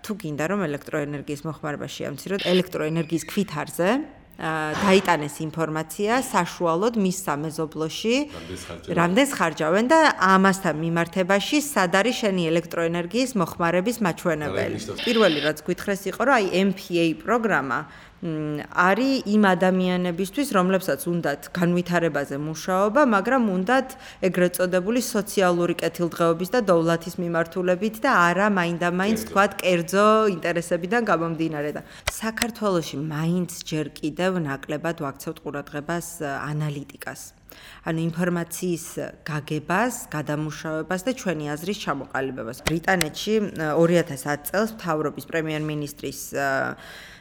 თუ გინდა რომ ელექტროენერგიის მოხმარება შეამციროთ ელექტროენერგიის ქვითარზე დაიტანეს ინფორმაცია საშუალოდ მის სამეზობლოში რამდენს ხარჯავენ და ამასთან მიმართებაში სად არის შენი ელექტროენერგიის მოხმარების მაჩვენებელი. პირველი რაც გითხრეს იყო რომ აი MPA პროგრამა არის იმ ადამიანებისთვის, რომლებსაც უნდათ განვითარებაზე მუშაობა, მაგრამ უნდათ ეგრეთ წოდებული სოციალური კეთილდღეობის და დოვლათის მიმართულებით და არა მაინდა-მაინც თქვათ კერძო ინტერესებიდან გამომდინარე და საქართველოში მაინც ჯერ კიდევ ნაკლებად ვაქცევთ ყურადღებას ანალიტიკას. ანუ ინფორმაციის გაგებას, გადამუშავებას და ჩვენი აზრის ჩამოყალიბებას. ბრიტანეთში 2010 წელს მთავრობის პრემიერ-მინისტრის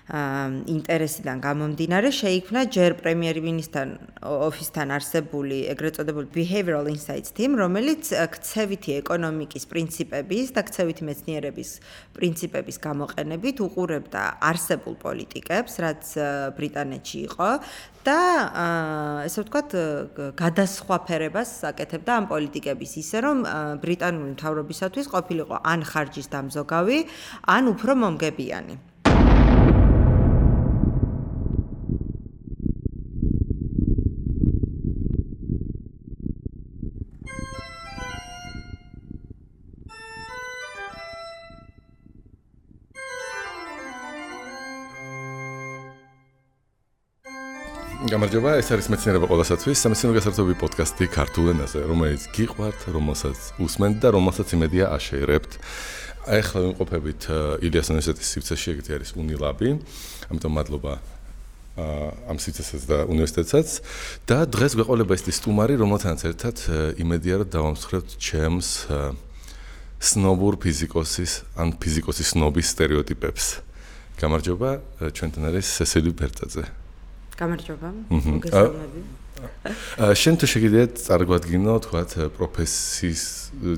ინტერესიდან გამომდინარე შეიქმნა ჯერ პრემიერ-მინისტრთან ოფისთან არსებული ეგრეთ წოდებული Behavioral Insights Team, რომელიც ქცევითი ეკონომიკის პრინციპების და ქცევითი მეცნიერების პრინციპების გამოყენებით უყურებდა არსებულ პოლიტიკებს, რაც ბრიტანეთში იყო და ესე ვთქვათ გადასხვაფერებას აკეთებდა ამ პოლიტიკების ისე რომ ბრიტანული მთავრობისათვის ყოფილიყო ან ხარჯის დამზოგავი, ან უფრო მომგებიანი. გამარჯობა, ეს არის მეცნიერება ყველასათვის, სამეცნიერო გასართობი პოდკასტი ქართულ ენაზე, რომელიც გიყვართ, რომელსაც უსმენთ და რომელსაც იმედია აშეირებთ. ახლა ვიმყოფებით ილიას უნივერსიტეტის სივრცეში, ეგეთი არის უნილაბი, ამიტომ მადლობა ამ სივრცესაც და უნივერსიტეტსაც და დღეს გვეყოლება ის სტუმარი, რომელთანაც ერთად იმედია რომ დავამსხვრევთ ჩემს სნობურ ფიზიკოსის ან ფიზიკოსის სნობის სტერეოტიპებს. გამარჯობა, ჩვენთან არის სესილი ბერტაძე. გამარჯობა, მოგესალმები. შენ თუ შეგიძლიათ წარგვადგინო, თქვათ, პროფესიის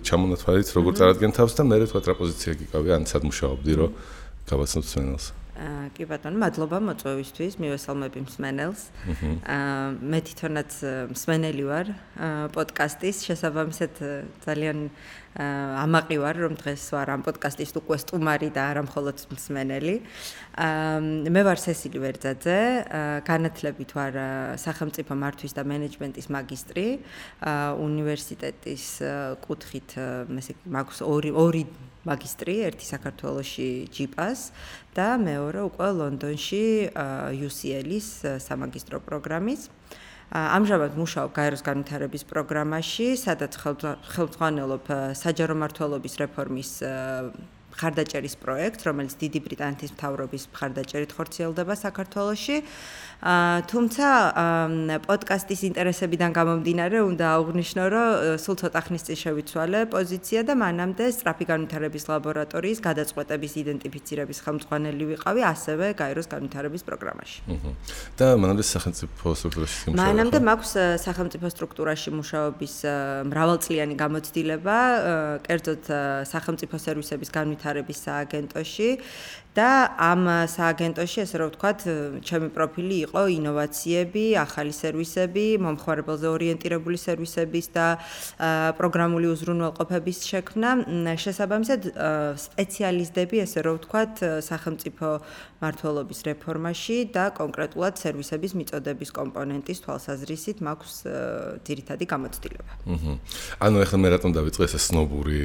ჩამონათვალით, როგორ წარადგენთ თავს და მე თქვათ რა პოზიცია გიკავი, ან სად მუშაობდი, რომ გავაცნოთ მსმენელს. კი ბატონო, მადლობა მოწვევისთვის, მივესალმები მსმენელს. მე თვითონაც მსმენელი ვარ პოდკასტის, შესაბამისად ძალიან ამაყი ვარ, რომ დღეს ვარ ამ პოდკასტის უკვე სტუმარი და არა მხოლოდ მსმენელი. მე ვარ სესილი ვერძაძე, განათლებით ვარ სახელმწიფო მართვის და მენეჯმენტის მაგისტრი, უნივერსიტეტის კუთხით მაქვს ორი მაგისტრი, ერთი საქართველოში ჯიპას და მეორე უკვე ლონდონში UCL-ის სამაგისტრო პროგრამის. ამჟამად მუშაობ გაეროს განვითარების პროგრამაში, სადაც ხელმძღვანელობ საჯარო მმართველობის რეფორმის მხარდაჭერის პროექტს, რომელიც დიდი ბრიტანეთის მთავრობის მხარდაჭერით ხორციელდება საქართველოში. თუმცა პოდკასტის ინტერესებიდან გამომდინარე, უნდა აღვნიშნო, რომ სულ ცოტა ხნის წინ შევიცვალე პოზიცია და მანამდე სწრაფი განვითარების ლაბორატორიის გადაწყვეტების იდენტიფიცირების ხელმძღვანელი ვიყავი, ასევე გაეროს განვითარების პროგრამაში. და მანამდე სახელმწიფო სტრუქტურაში მუშაობ. მანამდე მაქვს სახელმწიფო სტრუქტურაში მუშაობის მრავალწლიანი გამოცდილება, კერძოდ სახელმწიფო სერვისების განვითარების სააგენტოში. და ამ სააგენტოში, ესე რომ ვთქვათ, ჩემი პროფილი იყო ინოვაციები, ახალი სერვისები, მომხმარებელზე ორიენტირებული სერვისების და პროგრამული უზრუნველყოფების შექმნა. შესაბამისად, სპეციალისტები, ესე რომ ვთქვათ, სახელმწიფო მმართველობის რეფორმაში და კონკრეტულად სერვისების მიწოდების კომპონენტის თვალსაზრისით მაქვს ძირითადი გამოცდილება. ანუ ახლა მე რატომ დავიწყე ეს სნობური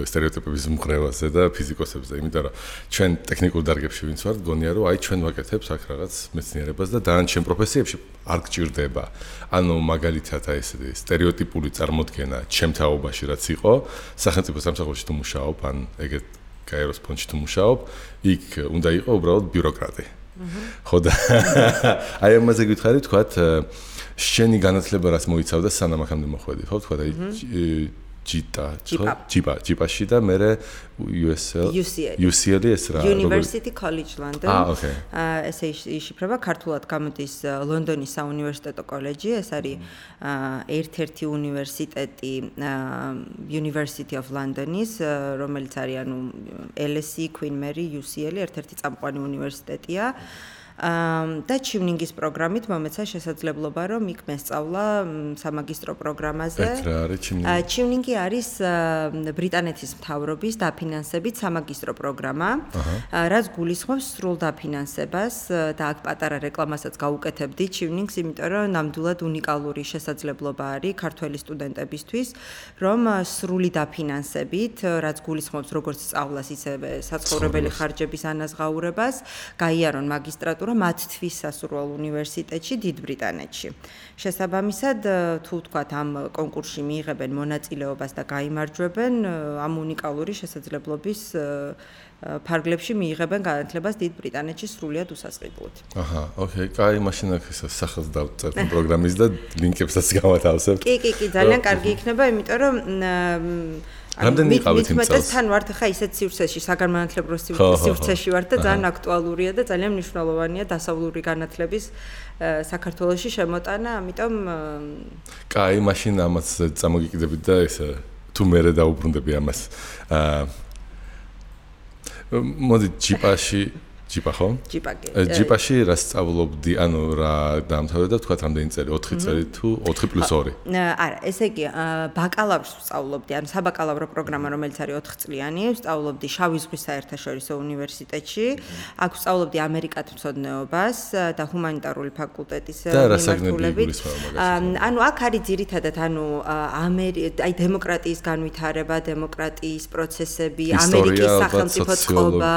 სტერეოტიპების მღრევაზე და ფიზიკოსებზე, იმიტომ რომ ჩვენ ტექნიკურ დარგებში ვინც ვართ, გონია რომ აი ჩვენ ვაკეთებთ აქ რაღაც მეცნიერებას და დანარჩენ პროფესიებში არ გჭირდება. ანუ მაგალითად აი ეს სტერეოტიპული წარმოდგენა ჩემ თაობაში რაც იყო, სახელმწიფო სამსახურში თუ მუშაობ, ან ეგეთ გაეროს ფონდში თუ მუშაობ, იქ უნდა იყო უბრალოდ ბიუროკრატი. ხო და აი ამაზე გითხარი, თქვათ, შენი განათლება რაც მოიცავდა სანამ აქამდე მოხვედი, ხო, თქვათ, აი ჯიპაში და მე UCL ეს რა University College London. ესე იშიფრება, ქართულად გამოდის ლონდონის საუნივერსიტეტო კოლეჯი, ეს არის ერთ-ერთი უნივერსიტეტი University of London-ის, რომელიც არის ანუ LSE, Queen Mary, UCL, ერთ-ერთი წამყვანი უნივერსიტეტია. და ჩივნინგის პროგრამით მომეცა შესაძლებლობა, რომ იქ მესწავლა სამაგისტრო პროგრამაზე. რა არის ჩივნინგი? ჩივნინგი არის ბრიტანეთის მთავრობის დაფინანსებით სამაგისტრო პროგრამა, რაც გულისხმობს სრულ დაფინანსებას და აქ პატარა რეკლამასაც გაუკეთებდი ჩივნინგს, იმიტომ რომ ნამდვილად უნიკალური შესაძლებლობა არის ქართველი სტუდენტებისთვის, რომ სრული დაფინანსებით, რაც გულისხმობს როგორც სწავლას, ისევე საცხოვრებელი ხარჯების ანაზღაურებას, გაიარონ მაგისტრატურა მათთვის სასურველ უნივერსიტეტში დიდ ბრიტანეთში. შესაბამისად, თუ ვთქვათ, ამ კონკურსში მიიღებენ მონაწილეობას და გაიმარჯვებენ, ამ უნიკალური შესაძლებლობის ფარგლებში მიიღებენ განათლებას დიდ ბრიტანეთში სრულიად უსასყიდლოდ. აჰა, ოკეი, კაი, მაშინ აქ სახელს დავწერთ პროგრამის და ლინკებსაც გავათავსებთ. კი, ძალიან კარგი იქნება, იმიტომ რომ რამდენი იყავით იმ წელს? თან ვართ ხა ისეთ სივრცეში, საგანმანათლებლო სივრცეში ვართ და ძალიან აქტუალურია და ძალიან მნიშვნელოვანია დასავლური განათლების საქართველოში შემოტანა, ამიტომ კაი, მაშინ ამას წამოგიკიდებით და ესე თუ მერე დაუბრუნდები ამას. მოდი ჯიპა ხო? ჯიპაში რა სწავლობდი, ანუ რა დაამთავრე და თქვა რამდენი წელი? 4 წელი თუ 4+2? არა, ესე იგი, ბაკალავრს ვსწავლობდი, ანუ საბაკალავრო პროგრამა, რომელიც არის 4 წლიანი, ვსწავლობდი შავი ზღვის საერთაშორისო უნივერსიტეტში. აქ ვსწავლობდი ამერიკათმცოდნეობას და ჰუმანიტარული ფაკულტეტის მიმართულებით. ანუ აქ არის ძირითადად, აი დემოკრატიის განვითარება, დემოკრატიის პროცესები, ამერიკის სახელმწიფო წყობა,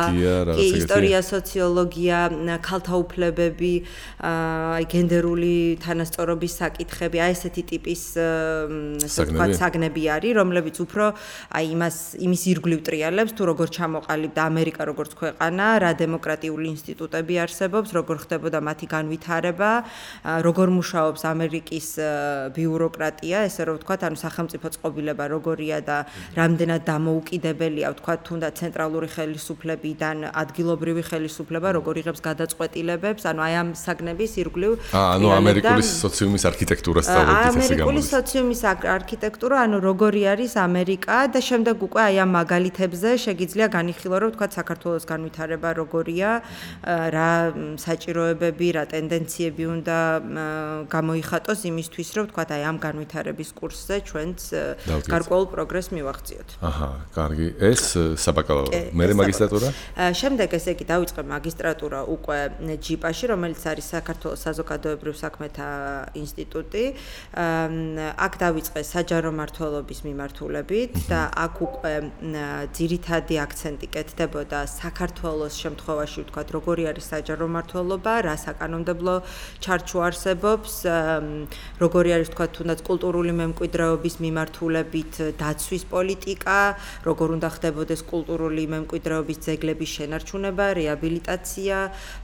ისტორია, სოციოლოგია, ქალთა უფლებები, აი გენდერული თანასწორობის საკითხები, აი ესეთი ტიპის საგნები არის, რომლებიც უფრო აი იმის ირგვლივ ტრიალებს, თუ როგორ ჩამოყალიბდა ამერიკა როგორც ქვეყანა, რა დემოკრატიული ინსტიტუტები არსებობს, როგორ ხდებოდა მათი განვითარება, როგორ მუშაობს ამერიკის ბიუროკრატია, ესე რომ ვთქვათ, ანუ სახელმწიფო წყობილება როგორია და რამდენად დამოუკიდებელია, ვთქვათ, თუნდაც ცენტრალური ხელისუფლებიდან ადგილობრივი ხელისუფლება როგორ იღებს გადაწყვეტილებებს, ანუ აი ამ საგნების ირგვლივ ანუ ამერიკული სოციუმის არქიტექტურას სწავლობთ ესე გამოდის. ამერიკული სოციუმის არქიტექტურა, ანუ როგორი არის ამერიკა და შემდეგ უკვე აი ამ მაგალითებზე შეგიძლია განიხილო, რომ ვთქვათ, საქართველოს განვითარება როგორია, რა საჭიროებები, რა ტენდენციები უნდა გამოიხატოს იმისთვის, რომ ვთქვათ, აი ამ განვითარების კურსზე ჩვენც გარკვეულ პროგრესს მივაღწიოთ. აჰა, კარგი. ეს საბაკალავრო, მერე მაგისტრატურა? შემდეგ ესე იგი დავიწყე მაგისტრატურა უკვე ჯიპაში, რომელიც არის საქართველოს საზოგადოებრივ საქმეთა ინსტიტუტი. აქ დავიწყე საჯარო მმართველობის მიმართულებით და აქ უკვე ძირითადი აქცენტი კეთდებოდა საქართველოს შემთხვევაში, ვთქვათ, როგორი არის საჯარო მმართველობა, რა საკანონმდებლო ჩარჩო არსებობს, როგორი არის, ვთქვათ, თუნდაც კულტურული მემკვიდრეობის მიმართულებით დაცვის პოლიტიკა, როგორ უნდა ხდებოდეს კულტურული მემკვიდრეობის ძეგლების შენარჩუნება, რეაბილიტაცია,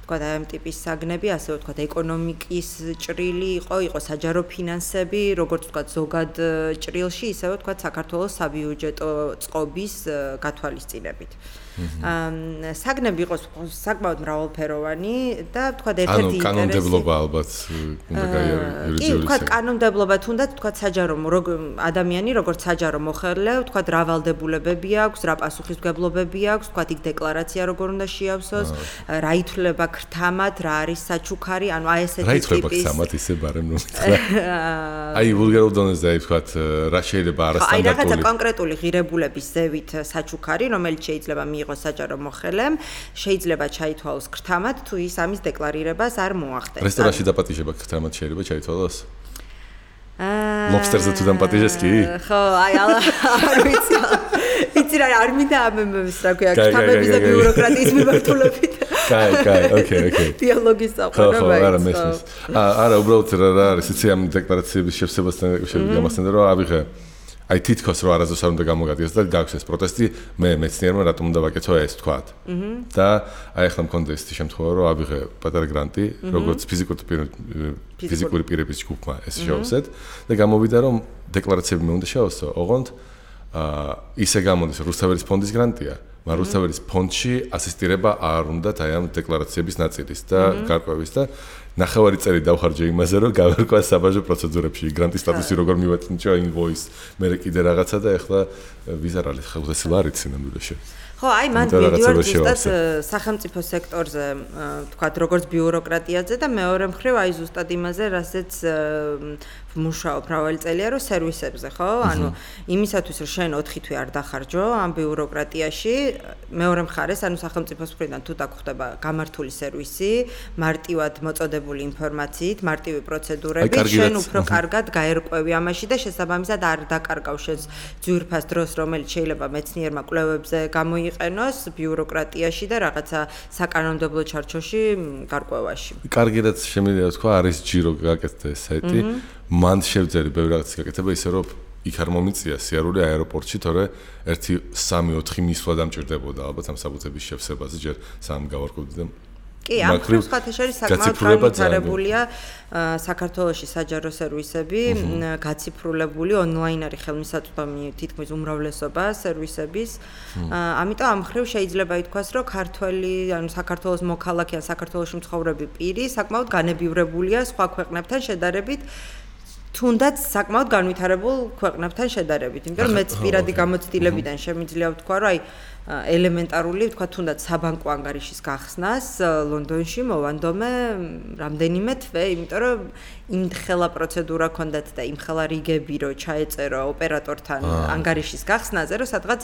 ვთქვათ, აი ამ ტიპის საგნები, ასე ვთქვათ, ეკონომიკის ჭრილი იყო საჯარო ფინანსები, როგორც ვთქვათ, ზოგად ჭრილში, ისევე ვთქვათ, საქართველოს საბიუჯეტო წყობის გათვალისწინებით. საგნები იყო საკმაოდ მრავალფეროვანი და ვთქვათ, ერთ-ერთი ინტერესი. ანუ კანონმდებლობა ალბათ უნდა გაიარო იურიდიული. კი, ვთქვათ, კანონმდებლობა თუნდაც ვთქვათ, საჯარო ადამიანი, როგორც საჯარო მოხელე, ვთქვათ, რა ვალდებულებები აქვს, რა პასუხისმგებლობები აქვს, ვთქვათ, იქ დეკლარაცია როგორ უნდა შეავსოს, რა ითვლება ქრთამად, რა არის საჩუქარი, ანუ აი ესეთი ტიპის. რა ითვლება ქრთამად ისე ბარემ ნუ. აი ვულგარულ დონეზე აი ვთქვათ, რა შეიძლება არასტანდარტული. აი რაღაცა კონკრეტული ღირებულების ზევით საჩუქარი, რომელიც შეიძლება მიიღოს საჯარო მოხელემ, შეიძლება ჩაითვალოს ქრთამად, თუ ის ამის დეკლარირებას არ მოახდენს. რესტორანში დაპატიჟება ქრთამად შეიძლება ჩაითვალოს? ლობსტერზე თუ დამპატიჟეს კი? ხო, აი არ ვიცი. იცი რა არ მინდა ამებს რა ქვია, ქრთამების და ბიუროკრატიის მიმართულებით. კაი, ოკეი. დიალოგის საყვარელი. ხო, არა მესმის. არა, უბრალოდ რა არის, იცი ამ დეკლარაციების შევსებასთან გამასთან რომ ავიღე აი თითქოს რომ არასდროს არ უნდა გამოგადგეს და გაქვს ეს პროტესტი, მე მეცნიერმა რატომ უნდა ვაკეთო ეს თქვათ. და აი ახლა მქონდა ეს შემთხვევა რომ ავიღე პატარა გრანტი, როგორც ფიზიკური პირების ჯგუფმა ეს შევსეთ და გამოვიდა რომ დეკლარაციები მე უნდა შევასო, ოღონდ ისე გამოდის რუსთაველის ფონდის გრანტია. მაგრამ რუსთაველის ფონდში ასისტირება არ უნდათ აი ამ დეკლარაციების ნაწილის და გარკვევის და ნახევარი წელი დავხარჯე იმაზე, რომ გავერკვა საბაჟო პროცედურებში, გრანტის სტატუსი როგორ მივაწინჭო, invoice, მე კიდე რაღაცა და ეხლა ვიზარ არის, ხალხесі ლარიცი ნამდვილად. ხო, აი მან ვიდეო ზუსტად სახელმწიფო სექტორზე, თქვათ, როგორც ბიუროკრატიაზე და მეორე მხრივ აი ზუსტად იმაზე, რასაც მუშაობ მრავალი წელია, რომ სერვისებზე, ხო? ანუ იმისათვის, რომ შენ 4 თვე არ დახარჯო ამ ბიუროკრატიაში, მეორე მხარეს, ანუ სახელმწიფოს მხრიდან თუ დაგხვდება გამართული სერვისი, მარტივად მოწოდებული ინფორმაციით, მარტივი პროცედურებით, შენ უფრო კარგად გაერკვევი ამაში და შესაბამისად არ დაკარგავ შენს ძვირფას დროს, რომელიც შეიძლება მეცნიერმა კვლევებზე გამოიყენოს ბიუროკრატიაში და რაღაცა საკანონმდებლო ჩარჩოში გარკვევაში. კარგად შემიძლია თქვა, არის ჯირო გაკეთდა საიტი. მან შევძელი ბევრი რაღაც გაკეთება ისე რომ იქ არ მომიწია სიარული აეროპორტში, თორე 1-3-4 მისვლა დამჭირდებოდა ალბათ ამ საბუთების შევსებაზე, ჯერ სამ გავარკვევდი და კი, ამ ხათაშერის საკმაოდ განვითარებულია საქართველოში საჯარო სერვისები, გაციფრულებული ონლაინ არის ხელმისაწვდომი თითქმის უმრავლესობა სერვისების. ამიტომ ამ ხრივ შეიძლება ითქვას, რომ ქართველი, ანუ საქართველოს მოქალაქე ან საქართველოში მცხოვრები პირი საკმაოდ განებივრებულია სხვა ქვეყნებთან შედარებით. თუნდაც საკმაოდ განვითარებულ ქვეყნებთან შედარებით, იმიტომ რომ მეც პირადი გამოცდილებიდან შემიძლია ვთქვა, რომ აი ელემენტარული, ვთქვა, თუნდაც საბანკო ანგარიშის გახსნას ლონდონში მოვანდომე რამდენიმე თვე, იმიტომ რომ იმხელა პროცედურა ქონდათ და იმხელა რიგები რო ჩაეწერო ოპერატორთან ანგარიშის გახსნაზე, რომ სადღაც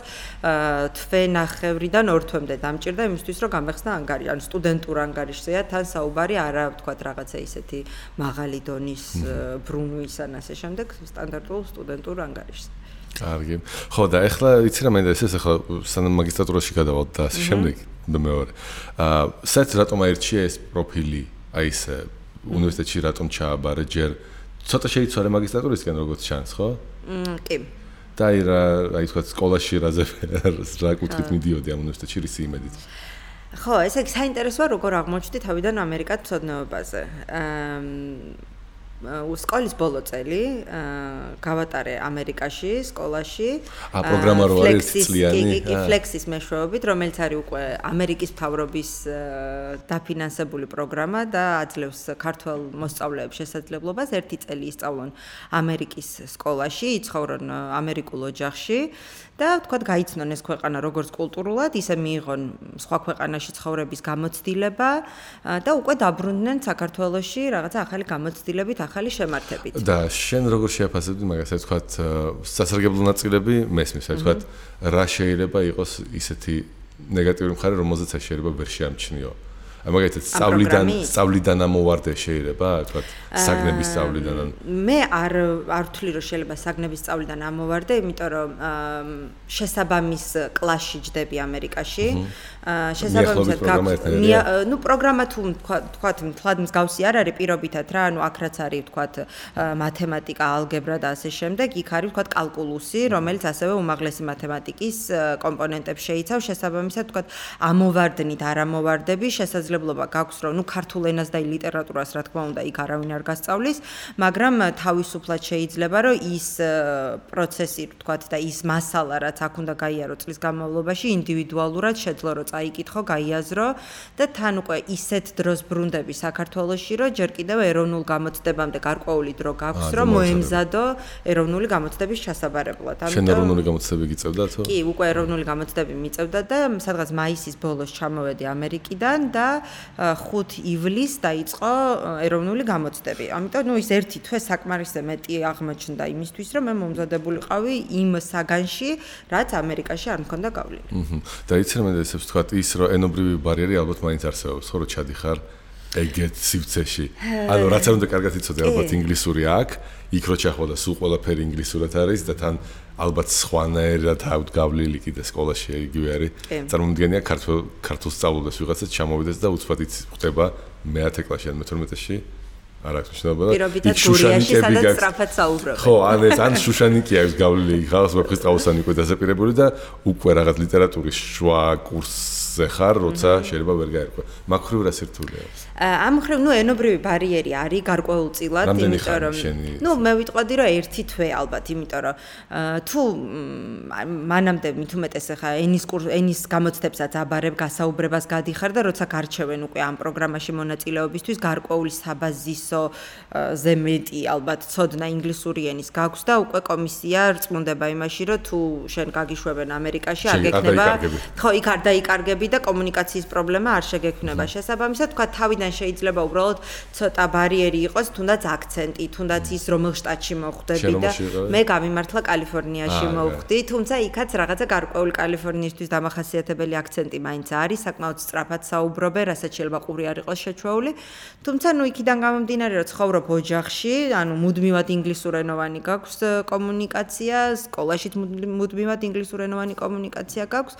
თვე-ნახევრიდან 2 თვემდე დამჭირდა იმისთვის, რომ გამეხსნა ანგარიში, ანუ სტუდენტურ ანგარიშზეა თან საუბარი, არა ვთქვა რაღაცა ისეთი მაღალი დონის ბრუნვის ან ასე შემდეგ, სტანდარტულ სტუდენტურ ანგარიშს. კარგი. ხო და ეხლა იცი რა მინდა ეს ახლა სანამ მაგისტრატურაში გადავალ და ასე შემდეგ და მეორე. საერთოდ რატომ აირჩია ეს პროფილი, აი ეს უნივერსიტეტში რატომ ჩააბარე ჯერ ცოტა შეიცვალე მაგისტრატურისგან როგორც ჩანს, ხო? კი. და აი თქვა სკოლაში რა კუთხით მიდიოდი ამ უნივერსიტეტში რის იმედით? ხო, ესე იგი საინტერესოა როგორ აღმოჩნდი თავიდან ამერიკად მცოდნეობაზე. სკოლის ბოლო წელი გავატარე ამერიკაში, სკოლაში. პროგრამარო არის წლიანი. კი, Flexis მეშვეობით, რომელიც არის უკვე ამერიკის მთავრობის დაფინანსებული პროგრამა და აძლევს ქართველ მოსწავლეებს შესაძლებლობას 1 წელი ისწავლონ ამერიკის სკოლაში, იცხოვრონ ამერიკულ ოჯახში და თქვათ გაიცნონ ეს ქვეყანა როგორც კულტურულად, ისე მიიღონ სხვა ქვეყანაში ცხოვრების გამოცდილება და უკვე დაბრუნდნენ საქართველოში რაღაცა ახალი გამოცდილებით, ახალი შემართებით. და შენ როგორ შეაფასებდი მაგას, აი თქვათ სასარგებლო ნაწილები მესმის, აი თქვათ რა შეიძლება იყოს ისეთი ნეგატიური მხარე, რომელზეც აი შეიძლება ვერ შეამჩნიო. აი მაგალითად სწავლიდან ამოვარდე შეიძლება, თქვათ საგნების სწავლიდან. მე არ ვთვლი რომ შეიძლება საგნების სწავლიდან ამოვარდე, იმიტომ რომ შესაბამის კლასში ჯდები ამერიკაში. შესაბამისად ნუ პროგრამა თუ თქვათ მთლად მსგავსი არ არის პირობითად რა, ანუ აქ რაც არის თქვათ მათემატიკა, ალგებრა და ასე შემდეგ, იქ არის თქვათ კალკულუსი, რომელიც ასევე უმაღლესი მათემატიკის კომპონენტებს შეიცავს, შესაბამისად თქვათ ამოვარდნით, არ ამოვარდები, შესაძლებლობა გაქვს რომ ნუ ქართულ ენას და ლიტერატურას რა თქმა უნდა იქ არავინ არ გასწავლის, მაგრამ თავისუფლად შეიძლება რომ ის პროცესი თქვათ და ის მასალა რაც აქ უნდა გაიარო წლის განმავლობაში ინდივიდუალურად შეძლო რომ წაიკითხო, გაიაზრო და თან უკვე ისეთ დროს ბრუნდები საქართველოში, რომ ჯერ კიდევ ეროვნულ გამოცდებამდე გარკვეული დრო გაქვს, რომ მოემზადო ეროვნული გამოცდების ჩასაბარებლად. შენ ეროვნული გამოცდები გიწევდათო? კი, უკვე ეროვნული გამოცდები მიწევდა და სადღაც მაისის ბოლოს ჩამოვედი ამერიკიდან და 5 ივლისს დაიწყო ეროვნული გამოცდები. ამიტომ ნუ ის 1 თვე საკმარისზე მეტი აღმოჩნდა იმისთვის, რომ მე მომზადებულიყავი იმ საგანში, რაც ამერიკაში არ მქონდა გავლილი. და იცი რა მენდა ისევ თქვა ის რომ ენობრივი ბარიერი ალბათ მაინც არსებობს, ხო რომ ჩადიხარ ეგეთ სივრცეში. ანუ რაც არ უნდა კარგად იცოდე ალბათ ინგლისური აქ, იქ რო ჩახვალა სულ ყველაფერი ინგლისურად არის და თან ალბათ სხვანაირად ავდგავლილი კიდე სკოლაში იგივე არის. წარმომიდგენია ქართულ სწავლულებს ვიღაცაც ჩამოვიდეს და უცბად ხდება მე-10 კლასში ან მე-12-ში. არ აქვს მნიშვნელობა და იქ შუშანიკები გაქვს. ხო, ან შუშანიკი აქვს გავლილი, ხალხს ვეფხისტყაოსანი უკვე დასაპირებული და უკვე რაღაც ლიტერატურის შუა კურსს ზე ხარ, როცა შეიძლება ვერ გაერკვა. მაგ ხრივ რა სირთულეა? ამ ხრივ, ენობრივი ბარიერი არის გარკვეულწილად, იმიტომ რომ მე ვიტყოდი რომ ერთი თვე ალბათ, იმიტომ რომ თუ მანამდე მით უმეტეს ხა ენის გამოცდებსაც აბარებ გასაუბრებას გადიხარ და როცა გარჩევენ უკვე ამ პროგრამაში მონაწილეობისთვის გარკვეული საბაზისო ზე მეტი ალბათ ცოდნა ინგლისური ენის გაქვს და უკვე კომისია რწმუნდება იმაში რომ თუ შენ გაგიშვებენ ამერიკაში არ გექნება ხო იქ არ დაიკარგები და კომუნიკაციის პრობლემა არ შეგექმნება შესაბამისად თქვა თავიდან შეიძლება უბრალოდ ცოტა ბარიერი იყოს თუნდაც აქცენტი თუნდაც ის რომელ შტატში მოხვდები და მე გამიმართლა კალიფორნიაში მოვხვდი თუმცა იქაც რაღაცა გარკვეული კალიფორნიისთვის დამახასიათებელი აქცენტი მაინც არის საკმაოდ სწრაფად საუბრობენ რასაც შეიძლება ყური არ იყოს შეჩვეული თუმცა იქიდან გამომდინარე რომ ცხოვრობ ოჯახში ანუ მუდმივად ინგლისურენოვანი გაქვს კომუნიკაცია სკოლაშიც მუდმივად ინგლისურენოვანი კომუნიკაცია გაქვს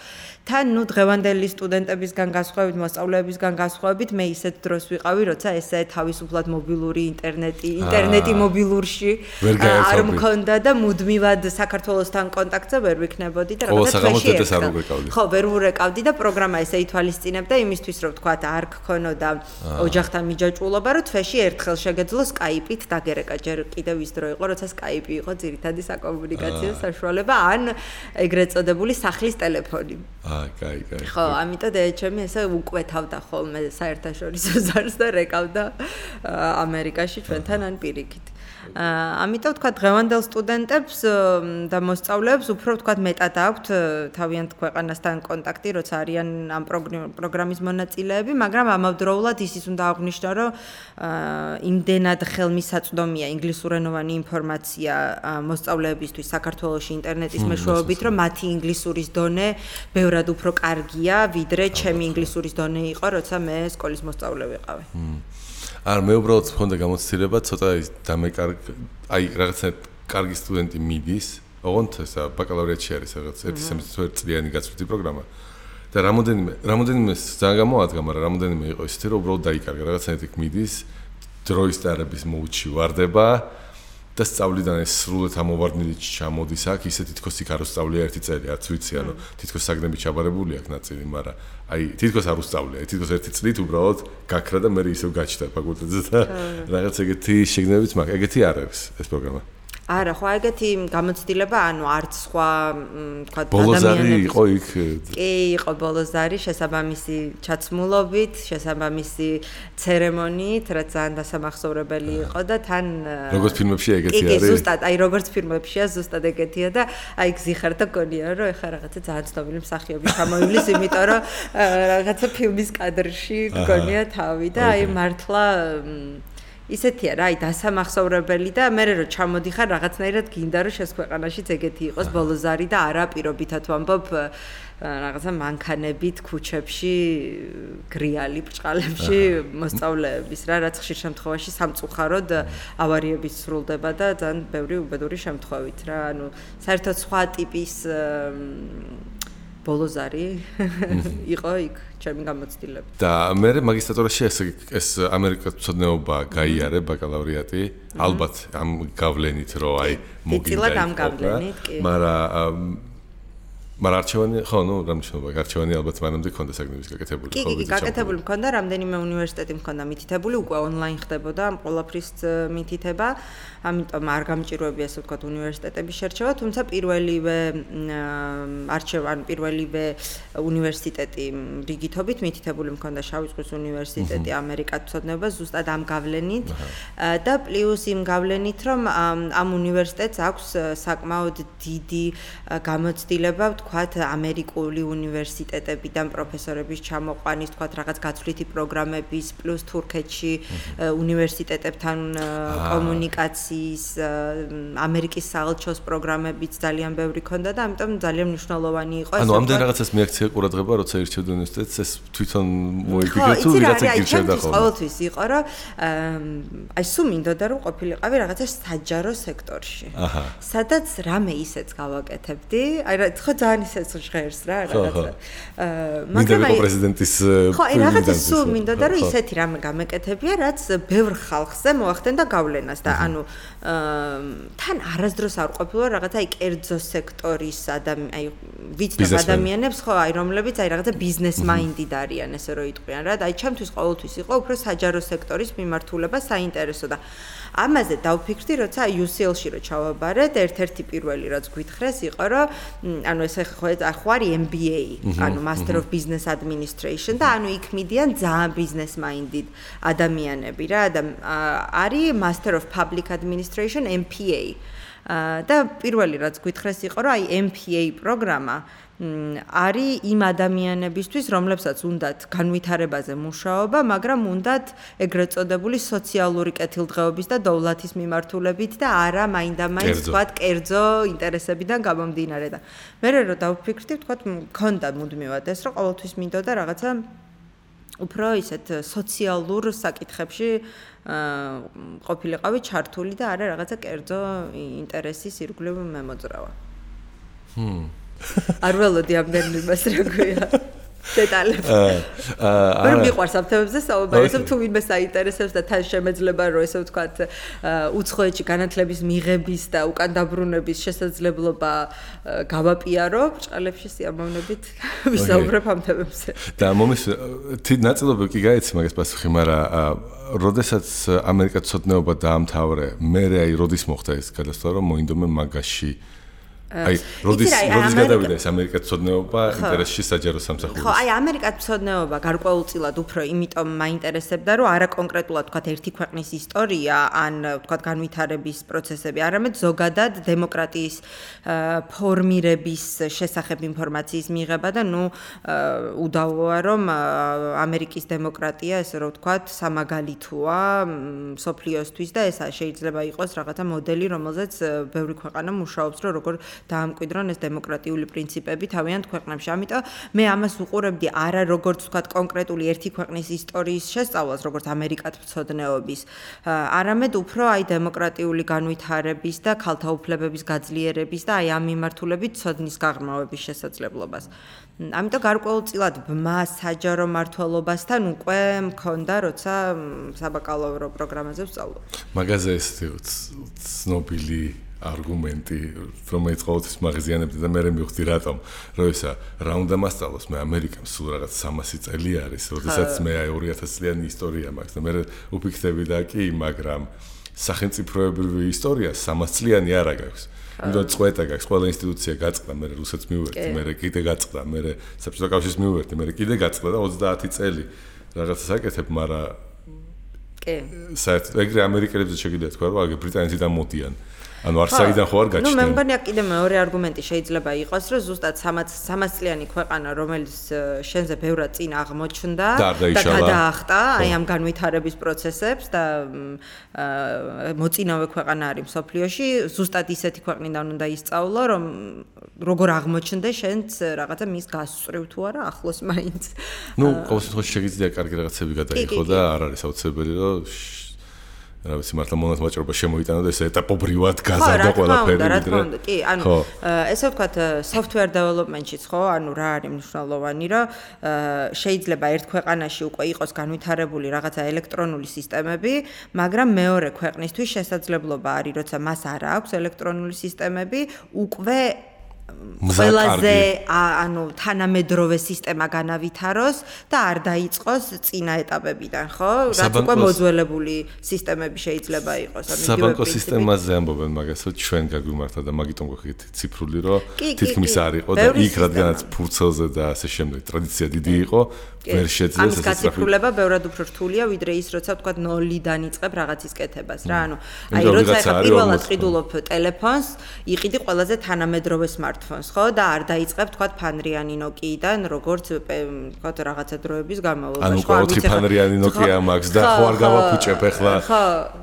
თან დღევანდელი სტუდენტებისგან გასხვავებით მოსწავლეებისგან გასხვავებით მე ისეთ დროს ვიყავი როცა ესე თავისუფლად მობილური ინტერნეტი მობილურში არ მქონდა და მუდმივად საქართველოსთან კონტაქტზე ვერ ვიქნებოდი და რაღაცა თვეში ხო ვერ ვურეკავდი და პროგრამა ესე ითვალისწინებდა იმისთვის რომ თქვა არ გქონოდა ოჯახთან მიჯაჭვულობა რომ თვეში ერთხელ შეგეძლო სკაიპით დაგერეკა ჯერ კიდევ ის დრო იყო როცა სკაიპი იყო ძირითადი საკომუნიკაციო საშუალება ან ეგრეთ წოდებული სახლის ტელეფონი კაი ხო ამიტომ ჩემი ესე უკვეთავდა ხოლმე საერთაშორისო ზარს და რეკავდა ამერიკაში ჩვენთან ან პირიქით ამიტომ თქვა დღევანდელ სტუდენტებს და მოსწავლეებს უფრო თქვა მეტად აქვთ თავიანთ ქვეყანასთან კონტაქტი როცა არიან ამ პროგრამის მონაწილეები მაგრამ ამავდროულად ისიც უნდა აღვნიშნო რომ იმდენად ხელმისაწვდომია ინგლისურენოვანი ინფორმაცია მოსწავლეებისთვის საქართველოში ინტერნეტის მეშვეობით რომ მათი ინგლისურის დონე ბევრად უფრო კარგია ვიდრე ჩემი ინგლისურის დონე იყო როცა მე სკოლის მოსწავლე ვიყავი არ მე უბრალოდ მქონდა გამოცდილება ცოტა აი რაღაცა კარგი სტუდენტი მიდის ოღონდ ესა ბაკალავრიატში არის რაღაც 1 წლიანი გაცვლითი პროგრამა და რამოდენიმე ძალიან გამოადგა მაგრამ რამოდენიმე იყო ისეთი რომ უბრალოდ დაიკარგა რაღაცა იქ მიდის დროის დარების მოუჩი ვარდება და სწავლიდან ეს სრულად ამოვარდნილი ჩამოდის აქ ისე თითქოს იქ არ უსწავლია ერთი წელი არც ვიცი ანუ თითქოს საგნები ჩაბარებული აქ ნაწილი მაგრამ აი თითქოს არ უსწავლია თითქოს ერთი წლით უბრალოდ გაქრა და მე ისევ გაჩნდა ფაკულტეტზე და რაღაც ეგეთი შეგნებიც მაქვს ეგეთი არ არის ეს პროგრამა არა ხო ეგეთი გამოცდილება ანუ არც სხვა თქვა ადამიანები იყო იქ კი იყო ბოლოზარი შესაბამისი ჩაცმულობით შესაბამისი ცერემონიით რაც ძალიან დასამახსოვრებელი იყო და თან როგორც ფილმებში ეგეთი არის კი ზუსტად აი როგორც ფილმებშია ზუსტად ეგეთია და აი გზიხარ და გონია რომ ეხა რაღაცა ძალიან ცნობილი მსახიობი ჩამოივლის იმიტომ რომ რაღაცა ფილმის კადრში გონია თავი და აი მართლა ისეთია რა, აი დასამახსოვრებელი და მე რო ჩამოდიხარ რაღაცნაირად გინდა რომ შეს ქვეყანაშიც ეგეთი იყოს ბოლოზარი და არა პირობითად ვამბობ რაღაცა მანქანებით ქუჩებში გრიალი ბრჭყალებში მოსწავლეების რა რაც ხშირ შემთხვევაში სამწუხაროდ ავარიებით სრულდება და ძალიან ბევრი უბედური შემთხვევით რა ანუ საერთოდ სხვა ტიპის ბოლოზარი იყო იქ ჩემი გამოცდილება. და მე მაგისტრატურაში ეს ამერიკაცოდნეობა გაიარე ბაკალავრიატი, ალბათ ამ გავლენით რომ აი მოგინდა. დიდად ამ გავლენით, კი. მაგრამ არჩევანი, ხო, რამჩნობა, არჩევანი ალბათ მანამდე ქონდა საგნების გაკეთებული. კი, გაკეთებული მქონდა, რამდენიმე უნივერსიტეტი მქონდა მითითებული, უკვე ონლაინ ხდებოდა ამ ყველაფრის მითითება. ამიტომ არ გამჭიროებია ასე ვთქვათ უნივერსიტეტების შერჩევა, თუმცა პირველივე უნივერსიტეტი რიგითობით მითითებული მქონდა შავი ზღვის უნივერსიტეტი ამერიკაცოდნეობა ზუსტად ამ გავლენით და პლუს იმ გავლენით რომ ამ უნივერსიტეტს აქვს საკმაოდ დიდი გამოცდილება ვთქვათ ამერიკული უნივერსიტეტებიდან პროფესორების ჩამოყვანის ვთქვათ რაღაც გაცვლითი პროგრამების პლუს თურქეთში უნივერსიტეტებთან კომუნიკაცია ამერიკის საელჩოს პროგრამებიც ძალიან ბევრი ქონდა და ამიტომ ძალიან მნიშვნელოვანი იყო ეს. ანუ ამდენ რაღაცას მიაქცია ყურადღება, როცა ირჩევდა უნივერსიტეტს, ეს თვითონ მოიფიქრე თუ ვიღაცა გირჩევდა ხოლმე. ყოველთვის იყო, რომ აი სულ მინდოდა რომ ყოფილიყავი რაღაცა საჯარო სექტორში. სადაც რამე ისეც გავაკეთებდი. აი ხო ძალიან ძალიან ისეც ჟღერს რა რაღაცა. მაგრამ აი პრეზიდენტის ხო, აი რაღაცა სულ მინდოდა რომ ისეთი რამე გამეკეთებია, რაც ბევრ ხალხზე მოახდენდა გავლენას და ანუ თან არასდროს არ ყოფილა რაღაცა აი კერძო სექტორის აი ვიცნობ ადამიანებს ხო აი რომლებიც აი რაღაცა ბიზნეს მაინდით არიან ესე რომ იტყვიან რა და აი ჩემთვის ყოველთვის იყო უფრო საჯარო სექტორის მიმართულება საინტერესო და ამაზე დავფიქრდი როცა UCL-ში რო ჩავაბარეთ ერთ-ერთი პირველი რაც გვითხრეს იყო რომ ანუ ეს ხო არის MBA ანუ Master of Business Administration და ანუ იქ მიდიან ძალიან ბიზნეს მაინდით ადამიანები რა და არის Master of Public Administration MPA და პირველი რაც გვითხრეს იყო რომ აი MPA პროგრამა არის იმ ადამიანებისთვის, რომლებსაც უნდათ განვითარებაზე მუშაობა, მაგრამ უნდათ ეგრეთ წოდებული სოციალური კეთილდღეობის და დოვლათის მიმართულებით და არა მაინდა-მაინც თქვათ კერძო ინტერესებიდან გამომდინარე და მე რო დავფიქრდი, თქვათ მქონდა მუდმივად ეს, რომ ყოველთვის მინდოდა რაღაცა უფრო ისეთ სოციალურ საკითხებში ყოფილიყავი ჩართული და არა რაღაცა კერძო ინტერესის ირგვლივ მემოძრავა. არ ველოდი ამდენ იმას რა გვია დეტალები. ვერ მიყვარს ამ თემებზე საუბარი, თუ ვინმე საინტერესებს და თან შემეძლება რომ ესე ვთქვათ უცხოეთში განათლების მიღების და უკან დაბრუნების შესაძლებლობა გავაპიარო, ბრჭყალებში სიამოვნებით ვისაუბრებ ამ თემებზე. და მომის ნაწილობრივ კი გაიცი მაგას პასუხი, მაგრამ როდესაც ამერიკაცოდნეობა დაამთავრე, მე აი როდის მოხდა ეს გადასვლა რომ მოინდომე მაგაში აი როდის გადავიდა ეს ამერიკაცოდნეობა ინტერესში საჯარო სამსახურის. ხო, აი ამერიკაცოდნეობა გარკვეულწილად უფრო იმიტომ მაინტერესებდა, რომ არა კონკრეტულად თქვათ ერთი ქვეყნის ისტორია, ან თქვათ განვითარების პროცესები, არამედ ზოგადად დემოკრატიის ფორმირების შესახებ ინფორმაციის მიღება და ნუ უდავოა რომ ამერიკის დემოკრატია, ესე რომ ვთქვათ, სამაგალითოა მსოფლიოსთვის და ეს შეიძლება იყოს რაღაცა მოდელი, რომელზეც ბევრი ქვეყანა მუშაობს, რომ როგორ დაამკვიდრონ ეს დემოკრატიული პრინციპები თავიანთ ქვეყნებში. ამიტომ მე ამას უყურებდი არა როგორც ვთქვათ კონკრეტული ერთი ქვეყნის ისტორიის შესწავლას, როგორც ამერიკათმცოდნეობის, არამედ უფრო აი დემოკრატიული განვითარების და ქალთა უფლებების გაძლიერების და აი ამ მიმართულებით ცოდნის გაღრმავების შესაძლებლობას. ამიტომ გარკვეულწილად ბმა საჯარო მმართველობასთან უკვე მქონდა, როცა საბაკალავრო პროგრამაზე ვსწავლობდი. მაგაზე ეს ცნობილი არგუმენტი, რომელიც ყოველთვის მაღაზიანებდა და მე მივხვდი რატომ, რომ ისა რა უნდა მასწავლოს, მე ამერიკამ სულ რაღაც 300 წელი არის, როდესაც მე აი 2000 წლიანი ისტორია მაქვს და მე უფიქრები და კი, მაგრამ სახელმწიფოებრივი ისტორია 300 წლიანი არა გაქვს. იმიტომ წვეთა გაქვს, ყველა ინსტიტუცია გაწყდა, მე რუსეთს მივუერთდი, მე კიდე გაწყდა, მე საბჭოთა კავშირს მივუერთდი, მე კიდე გაწყდა და 30 წელი რაღაცას აკეთებ, მაგრამ კი. საერთოდ ეგრე ამერიკელებზე შეგიძლია თქვა, რომ აგ ბრიტანეთიდან მოდიან. ანუ არსაიდან ხო არ გაჩნდა. ნუ მე მგონია კიდე მეორე არგუმენტი შეიძლება იყოს, რომ ზუსტად 300 წლიანი ქვეყანა, რომელიც შენზე ბევრად წინ აღმოჩნდა და გადაახტა აი ამ განვითარების პროცესებს და მოწინავე ქვეყანა არის მსოფლიოში, ზუსტად ისეთი ქვეყნიდან უნდა ისწავლო, რომ როგორ აღმოჩნდა შენც რაღაცა მის გასწრივ თუ არა ახლოს მაინც. ნუ ყოველ შემთხვევაში შეგიძლია კარგი რაღაცები გადაიღო და არ არის აუცილებელი რომ რა ვიცი მართლა მონათმაჭრობა შემოიტანა და ეს ეტაპობრივად გაზარდა ყველაფერი ვიდრე. კი, ანუ ესე ვთქვათ software development-შიც ხო, ანუ რა არის მნიშვნელოვანი, რომ შეიძლება ერთ ქვეყანაში უკვე იყოს განვითარებული რაღაცა ელექტრონული სისტემები, მაგრამ მეორე ქვეყნისთვის შესაძლებლობა არის, როცა მას არ აქვს ელექტრონული სისტემები, უკვე ყველაზე ანუ თანამედროვე სისტემა განავითაროს და არ დაიწყოს წინა ეტაპებიდან, ხო? რაც უკვე მოძველებული სისტემები შეიძლება იყოს. საბანკო სისტემაზე ამბობენ მაგას, რომ ჩვენ გაგვიმართა და მაგიტომ გვაქვს ციფრული, რომ თითქმის არ იყო და იქ რადგანაც ფურცელზე და ასე შემდეგ ტრადიცია დიდი იყო, ვერ შეძლეს ეს გაციფრულება ბევრად უფრო რთულია, ვიდრე ის, როცა ვთქვათ 0-დან იწყებ რაღაცის კეთებას, რა, ანუ აი როცა ახლა პირველად ყიდულობ ტელეფონს, იყიდი ყველაზე თანამედროვე smartphones, ხო, და არ დაიწყებ თქვათ ფანრიანი Nokia-დან, როგორც თქვათ რაღაცა დროების განმავლობაში, ხო, ანუ 4 ფანრიანი Nokia მაქვს და ხო არ გავაფუჭებ ახლა.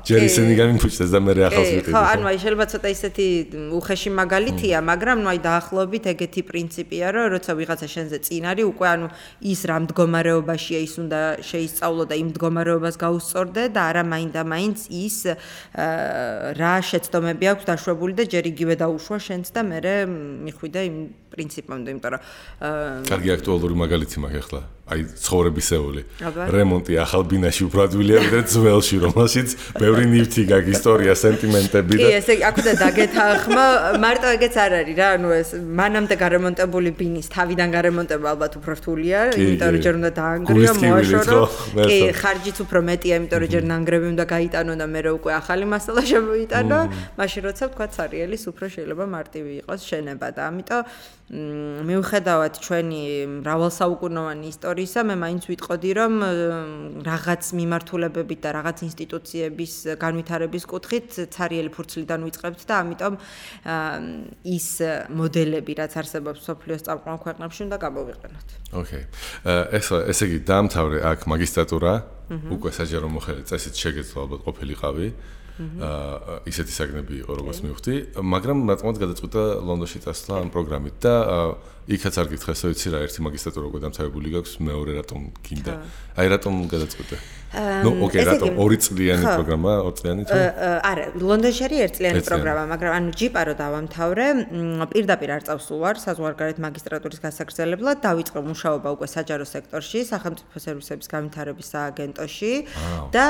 ჯერ ისინი გამიფუჭდეს და მე ახალს ვიყიდი. ხო, ანუ აი შეიძლება ცოტა ისეთი უხეში მაგალითია, მაგრამ ნუ აი დაახლოებით ეგეთი პრინციპია, რომ როცა ვიღაცა შენზე წინ არის, უკვე ანუ ის რა მდგომარეობაშია ის უნდა შეისწავლო და იმ მდგომარეობას გაუსწორდე და არა მაინდა-მაინც ის რა შეცდომები აქვს დაშვებული და ჯერ იგივე დაუშვა შენც და მერე მიხვიდე იმ პრინციპამდე, იმიტომ რომ კარგი აქტუალური მაგალითი მაქვს ახლა. აი ცხოვრებისეული. რემონტი ახალ ბინაში უფრო ადვილია ვიდრე ძველში, რომელშიც ბევრი ნივთი გაქვს, ისტორია, სენტიმენტები და კი, ესე აქუდა დაგეთანხმა, მარტო ეგეც არ არის რა, ანუ ეს მანამდე გარემონტებული ბინის თავიდან გარემონტება ალბათ უფრო რთულია, იმიტომ რომ ჯერ უნდა დაანგრიო, მოაშორო. კი, ხარჯიც უფრო მეტია, იმიტომ რომ ჯერ ნანგრევი უნდა გაიტანო და მე უკვე ახალი მასალა შემოიტანო, მაშინ როცა თქვა სარიელის უფრო შეიძლება მარტივი იყოს შენება და ამიტომ მიუხედავად ჩვენი მრავალსაუკუნოვანი ისტორიისა, მე მაინც ვიტყოდი, რომ რაღაც მიმართულებებით და რაღაც ინსტიტუციების განვითარების კუთხით ცარიელი ფურცლიდან ვიწყებთ და ამიტომ ის მოდელები, რაც არსებობს სოფლიოს წამყვან ქვეყნებში, უნდა გამოვიყენოთ. ოკეი. ესე იგი, დაამთავრე აქ მაგისტრატურა, უკვე საჯარო მოხელე წესით შეგეძლო ალბათ ყოფილიყავი. ისეთი საგნები იყო, როგორც მივხვდი, მაგრამ რატომაც გადაწყვიტა ლონდონში წასვლა ამ პროგრამით და იქაც არ გითხეს, ვიცი რა, ერთი მაგისტრატურა უკვე დამთავრებული გაქვს, მეორე რატომ გინდა? აი რატომ გადაწყვიტე? ნუ, ოკეი, რატომ 2 წლიანი პროგრამა, 2 წლიანი თუ? არა, ლონდონში არის 1 წლიანი პროგრამა, მაგრამ ანუ ჯიპა რო დავამთავრე, პირდაპირ არ წავსულ ვარ საზღვარგარეთ მაგისტრატურის გასაგრძელებლად, დავიწყე მუშაობა უკვე საჯარო სექტორში, სახელმწიფო სერვისების განვითარების სააგენტოში და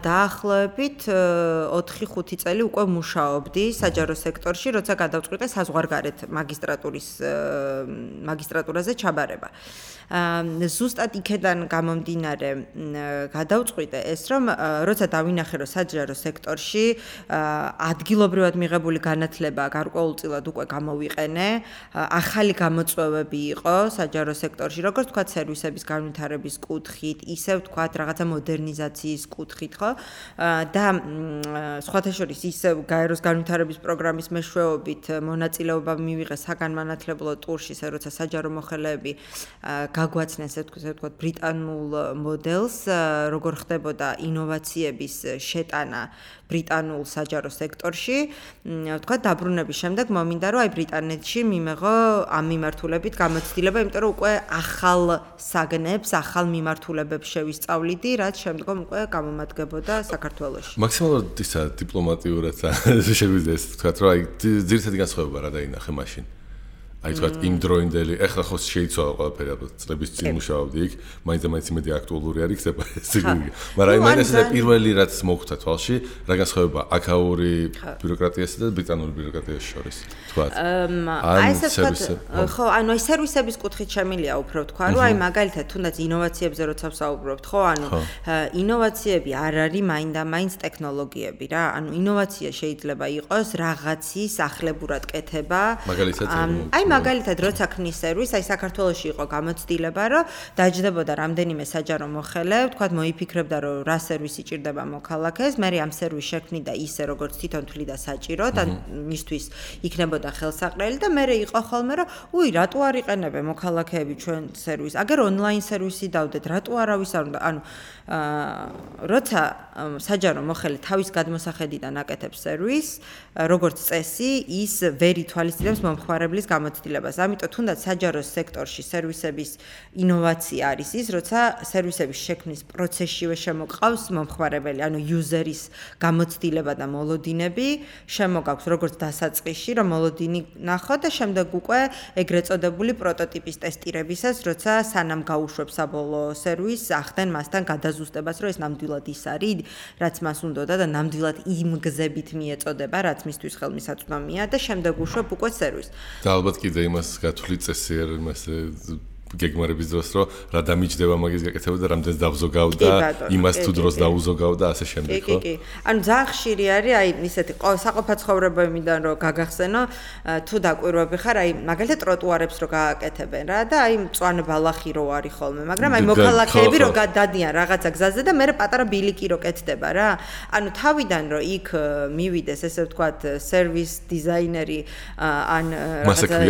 დაახლოებით 4-5 წელი უკვე მუშაობდი საჯარო სექტორში, როცა გადავწყვიტე საზღვარგარეთ მაგისტრატურაზე ჩაბარება. ზუსტად იქედან გამომდინარე გადავწყვიტე ეს, რომ როცა დავინახე, რომ საჯარო სექტორში ადგილობრივად მიღებული განათლება გარკვეულწილად უკვე გამოვიყენე, ახალი გამოწვევები იყო საჯარო სექტორში, როგორც თქვა სერვისების განვითარების კუთხით, ისევ თქვა რაღაცა მოდერნიზაციის კუთხით, ხო? და სხვათა შორის ისევ გაეროს განვითარების პროგრამის მეშვეობით მონაწილეობა მივიღე საგანმანათლებლო ტურში, როცა საჯარო მოხელეები გაგვაცნეს, ესე ვთქვათ, ბრიტანულ მოდელს, როგორ ხდებოდა ინოვაციების შეტანა ბრიტანულ საჯარო სექტორში. ვთქვათ, დაბრუნების შემდეგ მომინდა, რომ აი ბრიტანეთში მიმეღო ამ მიმართულებით გამოცდილება, იმიტომ რომ უკვე ახალ საგნებს, ახალ მიმართულებებს შევისწავლიდი, რაც შემდგომ უკვე გამომადგებოდა საქართველოში. მაქსიმალურად ისა დიპლომატიურად შეგვიძლია ეს თქვა, რომ აი ძირითადი განსხვავება რა დაინახე მაშინ. აი თქვა იმ დროინდელი, ეხლა ხო შეიცვალა ყველაფერი, ალბათ წლების წინ მუშაობდი იქ, მაინც მეტი აქტუალური არის ხდება ეს იგი. მაგრამ აი მაინც ეს პირველი რაც მოხვდა თვალში, რა განსხვავება აქაური ბიუროკრატიასა და ბრიტანული ბიუროკრატიის შორის, თქვა. აი ესე ვთქვათ, ხო, ანუ აი სერვისების კუთხით შემილია უფრო თქვა, რომ აი მაგალითად თუნდაც ინოვაციებზე როცა ვსაუბრობთ, ხო, ანუ ინოვაციები არ არის მაინდა-მაინც ტექნოლოგიები რა, ანუ ინოვაცია შეიძლება იყოს რაღაცის ახლებურად კეთება. მაგალითად, როცა ქნის სერვისს, აი საქართველოში იყო გამოცდილება, რომ დაჯდებოდა რამდენიმე საჯარო მოხელე, ვთქვათ, მოიფიქრებდა, რომ რა სერვისი ჭირდება მოქალაქეს, მე ამ სერვისს შექმნიდა ისე, როგორც თვითონ თვლიდა საჭირო და მისთვის იქნებოდა ხელსაყრელი და მე იყო ხოლმე, რომ უი, რატო არ იყენებენ მოქალაქეები ჩვენ სერვისს? აგერ ონლაინ სერვისი დავდეთ, რატო არავის არ უნდა? ანუ როცა საჯარო მოხელე თავის გადმოსახედიდან აკეთებს სერვისს, როგორც წესი, ის ვერ ითვალისწინებს მომხმარებლის გამოცდილებას. ამიტომ თუნდაც საჯარო სექტორში სერვისების ინოვაცია არის ის, როცა სერვისების შექმნის პროცესშივე შემოყავს მომხმარებელი, ანუ იუზერის გამოცდილება და მოლოდინები, შემოგაქვს როგორც დასაწყისში, რომ მოლოდინი ნახოთ და შემდეგ უკვე ეგრეთ წოდებული პროტოტიპის ტესტირებისას, როცა სანამ გაუშვებს საბოლოო სერვისს, ახდენ მასთან გადაზუსტებას, რომ ეს ნამდვილად ის არის, რაც მას უნდოდა და ნამდვილად იმ გზებით მიეწოდება, რაც მისთვის ხელმისაწვდომია და შემდეგ უშვებ უკვე სერვისს. და ალბათ კიდე იმას გათვლით წესიერ იმას გეგმარების დროს, რომ რა დამიჯდება მაგის გაკეთება და რამდენს დავზოგავ და იმას თუ დროს დაუზოგავ და ასე შემდეგ, ხო? კი. ანუ ძალიან ხშირი არის, აი ისეთი საყოფაცხოვრებებიდან რომ გაგახსენო, თუ დაკვირვები ხარ, აი მაგალითად ტროტუარებს რო გააკეთებენ რა და აი მწვანე ბალახი რო არის ხოლმე, მაგრამ აი მოქალაქეები რო გადადიან რაღაცა გზაზე და მე პატარა ბილიკი რო კეთდება რა. ანუ თავიდან რო იქ მივიდეს, ესე ვთქვათ, სერვის დიზაინერი ან რაღაცა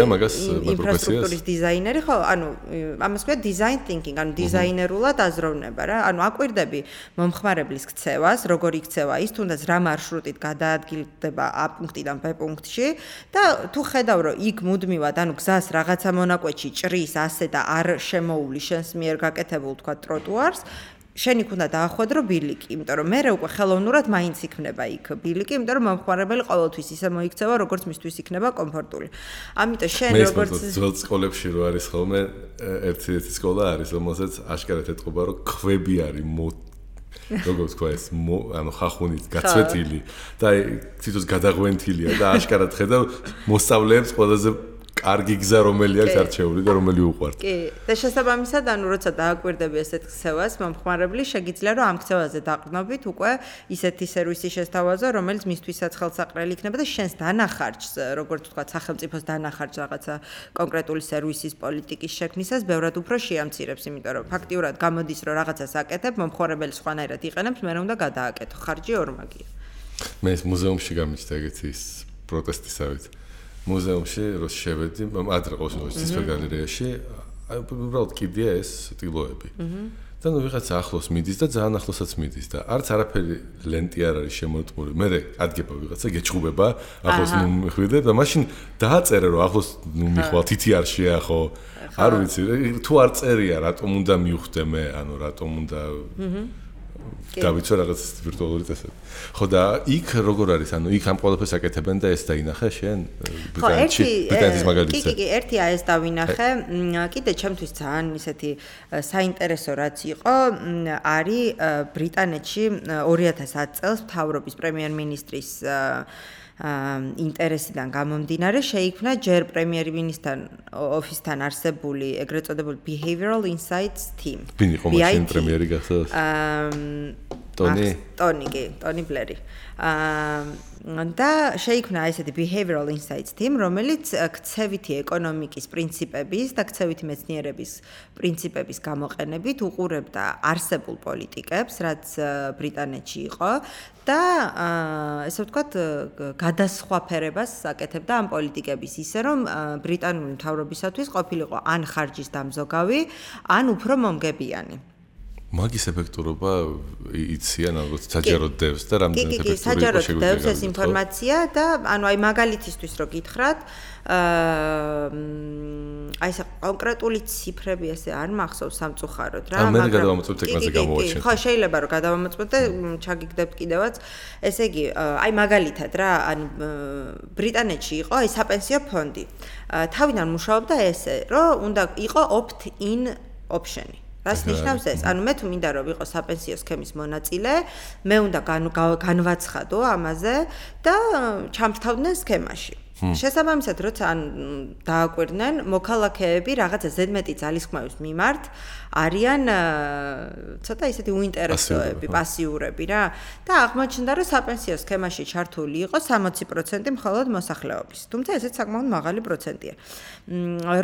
ინფრასტრუქტურის დიზაინერი, ხო, ანუ ამას ქვია design thinking, ანუ დიზაინერულად აზროვნება რა. ანუ აკვირდები მომხმარებლის ქცევას, როგორ იქცევა ის, თუნდაც რა მარშრუტით გადაადგილდება A პუნქტიდან B პუნქტში და თუ ხედავ, რომ იქ მუდმივად, ანუ გზას რაღაცა მონაკვეთში ჭრის ასე და არ შემოული შენს მიერ გაკეთებულ თქვა ტროტუარს, შენ იქ უნდა დაახვედრო ბილიკი, იმიტომ რომ მე უკვე ხელოვნურად მაინც იქნება იქ ბილიკი, იმიტომ რომ მომხმარებელი ყოველთვის ისე მოიქცევა, როგორც მისთვის იქნება კომფორტული. ამიტომ შენ როგორც ძველ სკოლებში რო არის ხოლმე ერთი სკოლა არის, რომელსაც აშკარად ეთყობა, რომ ქვები არის როგორც თქვა ეს ანუ ხახუნით გაცვეთილი და თვითონ გადაღვენთილია და აშკარად ხედავ მოსწავლეებს ყველაზე კარგი გზა რომელი აქვს არჩეული და რომელი უყვართ. კი, და შესაბამისად, ანუ როცა დააკვირდები ესეთ ქცევას, მომხმარებელი შეგიძლია რომ ამ ქცევაზე დაყრდნობით უკვე ისეთი სერვისი შესთავაზო, რომელიც მისთვისაც ხელსაყრელი იქნება და შენს დანახარჯს, როგორც თქვა, სახელმწიფოს დანახარჯს რაღაცა კონკრეტული სერვისის პოლიტიკის შექმნისას ბევრად უფრო შეამცირებს, იმიტომ რომ ფაქტიურად გამოდის, რომ რაღაცას აკეთებ, მომხმარებელი სხვანაირად იყენებს, მე უნდა გადააკეთო, ხარჯი ორმაგია. მე ეს მუზეუმში გამიჩნდა ეგეთი ის პროტესტისავით. მუზეუმში რო შევედი, ადრე ყოველთვის ცისფერ გალერეაში, უბრალოდ კიდია ეს ტილოები. და ნუ ვიღაცა ახლოს მიდის და ძალიან ახლოსაც მიდის და არც არაფერი ლენტი არ არის შემოწმული. მე ადგება ვიღაცა გეჭხუბება, ახლოს ნუ მიხვიდე და მაშინ დააწერე რომ ახლოს ნუ მიხვალ თითი არ შეახო. არ ვიცი, თუ არ წერია, რატომ უნდა მივხვდე მე, ანუ რატომ უნდა დავიცვა რაღაც ვირტუალური წესები. ხო და იქ როგორ არის? ანუ იქ ამ ყველაფერს აკეთებენ და ეს დაინახე შენ ბრიტანეთის მაგალითზე. კი, ერთი ეს დავინახე. კიდე ჩემთვის ძალიან ისეთი საინტერესო რაც იყო, არის ბრიტანეთში 2010 წელს მთავრობის პრემიერ-მინისტრის ინტერესიდან გამომდინარე შეიქმნა ჯერ პრემიერ-მინისტრთან ოფისთან არსებული ეგრეთ წოდებული Behavioral Insights Team. ვინ იყო მაშინ პრემიერი გახსოვს? ტონი ბლერი. და შეიქმნა ესეთი Behavioral Insights Team, რომელიც ქცევითი ეკონომიკის პრინციპების და ქცევითი მეცნიერების პრინციპების გამოყენებით უყურებდა არსებულ პოლიტიკებს, რაც ბრიტანეთში იყო და ესე ვთქვათ, გადასხვაფერებას აკეთებდა ამ პოლიტიკების ისე, რომ ბრიტანული მთავრობისათვის ყოფილიყო ან ხარჯის დამზოგავი, ან უფრო მომგებიანი. მაგის ეფექტურობა იციან ალბათ საჯაროდ დევს და რამდენად ეფექტური იყო საჯაროდ დევს ეს ინფორმაცია და ანუ აი მაგალითისთვის რო გითხრათ აი ეს კონკრეტული ციფრები ესე არ მახსოვს სამწუხაროდ რა მაგრამ მე გადავამოწმოთ ეკრანზე გამოვაჩინოთ ხო შეიძლება რომ გადავამოწმოთ და ჩაგიგდებთ კიდევაც ესე იგი აი მაგალითად რა ანუ ბრიტანეთში იყო აი საპენსიო ფონდი თავიდან მუშაობდა ესე რომ უნდა იყო opt-in option-ი რას ნიშნავს ეს? ანუ მე თუ მინდა რომ ვიყო საპენსიო სქემის მონაწილე, მე უნდა განვაცხადო ამაზე და ჩამრთავდნენ სქემაში. შესაბამისად, როცა დააკვირდნენ, მოქალაქეები რაღაცა ზედმეტი ძალისხმევის მიმართ არიან ცოტა ისეთი უინტერესოები, პასიურები რა და აღმოჩნდა, რომ საპენსიო სქემაში ჩართული იყო 60% მხოლოდ მოსახლეობის. თუმცა ესეც საკმაოდ მაღალი პროცენტია.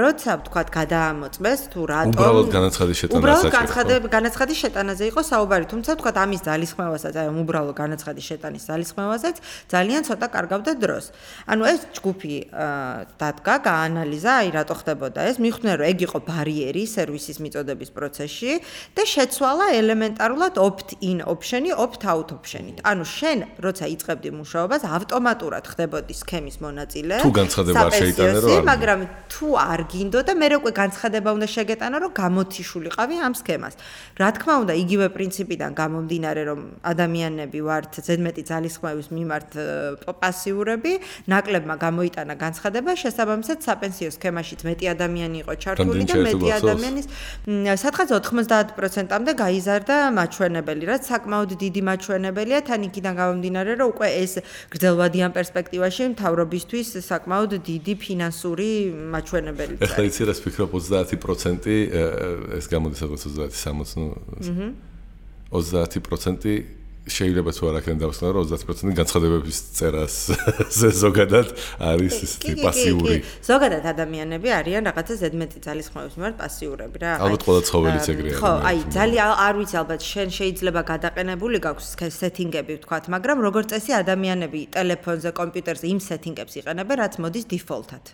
როცა ვთქვათ, გადაამოწმეს თუ რატომ უბრალოდ განაცხადის შეტანაზე განაცხადის შეტანაზე იყო საუბარი, თუმცა ვთქვათ, ამის ძალისხმევასაც, აი უბრალოდ განაცხადის შეტანის ძალისხმევასაც ძალიან ცოტა კარგავდა დროს. ანუ ეს ჯგუფი დადგა, გაანალიზა, აი რატო ხდებოდა ეს, მიხვდნენ, რომ ეგ იყო ბარიერი სერვისის მიწოდების პროცესში და შეცვალა ელემენტარულად opt-in option-ი opt-out option-ით. ანუ შენ, როცა იწყებდი მუშაობას, ავტომატურად ხდებოდი სქემის მონაწილე. თუ განცხადება არ შეიტანე, რომ მაგრამ თუ არ გინდო და მე უკვე განცხადება უნდა შეგეტანო, რომ გამოთიშულიყავი ამ სქემას. რა თქმა უნდა, იგივე პრინციპიდან გამომდინარე, რომ ადამიანები ვართ ზედმეტი ძალისხმევის მიმართ პასიურები, ნაკლებმა გამოიტანა განცხადება, შესაბამისად საპენსიო სქემაშიც მეტი ადამიანი იყო ჩართული და მეტი ადამიანის სადღაც 90%-მდე გაიზარდა მაჩვენებელი, რაც საკმაოდ დიდი მაჩვენებელია, თან იქიდან გამომდინარე, რომ უკვე ეს გრძელვადიან პერსპექტივაში მთავრობისთვის საკმაოდ დიდი ფინანსური მაჩვენებელი. ეხლა იცი რას ვფიქრობ 30% ეს გამოდის სადღაც 30-60 30% შეიძლება თუ არ აქედან დავსვნა რომ 30% განცხადებების წერას ზოგადად არის ისეთი პასიური. ზოგადად ადამიანები არიან რაღაცა ზედმეტი ძალისხმევის მიმართ პასიურები რა. ალბათ ყველა ცხოველიც ეგრეა. ხო, აი ძალიან არ ვიცი ალბათ შენ შეიძლება გადაყენებული გაქვს სეტინგები ვთქვათ, მაგრამ როგორც წესი ადამიანები ტელეფონზე, კომპიუტერზე იმ სეტინგებს იყენებენ, რაც მოდის დიფოლტად.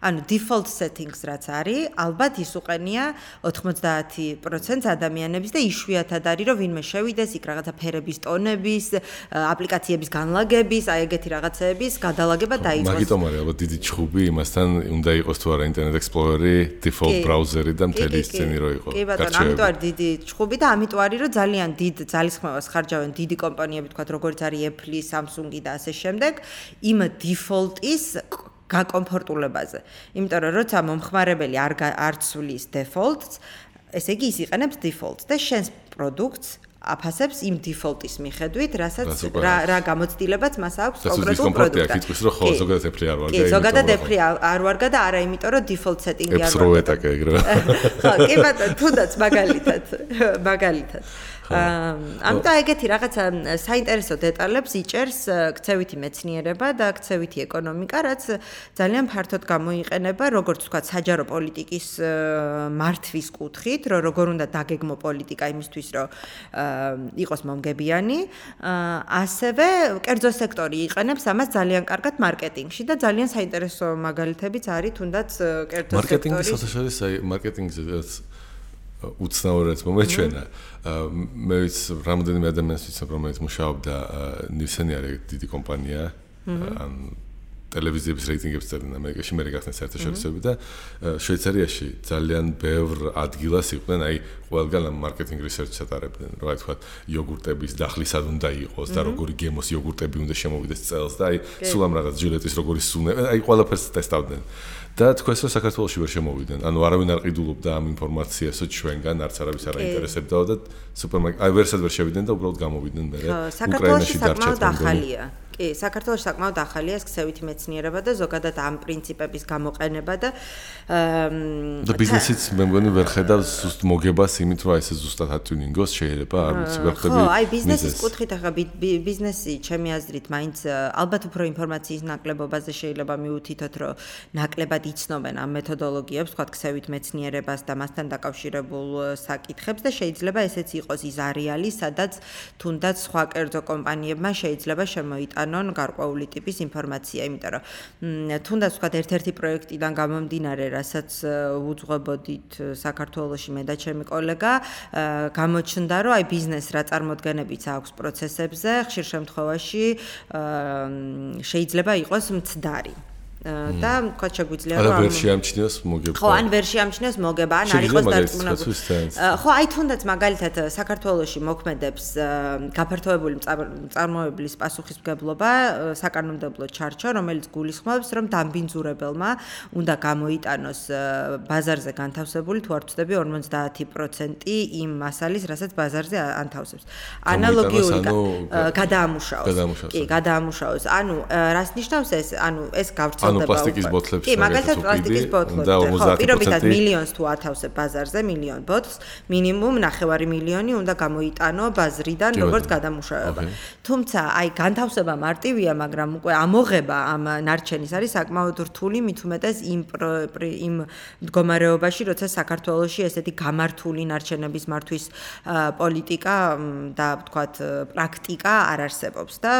ანუ default settings რაც არის, ალბათ ის უყენია 90% ადამიანების და იშვიათად არის რომ ვინმე შევიდეს იქ რაღაცა ფერების ტონების, აპლიკაციების განლაგების, აი ეგეთი რაღაცეების გადალაგება დაიწყოს. მაგიტომ არის ალბათ დიდი ჩხუბი იმასთან უნდა იყოს თუ არა Internet Explorer-ი, default browser-ი და მთელი სცენი რო იყო. კი ბატონო, ამიტომ არის დიდი ჩხუბი და ამიტომ არის რომ ძალიან დიდ ძალისხმევას ხარჯავენ დიდი კომპანიები, თქვათ როგორც არის Apple, Samsung და ასე შემდეგ, იმ default-ის გაკომფორტულებაზე. იმიტომ რომ როცა მომხმარებელი არ ცვლის default-ს, ესე იგი ის იყენებს default-ს და შენს პროდუქტს აფასებს იმ default-ის მიხედვით, რასაც რა გამოცდილებაც მას აქვს კონკრეტულ პროდუქტად. ის რომ ხო ზოგადად Apple არ ვარგა. კი, ზოგადად Apple არ ვარგა და არა იმიტომ რომ default setting-ი არ ვარგა. ეტაკე ეგრევე. ხო, კი ბატონო, თუნდაც მაგალითად. ამიტომ ეგეთი რაღაცა საინტერესო დეტალებს იჭერს ქცევითი მეცნიერება და ქცევითი ეკონომიკა, რაც ძალიან ფართოდ გამოიყენება, როგორც თქვა, საჯარო პოლიტიკის მართვის კუთხით, რომ როგორ უნდა დაგეგმო პოლიტიკა იმისთვის, რომ იყოს მომგებიანი, ასევე კერძო სექტორი იყენებს ამას ძალიან კარგად მარკეტინგში და ძალიან საინტერესო მაგალითებიც არის თუნდაც კერძო სექტორის. მარკეტინგის შესაძლოა, აი მარკეტინგზე უცნაურად მომეჩვენა. მე ვიცი, რამდენიმე ადამიანს ვიცნობ, რომელიც მუშაობდა ნივსენი არის დიდი კომპანია, ან ტელევიზიების რეიტინგებს წერდნენ ამერიკაში, მე გახსნით საერთაშორისოები და შვეიცარიაში ძალიან ბევრ ადგილას იყვნენ, აი ყველგან მარკეტინგ რისერჩს ატარებდნენ, რა ვთქვათ, იოგურტების დახლი სად უნდა იყოს და როგორი გემოს იოგურტები უნდა შემოვიდეს წელს და აი სულ ამ რაღაც ჟილეტის როგორი სუნე, აი ყველაფერს ტესტავდნენ. და თქვენს რომ საქართველოში ვერ შემოვიდნენ. ანუ არავინ არ ყიდულობდა ამ ინფორმაციასო ჩვენგან, არც არავის არ აინტერესებდაო და სუპერმარკეტ აი ვერსად ვერ შევიდნენ და უბრალოდ გამოვიდნენ მე. უკრაინაში საკმაოდ ახალია. კი, საქართველოში საკმაოდ ახალია ეს ქცევითი მეცნიერება და ზოგადად ამ პრინციპების გამოყენება და ბიზნესიც მე მგონი ვერ ხედავს ზუსტ მოგებას იმით რომ ეს ზუსტად ატიუნინგოს შეიძლება არ ვიცი ვერ ხვდები. ხო, აი ბიზნესის კუთხით ახლა ბიზნესი ჩემი აზრით მაინც ალბათ უფრო ინფორმაციის ნაკლებობაზე შეიძლება მივუთითოთ რომ ნაკლებად იცნობენ ამ მეთოდოლოგიებს, თქვა ქცევით მეცნიერებას და მასთან დაკავშირებულ საკითხებს და შეიძლება ესეც იყოს ის არეალი, სადაც თუნდაც სხვა კერძო კომპანიებმა შეიძლება შემოიტანონ გარკვეული ტიპის ინფორმაცია, იმიტომ რომ თუნდაც თქვა ერთ-ერთი პროექტიდან გამომდინარე, რასაც უძღვებოდით საქართველოში მე და ჩემი კოლეგა, გამოჩნდა, რომ აი ბიზნეს რა წარმოდგენებიც აქვს პროცესებზე, ხშირ შემთხვევაში შეიძლება იყოს მცდარი. და თქვა შეგვიძლია რომ არ ვერ შეამჩნიოს მოგება. ხო, ან ვერ შეამჩნიოს მოგება, ან არ იყოს დარწმუნებული. ხო, აი თუნდაც მაგალითად საქართველოში მოქმედებს გაფართოებული წარმოებლის პასუხისმგებლობა საკანონმდებლო ჩარჩო, რომელიც გულისხმობს, რომ დამბინძურებელმა უნდა გამოიტანოს ბაზარზე განთავსებული თუ არ ვცდები 50% იმ მასალის, რასაც ბაზარზე ანთავსებს. ანალოგიური გადაამუშავოს. კი, გადაამუშავოს. ანუ რას ნიშნავს ეს? ანუ ეს გავრცელდება ანუ პლასტიკის ბოთლებს კი, მაგალითად პლასტიკის ბოთლები. ხო, პირობითად მილიონს თუ ათავსებ ბაზარზე, მილიონ ბოთლს, მინიმუმ 9 მილიონი უნდა გამოიტანო ბაზრიდან როგორც გადამუშავება. თუმცა, აი განთავსება მარტივია, მაგრამ უკვე ამოღება ამ ნარჩენის არის საკმაოდ რთული, მით უმეტეს იმ მდგომარეობაში, როცა საქართველოში ესეთი გამართული ნარჩენების მართვის პოლიტიკა და ვთქვათ პრაქტიკა არ არსებობს და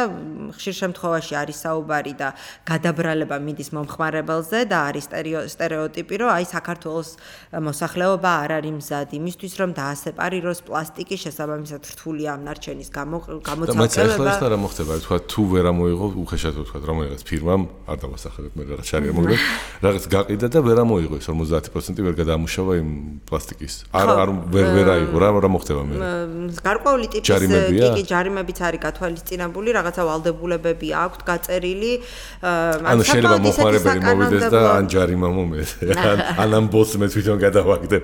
ხშირ შემთხვევაში არის საუბარი და გადაბრალება მიდის მომხმარებელზე და არის სტერეოტიპი, რომ აი საქართველოს მოსახლეობა არ არის მზად იმისთვის, რომ დაასეპარიროს პლასტიკის შესაბამისად რთულია ამ ნარჩენის გამოცალკევება. და მეც ახლა ეს რა მოხდება, თქვა თუ ვერ ამოიღო, უხეშად თქვა, რომელიღაც ფირმამ არ დავასახელებ მე რაღაც შარი არ მოგდა, რაღაც გაყიდა და ვერ ამოიღო ეს 50% ვერ გადაამუშავა იმ პლასტიკის. არ ვერ აიღო, რა მოხდება მე? გარკვეული ტიპის კი ჯარიმებიც არის გათვალისწინებული, რაღაცა ვალდებულებები აქვს გაწერილი. ანუ შეიძლება მომხმარებელი მოვიდეს და ან ჯარიმა მომეს. ან ამ ბოლს მე თვითონ გადავაგდებ.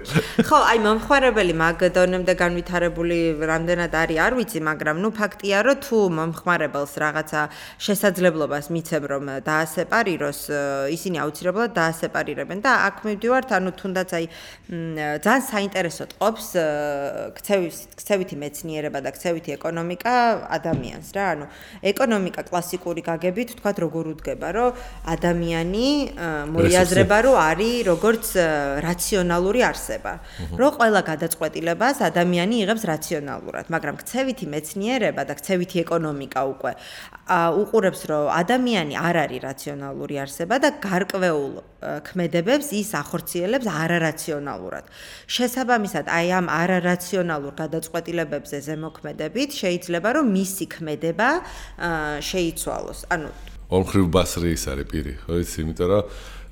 ხო, აი მომხმარებელი მაგ დონემდე განვითარებული რამდენად არის, არ ვიცი, მაგრამ ნუ ფაქტია, რომ თუ მომხმარებელს რაღაცა შესაძლებლობას მიცემ, რომ დაასეპარიროს, ისინი აუცილებლად დაასეპარირებენ და აქ მივდივართ, ანუ თუნდაც აი ძალიან საინტერესოდ ყოფს ქცევითი მეცნიერება და ქცევითი ეკონომიკა ადამიანს რა, ანუ ეკონომიკა კლასიკური გაგებით, თქვათ როგორ უდგება, რომ ადამიანი მოიაზრება, რომ არის როგორც რაციონალური არსება. რომ ყველა გადაწყვეტილებას ადამიანი იღებს რაციონალურად, მაგრამ ქცევითი მეცნიერება და ქცევითი ეკონომიკა უკვე უყურებს, რომ ადამიანი არ არის რაციონალური არსება და გარკვეულ ქმედებებს ის ახორციელებს არარაციონალურად. შესაბამისად, აი ამ არარაციონალურ გადაწყვეტილებებზე ზემოქმედებით შეიძლება რომ მისი ქმედება შეიცვალოს. ანუ ორმხრივ ბასრი ის არის პირი, ხო იცი, იმიტომ რომ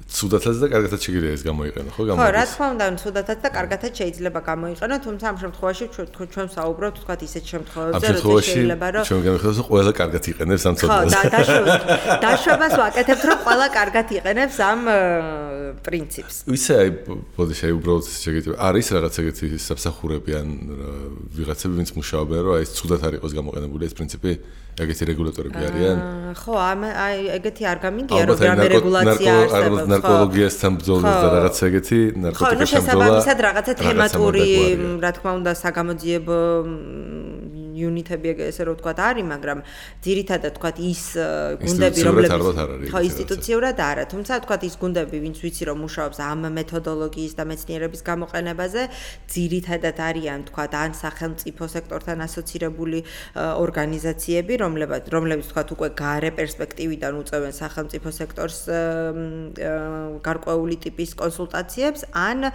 ცუდათაც და კარგათაც შეიძლება ეს გამოიყენო, ხო? ხო, რა თქმა უნდა, ცუდათაც და კარგათაც შეიძლება გამოიყენო, თუმცა ამ შემთხვევაში ჩვენ საუბრობთ თქვა ისეთ შემთხვევებზე, რომ შეიძლება რომ ჩვენ გამიხსენოთ, რომ ყველა კარგად იყენებს ამ ცოდნას. ხო, დაშვებას ვაკეთებთ, რომ ყველა კარგად იყენებს ამ პრინციპს. ისე აი, ბოდიში, აი უბრალოდ შეგიძლია არის რაღაც ეგეთი საფსახურები ან ვიღაცები, ვინც მუშაობენ, რომ აი ეს ცუდად არ იყოს გამოყენებული ეს პრინციპი, ეგეთი რეგულატორები არიან? ხო, აი ეგეთი არ გამიგია, რომ რამე რეგულაცია არსებობს. ნარკოლოგიასთან ბრძოლის და რაღაცა ეგეთი ნარკოტიკებთან ბრძოლა. ხო, შესაბამისად რაღაცა თემატური, რა თქმა უნდა, საგამოძიებო იუნიტები ესე რომ ვთქვათ არის, მაგრამ ძირითადად ვთქვათ ის გუნდები, რომლებიც ხო ინსტიტუციურად არა, თუმცა ვთქვათ ის გუნდები, ვინც ვიცი რომ მუშაობს ამ მეთოდოლოგიის და მეცნიერების გამოყენებაზე, ძირითადად არიან ვთქვათ ან სახელმწიფო სექტორთან ასოცირებული ორგანიზაციები, რომლებიც ვთქვათ უკვე გარე პერსპექტივიდან უწევენ სახელმწიფო სექტორს გარკვეული ტიპის კონსულტაციებს, ან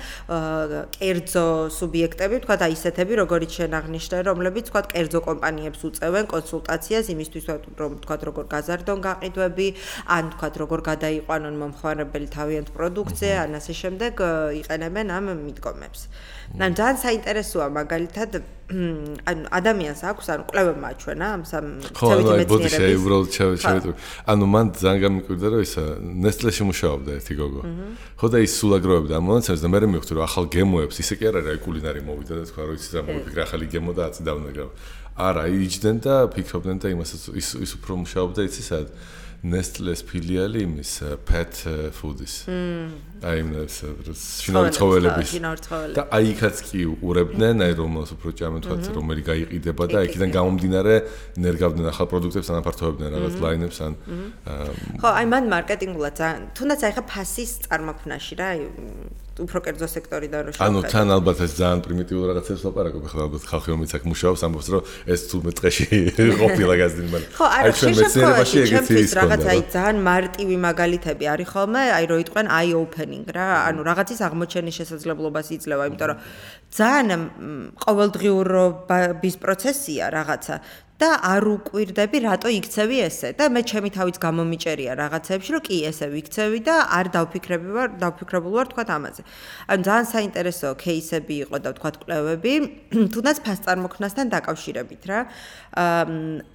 კერძო სუბიექტები, ვთქვათ აი ისეთები, როგორიც შენ აღნიშნე, რომლებიც ვთქვათ კერძო კომპანიებს უწევენ კონსულტაციას იმისთვის, რომ ვთქვათ როგორ გაზარდონ გაყიდვები, ან ვთქვათ როგორ გადაიყვანონ მომხმარებელი თავიანთ პროდუქციაზე, ან ასე შემდეგ იყენებენ ამ მიდგომებს. ანუ ძალიან საინტერესოა მაგალითად ანუ ადამიანს აქვს ანუ კვლევებმა აჩვენა ამ ცევითი მეცნიერების ანუ მან ძალიან გამიკვირდა რომ ისა ნესტლეში მუშაობდა ერთი გოგო ხო და ის სულ აგროვებდა ამ მონაცემებს და მე მივხვდი რომ ახალ გემოებს ისე კი არ არის კულინარი მოვიდა და თქვა რომ იცი რა მოვიფიქრე ახალი გემო და აწიდავდნენ არა იჯდნენ და ფიქრობდნენ და იმასაც ის უფრო მუშაობდა იცი სად Nestle's ფილიალი იმის pet food-ის. აი იმას შინაური ცხოველების. და აი იქაც კი უყურებდნენ, აი რომელს უფრო ჭამენ თქვათ, რომელი გაიყიდება და იქიდან გამომდინარე ნერგავდნენ ახალ პროდუქტებს, ანაფართოებდნენ რაღაც ლაინებს ან ხო, აი მან მარკეტინგულად თუნდაც აი ხა ფასის წარმოქმნაში რა, აი უფრო კერძო სექტორიდან რო შევხედოთ. ანუ თან ალბათ ეს ძალიან პრიმიტიულ რაღაცებს ვაპარაკობ, ხლა ალბათ ხალხი რომელიც აქ მუშაობს, ამბობს რომ ეს თუ მეტყეში ყოფილა გაზრდილი მაგრამ აი ჩვენ მეცნიერებაში ეგეთი ის რაღაც აი ძალიან მარტივი მაგალითები არის ხოლმე, აი რო იტყვენ eye opening რა, ანუ რაღაცის აღმოჩენის შესაძლებლობას იძლევა, იმიტომ რომ ძალიან ყოველდღიურობის პროცესია რაღაცა და არ უკვირდები რატო იქცევი ესე და მე ჩემი თავიც გამომიჭერია რაღაცებში რომ კი ესე ვიქცევი და არ დავფიქრებული ვარ თქვა ამაზე. ანუ ძალიან საინტერესო кейსები იყო და თქვა კვლევები, თუნდაც ფასწარმოქმნასთან დაკავშირებით რა.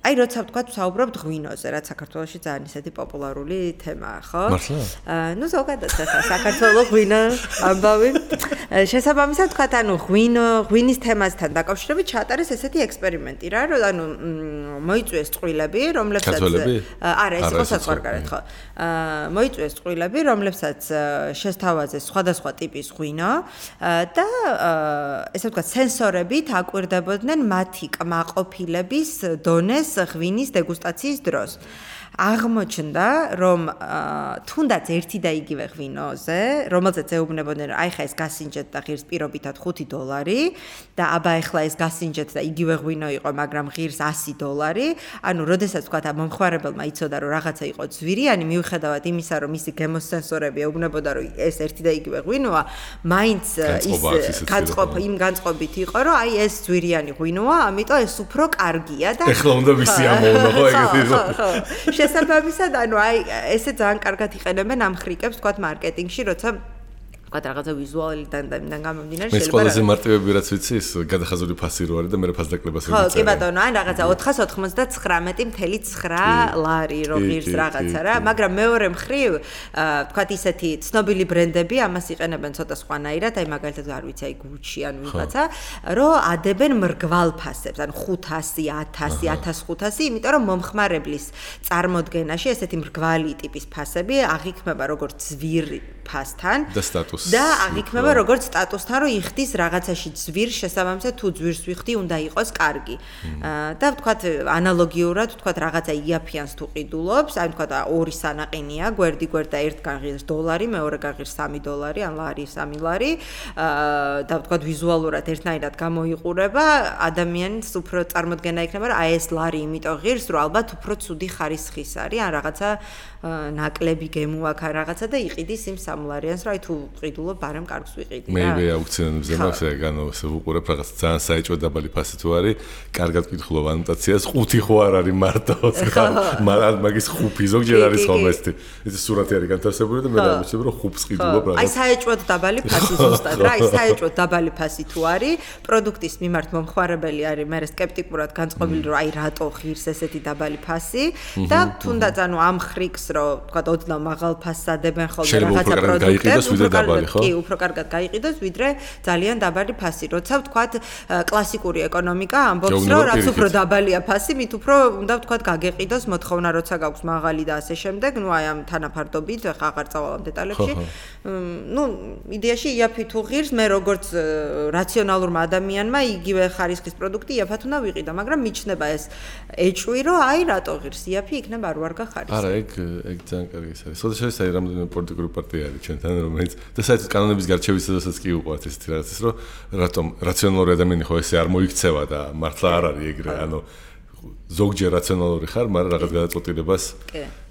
აი როცა თქვა საუბრობთ ღვინოზე, რაც საქართველოში ძალიან ისეთი პოპულარული თემაა, ხო? მართლა? ნუ ზოგადად საქართველოს ღვინო ამბავი. შესაბამისად თქვა ანუ ღვინის თემასთან დაკავშირებით ჩაატარეს ესეთი ექსპერიმენტი რა, რომ ანუ მოიწვიეს წყვილები, რომლებსაც არა, ეს იყო საზღვარგარეთ, ხო. მოიწვიეს წყვილები, რომლებსაც შესთავაზეს სხვადასხვა ტიპის ღვინო და ესე ვთქვათ, სენსორებით აკვირდებოდნენ მათი კმაყოფილების დონეს ღვინის დეგუსტაციის დროს. აღმოჩნდა, რომ თუნდაც ერთი და იგივე ღვინოზე, რომელზეც ეუბნებოდნენ, აი ხა ეს გასინჯეთ და ღირს პირობითად $5 და აბა ეხლა ეს გასინჯეთ და იგივე ღვინო იყო, მაგრამ ღირს $100, ანუ როდესაც თქვა მომხმარებელმა იცოდა, რომ რაღაცა იყო ძვირიანი, მიუხედავად იმისა, რომ მისი გემოსენსორები ეუბნებოდა, რომ ეს ერთი და იგივე ღვინოა, მაინც ის განწყობით იყო, რომ აი ეს ძვირიანი ღვინოა, ამიტომ ეს უფრო კარგია და ეხლა უნდა მისი ამოვნა, ხო ეგეთი ხო შესაბამისად, ანუ აი ესე ძალიან კარგად იყენებენ ამ ხრიკებს, თქვათ მარკეტინგში, როცა თქვათ რაღაცა ვიზუალიდან და იმიდან გამომდინარე შეიძლება. მე ყველაზე მარტივები რაც ვიცი, ის გადახაზული ფასი რო არის და მე ფასდაკლებას ვიცი. ხო, კი ბატონო, ან რაღაცა 499.9 ლარი რო ღირს რაღაცა რა, მაგრამ მეორე მხრივ, თქვათ ისეთი ცნობილი ბრენდები ამას იყენებენ ცოტა სხვანაირად, აი მაგალითად არ ვიცი, აი Gucci ან ვიღაცა, რომ ადებენ მრგვალ ფასებს, ან 500, 1000, 1500, იმიტომ რომ მომხმარებლის წარმოდგენაში ესეთი მრგვალი ტიპის ფასები აღიქმება როგორც ძვირი ფასთან და სტატუსთან სტატუსს. და აღიქმება როგორც სტატუსთან, რომ იხდის რაღაცაში ძვირს შესაბამისად თუ ძვირს ვიხდი, უნდა იყოს კარგი. და ვთქვათ ანალოგიურად, ვთქვათ რაღაცა იაფიანს თუ ყიდულობს, აი ვთქვათ ორი სანაყინია, გვერდი და ერთ გაღირს $, მეორე გაღირს $3 ან ლარი, 3 ლარი. და ვთქვათ ვიზუალურად ერთნაირად გამოიყურება, ადამიანს უფრო წარმოდგენა იქნება, რომ აი ეს ლარი იმიტომ ღირს, რომ ალბათ უფრო ცუდი ხარისხის არის, ან რაღაცა ნაკლები გემო აქვს ან რაღაცა და იყიდის იმ $3-ს, რომ აი თუ ყიდულობ, ბარემ კარგს ვიყიდი რა. მე აუქციონებზე მაქვს ეგ ვუყურებ რაღაც ძალიან საეჭვო დაბალი ფასი თუ არის, კარგად ვკითხულობ ანოტაციას, 5 ხო არ არის მარტო, მაგის 5 ზოგჯერ არის ხოლმე ეს სურათი არის განთავსებული და მე დავიწყებ რომ 5-ს ყიდულობ რაღაც. აი საეჭვოდ დაბალი ფასი ზუსტად რა, აი საეჭვოდ დაბალი ფასი თუ არის, პროდუქტის მიმართ მომხმარებელი არის მე სკეპტიკურად განწყობილი რომ აი რატო ღირს ესეთი დაბალი ფასი და თუნდაც ანუ ამ ხრიქს რომ თქვა ოდნავ მაღალ ფასს ადებენ ხოლმე რაღაცა პროდუქტებს, კი, უფრო კარგად გაიყიდოს, ვიდრე ძალიან დაბალი ფასი. როცა ვთქვათ კლასიკური ეკონომიკა ამბობს რომ რაც უფრო დაბალია ფასი, მით უფრო უნდა ვთქვათ გაგეყიდოს მოთხოვნა, როცა გაქვს მაღალი და ასე შემდეგ, ნუ აი ამ თანაფარდობით, ხა აღარ წავალ ამ დეტალებში. ნუ იდეაში იაფი თუ ღირს, მე როგორც რაციონალურმა ადამიანმა იგივე ხარისხის პროდუქტი იაფად უნდა ვიყიდო, მაგრამ მიჩნდება ეს ეჭვი, რომ აი რატო ღირს იაფი იქნება არ ვარ გახარისხი. არა, ეგ ძალიან კარგი არის. შესაძლოა ეს რამდენიმე პოლიტიკური პარტია არის ჩვენთან, რომელიც და საერთოდ კანონების გარჩევის დროსაც კი უყვართ ესეთი რაღაცის, რომ რატომ რაციონალური ადამიანი ხო ესე არ მოიქცევა და მართლა არ არის ეგრე, ანუ ზოგჯერ რაციონალური ხარ, მაგრამ რაღაც გადაწყვეტილებას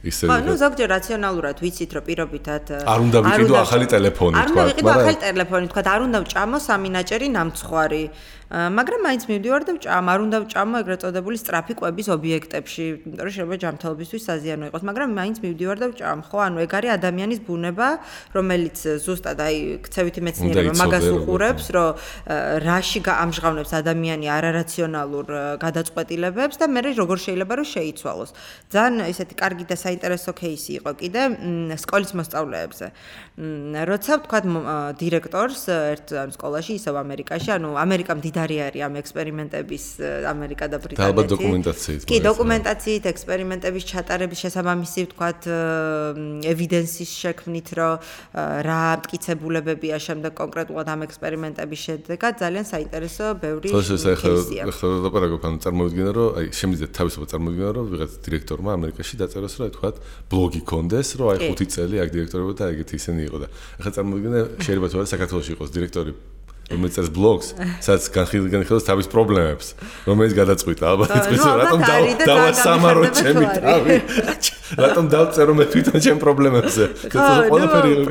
ისე ნუ ზოგჯერ რაციონალურად ვიცით, რომ პირობითად არ უნდა ვიყიდო ახალი ტელეფონი, თქვა. არ უნდა ვიყიდო ახალი ტელეფონი, თქვა, არ უნდა ვჭამო სამინაჭერი ნამცხვარი. მაგრამ მაინც მივდივარ და ვჭამ, არ უნდა ვჭამო ეგრეთ წოდებული სწრაფი კვების ობიექტებში, იმიტომ რომ შეიძლება ჯანმრთელობისთვის საზიანო იყოს, მაგრამ მაინც მივდივარ და ვჭამ, ხო? ანუ ეგ არის ადამიანის ბუნება, რომელიც ზუსტად აი ქცევითი მეცნიერება მაგას უყურებს, რომ რაში ამჟღავნებს ადამიანი არარაციონალურ გადაწყვეტილებებს და მე როგორ შეიძლება რომ შეიცვალოს. ძალიან ესეთი კარგი და საინტერესო кейსი იყო კიდე სკოლის მოსწავლეებზე. როცა ვთქვათ დირექტორს ერთ სკოლაში, ისევ ამერიკაში, ანუ ამერიკა მდიდარი არის ამ ექსპერიმენტების, ამერიკა და ბრიტანეთი. და ალბათ დოკუმენტაციით. კი, დოკუმენტაციით, ექსპერიმენტების ჩატარების შესაბამისი ვთქვათ ევიდენსის შექმნით, რომ რა მტკიცებულებებია შემდეგ კონკრეტულად ამ ექსპერიმენტების შედეგად, ძალიან საინტერესო ბევრი кейსია. ხო, ლაპარაკობ, ანუ წარმოვიდგინე, რომ აი შემიძლია თავისუფლად წარმოვიდგინე, რომ ვიღაც დირექტორმა ამერიკაში დაწეროს, რომ თქვათ ბლოგი კონდეს, რომ აი 5 წელი აქ დირექტორობა და ეგეთი ისინი იყო და ახლა წარმოვიდგინე, შეიძლება თუ არა საქართველოში იყოს დირექტორი რომელიც წერს ბლოგს, სადაც განხილავს თავის პრობლემებს, რომელიც გადაწყვიტა, ალბათ იცის რატომ დავასამარო ჩემი თავი. რატომ დავწერო მე თვითონ ჩემ პრობლემებზე.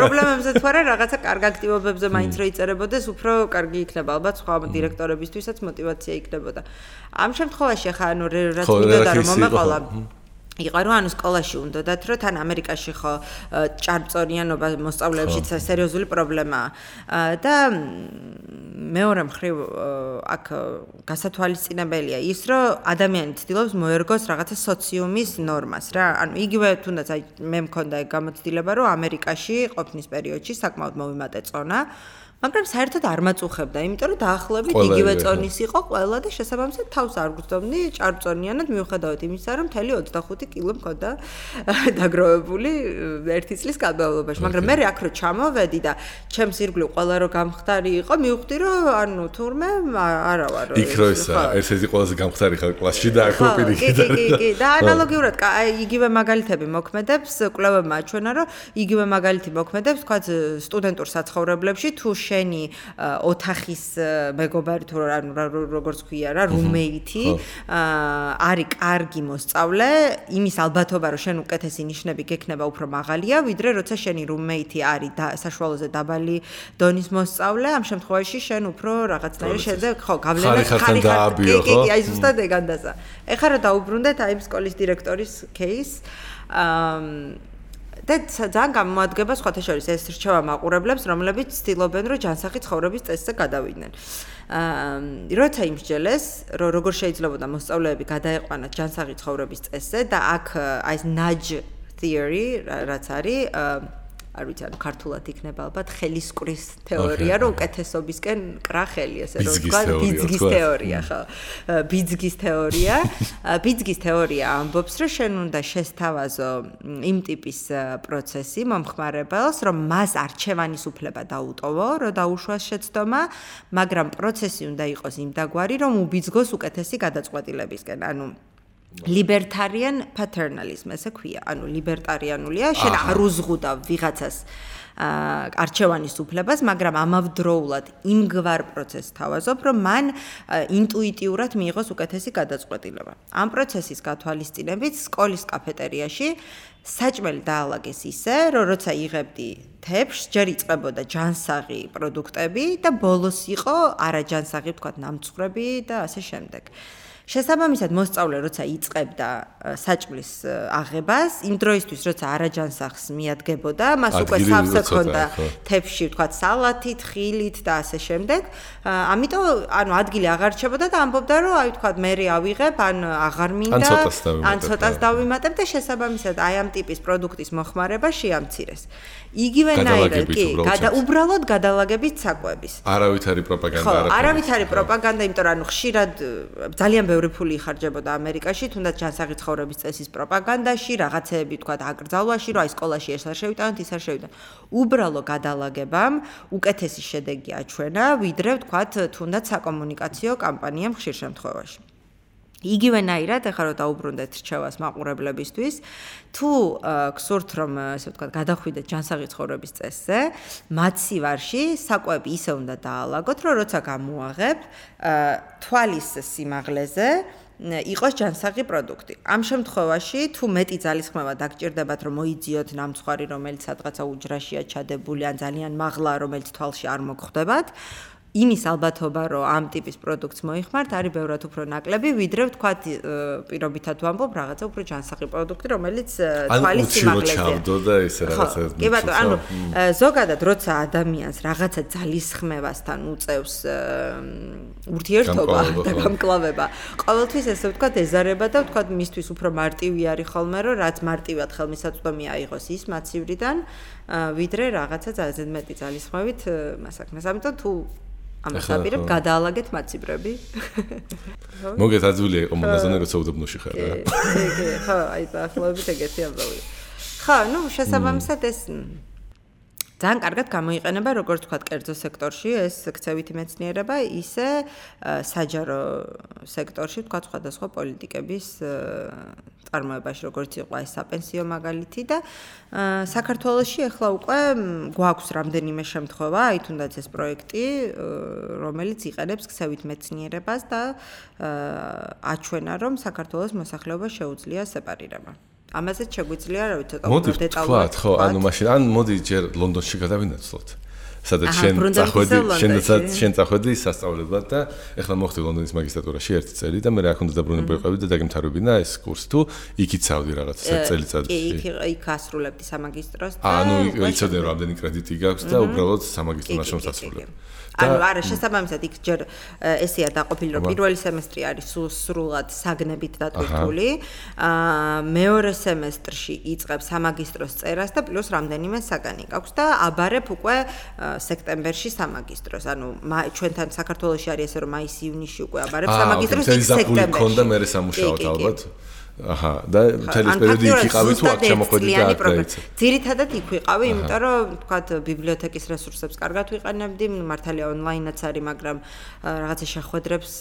პრობლემებზე თუ არა რაღაცა კარგ აქტივობებზე მაინც რო იწერებოდეს, უფრო კარგი იქნება ალბათ სხვა დირექტორებისთვისაც мотиваცია იქნებოდა. ამ შემთხვევაში ხა ანუ რაც მინდოდა რომ მომეყოლა იყო რომ ანუ სკოლაში უნდათ რომ თან ამერიკაში ხო ჭარბწორიანობა მოსწავლეებში სერიოზული პრობლემაა და მეორე მხრივ აქ გასათვალისწინებელია ის რომ ადამიანი ცდილობს მოერგოს რაღაცა სოციუმის ნორმას რა ანუ იგივე თუნდაც აი მე მქონდა გამოცდილება რომ ამერიკაში ყოფნის პერიოდში საკმაოდ მოვიმატე წონა მაგრამ საერთოდ არ მაწუხებდა, იმიტომ რომ დაახლოებით იგივე წონის იყო ყველა და შესაბამისად თავს არ გვწდომდი ჭარბწონიანად მიუხედავად იმისა, რომ მთელი 25 კილო მქონდა დაგროვებული ერთი წლის განმავლობაში, მაგრამ მე აქ რო ჩამოვედი და ჩემს ირგვლივ ყველა რო გამხდარი იყო, მივხვდი რომ ანუ თურმე არა ვარ. იქ რო ისა ერთ-ერთი ყველაზე გამხდარი ხარ კლასში და აქ პირიქით. კი, და ანალოგიურად იგივე მაგალითები მოქმედებს, კვლევებმა აჩვენა, რომ იგივე მაგალითი მოქმედებს, თქვა სტუდენტურ საცხოვრებლებში თუ შენი ოთახის მეგობარი თუ როგორც ქვია რა რუმეითი არის კარგი მოსწავლე იმის ალბათობა რომ შენ უკეთესი ნიშნები გექნება უფრო მაღალია ვიდრე როცა შენი რუმეითი არის საშუალოზე დაბალი დონის მოსწავლე ამ შემთხვევაში შენ უფრო რაღაცნაირად შეძე ხო გავლენა ხარიხარ კი აი ზუსტად ეგანდაზა ეხლა რა დაუბრუნდეთ აი სკოლის დირექტორის кейს და ძალიან გამოადგება სხვათა შორის ეს რჩევა მაყურებლებს, რომლებიც ცდილობენ, რომ ჯანსაღი ცხოვრების წესზე გადავიდნენ. როცა იმსჯელეს, რომ როგორ შეიძლებოდა მოსწავლეები გადაეყვანათ ჯანსაღი ცხოვრების წესზე და აქ აი ეს nudge theory, რაც არის არ ვიცი, ანუ ქართულად იქნება ალბათ ხელისკვრის თეორია, რომ უკეთესობისკენ კრა ხელი, ესე რომ ვთქვა, ბიძგის თეორია, ხო. ბიძგის თეორია. ბიძგის თეორია ამბობს, რომ შენ უნდა შესთავაზო იმ ტიპის პროცესი მომხმარებელს, რომ მას არჩევანის უფლება დაუტოვო, რომ დაუშვას შეცდომა, მაგრამ პროცესი უნდა იყოს იმდაგვარი, რომ უბიძგოს უკეთესი გადაწყვეტილებისკენ. ანუ libertarian paternalism ესე ქვია. ანუ ლიბერტარიანულია, შენ არ უზღუდავ ვიღაცას არჩევანის უფლებას, მაგრამ ამავდროულად იმგვარ პროცესს თავაზობ, რომ მან ინტუიტიურად მიიღოს უკეთესი გადაწყვეტილება. ამ პროცესის გათვალისწინებით სკოლის კაფეტერიაში საჭმელი დაალაგეს ისე, რომ როცა იღებდი თეფშს, ჯერ იწყებოდა ჯანსაღი პროდუქტები და ბოლოს იყო არაჯანსაღი, ვთქვათ, ნამცხრები და ასე შემდეგ. შესაბამისად მოსწავლე როცა იწყებდა საჭმლის აღებას, იმ დროისთვის როცა არაჯანსაღს მიადგებოდა, მას უკვე სავსე ჰქონდა თეფში, ვთქვათ, სალათით, ხილით და ასე შემდეგ. ამიტომ, ანუ ადგილი აღარ რჩებოდა და ამბობდა, რომ აი ვთქვათ, მე ავიღებ, ან აღარ მინდა, ან ცოტას დავიმატებ და შესაბამისად აი ამ ტიპის პროდუქტის მოხმარება შეამცირეს. იგივენაირად კი, უბრალოდ გადალაგებით საკვების. არავითარი პროპაგანდა არ არის. ხო, არავითარი პროპაგანდა, იმიტომ რომ ანუ ხშირად ძალიან ბევრი ფული იხარჯებოდა ამერიკაში, თუნდაც ჯანსაღი ცხოვრების წესის პროპაგანდაში, რაღაცეები თქვა აკრძალვაში, რომ აი სკოლაში ეს არ შევიტანოთ, ის არ შევიტანოთ. უბრალო გადალაგებამ უკეთესი შედეგი აჩვენა, ვიდრე თქვა თუნდაც საკომუნიკაციო კამპანიამ ხშირ შემთხვევაში. იგივენაირად, ახლა რომ დაუბრუნდეთ რჩევას მაყურებლებისთვის, თუ გსურთ რომ ესე ვთქვათ, გადახვიდეთ ჯანსაღი ცხოვრების წესზე, მაცივარში საკვები ისე უნდა დაალაგოთ, რომ როცა გამოაღებ, თვალის სიმაღლეზე იყოს ჯანსაღი პროდუქტი. ამ შემთხვევაში, თუ მეტი ძალისხმევა დაგჭირდებათ, რომ მოიძიოთ ნამცხვარი, რომელიც სადღაცა უჯრაშია ჩადებული, ან ძალიან მაღლა, რომელიც თვალში არ მოგხვდებათ, იმის ალბათობა, რომ ამ ტიპის პროდუქტს მოიხმართ, არის ბევრად უფრო ნაკლები, ვიდრე ვთქვათ, პირობითად ვამბობ, რაღაცა უფრო ჯანსაღი პროდუქტი, რომელიც თვალის სიმაღლეზეა. და ისე რაღაცა. კი ბატონო, ანუ ზოგადად, როცა ადამიანს რაღაცა ძალისხმევასთან უწევს ურთიერთობა და გამკლავება, ყოველთვის ესე ვთქვათ, ეზარება და ვთქვათ, მისთვის უფრო მარტივი არის ხოლმე, რომ რაც მარტივად ხელმისაწვდომი აიღოს ის მაცივრიდან, ვიდრე რაღაცა ძალიან მეტი ძალისხმევით მასაკნას. ამიტომ თუ ამას აპირებ გადაალაგეთ მაცივრები. მოგეთაძვილია იყო მონაზონე როცა უდაბნოში ხარ რა. კი, ხო, აი დაახლოებით ეგეთი ამბავია. ხო, ну, შესაბამისად ეს ძალიან კარგად გამოიყენება, როგორც ვთქვათ, კერძო სექტორში ეს ქცევითი მეცნიერება, ისე საჯარო სექტორში, ვთქვათ, სხვადასხვა პოლიტიკების წარმოებაში, როგორც იყო ეს საპენსიო მაგალითი და საქართველოში ახლა უკვე გვაქვს რამდენიმე შემთხვევა, აი თუნდაც ეს პროექტი, რომელიც იყენებს ქცევით მეცნიერებას და აჩვენა, რომ საქართველოს მოსახლეობა შეუძლია სეპარირება. ამაზეც შეგვიძლია რა ვიცი ცოტა უფრო დეტალურად ხო, ანუ მაშინ ან მოდი ჯერ ლონდონში გადავინაცვლოთ. სადაც შენ წახვედი სასწავლებლად და ეხლა მოხდი ლონდონის მაგისტრატურაში 1 წელი და მე რა ქონდა დაბრუნება ვიყავი და დაგემთავრებინა ეს კურსი თუ იქით წავდი რაღაც წელიწადში. კი, იქ ასრულებდი სამაგისტროს და ანუ იცოდნენ რომ ამდენი კრედიტი გაქვს და უბრალოდ სამაგისტრო ნაშრომს ასრულებ. ანუ არა, შესაბამისად იქ ჯერ ესეა დაყოფილი, რომ პირველი სემესტრი არის სრულად საგნებით დატვირთული, მეორე სემესტრში იწყებს სამაგისტროს წერას და პლუს რამდენიმე საგანი გაქვს და აბარებ უკვე სექტემბერში სამაგისტროს. ანუ ჩვენთან საქართველოში არის ესე რომ მაის-ივნისში უკვე აბარებ სამაგისტროს იქ სექტემბერში. მქონდა მე სამუშაოდ ალბათ. აჰა, და მთელი პერიოდი იქ იყავი თუ აქ შემოხვედი და აქ დაიწყე. ძირითადად იქ ვიყავი, იმიტომ რომ ვთქვათ, ბიბლიოთეკის რესურსებს კარგად ვიყენებდი, მართალია ონლაინაც არის, მაგრამ რაღაცა შეხვედრებს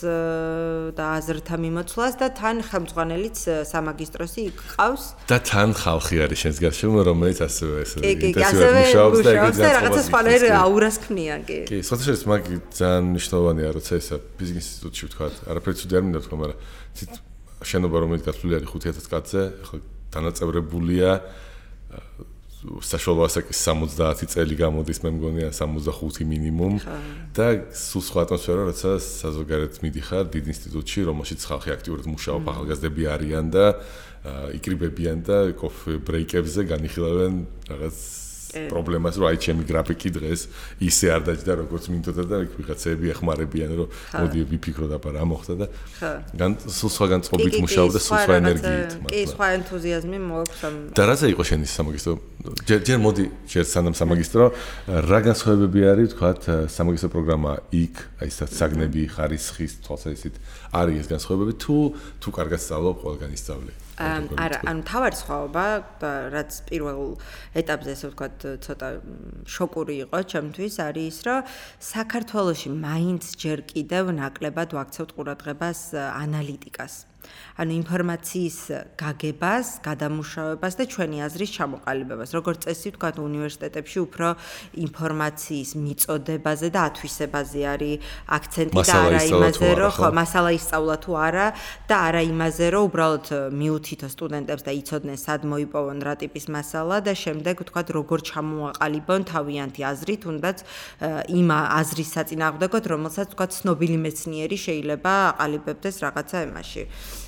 და აზრთა მიმოცვლას და თან ხელმძღვანელიც სამაგისტროსი იქ ყავს. და თან ხალხი არის შენს გარშემო, რომელიც ასევე ეს ინტენსიურად მუშაობს და რაღაცა სხვანაირ აურას ქმნიან, კი. კი, სხვადასხვა მაგ ძალიან მნიშვნელოვანია, როცა ესა ბიზნეს ინსტიტუტში ვთქვათ, არაფერი ცუდი არ მინდა თქვა, მაგრამ შენობა რომელიც გასული არის 5000 კაცზე, ხო დანაწევრებულია საშუალო ასაკის 70 წელი გამოდის, მე მგონია 65 მინიმუმ და სულ სხვა ატმოსფერო, როცა საზოგადოებრივ მიდიხარ დიდ ინსტიტუტში, რომელშიც ხალხი აქტიურად მუშაობს, ახალგაზრდები არიან და იკრიბებიან და კოფე ბრეიკებზე განიხილავენ რაღაც პრობლემას, რომ აი ჩემი გრაფიკი დღეს ისე არ დაჭდა როგორც მინდოდა და ვიღაცები ეხმარებიან, რომ მოდი ვიფიქროთ აბა რა მოხდა და სულ სხვაგან წყობით მუშაობდა, სულ სხვა ენერგიით. კი, სხვა ენთუზიაზმი მოაქვს ამ. და რაზე იყო შენი სამაგისტრო? ჯერ მოდი ჯერ სანამ სამაგისტრო, რა განსხვავებები არის, ვთქვათ, სამაგისტრო პროგრამა იქ, აი ეს საგნები, ხარისხის, თვალსაჩინო არის ეს განსხვავებები თუ კარგად სწავლობ, ყველგან ისწავლე. არა, ანუ თავარი სხვაობა, რაც პირველ ეტაპზე ესე ვთქვათ, ცოტა შოკური იყო ჩემთვის, არის ის, რომ საქართველოში მაინც ჯერ კიდევ ნაკლებად ვაქცევთ ყურადღებას ანალიტიკას. ანუ ინფორმაციის გაგებას, გადამუშავებას და ჩვენი აზრის ჩამოყალიბებას. როგორც წესი ვთქვათ, უნივერსიტეტებში უფრო ინფორმაციის მიწოდებაზე და ათვისებაზე არის აქცენტი და არა იმაზე, რომ ხო, მასალა ისწავლა თუ არა და არა იმაზე, რომ უბრალოდ მიუთითო სტუდენტებს და იცოდნენ სად მოიპოვონ რა ტიპის მასალა და შემდეგ ვთქვათ, როგორ ჩამოაყალიბონ თავიანთი აზრი, თუნდაც იმ აზრის საწინააღმდეგოდ, რომელსაც ვთქვათ, ცნობილი მეცნიერი შეიძლება აყალიბებდეს რაღაცა ემაში.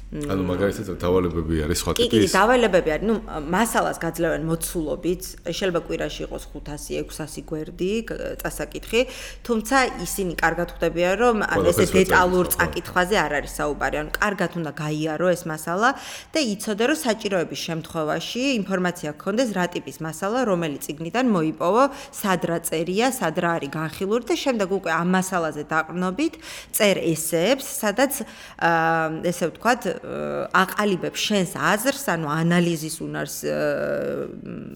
ანუ მაგალითად დავალებები არის სხვა ტიპის. კი, დავალებები არის. მასალას გაძლევენ მოცულობით, შეიძლება კვირაში იყოს 500-600 გვერდი წასაკითხი, თუმცა ისინი კარგად ხვდებიან, რომ ესე დეტალურ წაკითხვაზე არ არის საუბარი. ანუ კარგად უნდა გაიარო ეს მასალა და იცოდე, რომ საჭიროების შემთხვევაში ინფორმაცია გქონდეს რა ტიპის მასალა, რომელი წიგნიდან მოიპოვო, სად რა წერია, სად რა არის განხილული და შემდეგ უკვე ამ მასალაზე დაყრდნობით წერ ესეებს, სადაც ესე ვთქვათ აყალიბებ შენს აზრს, ანუ ანალიზის უნარს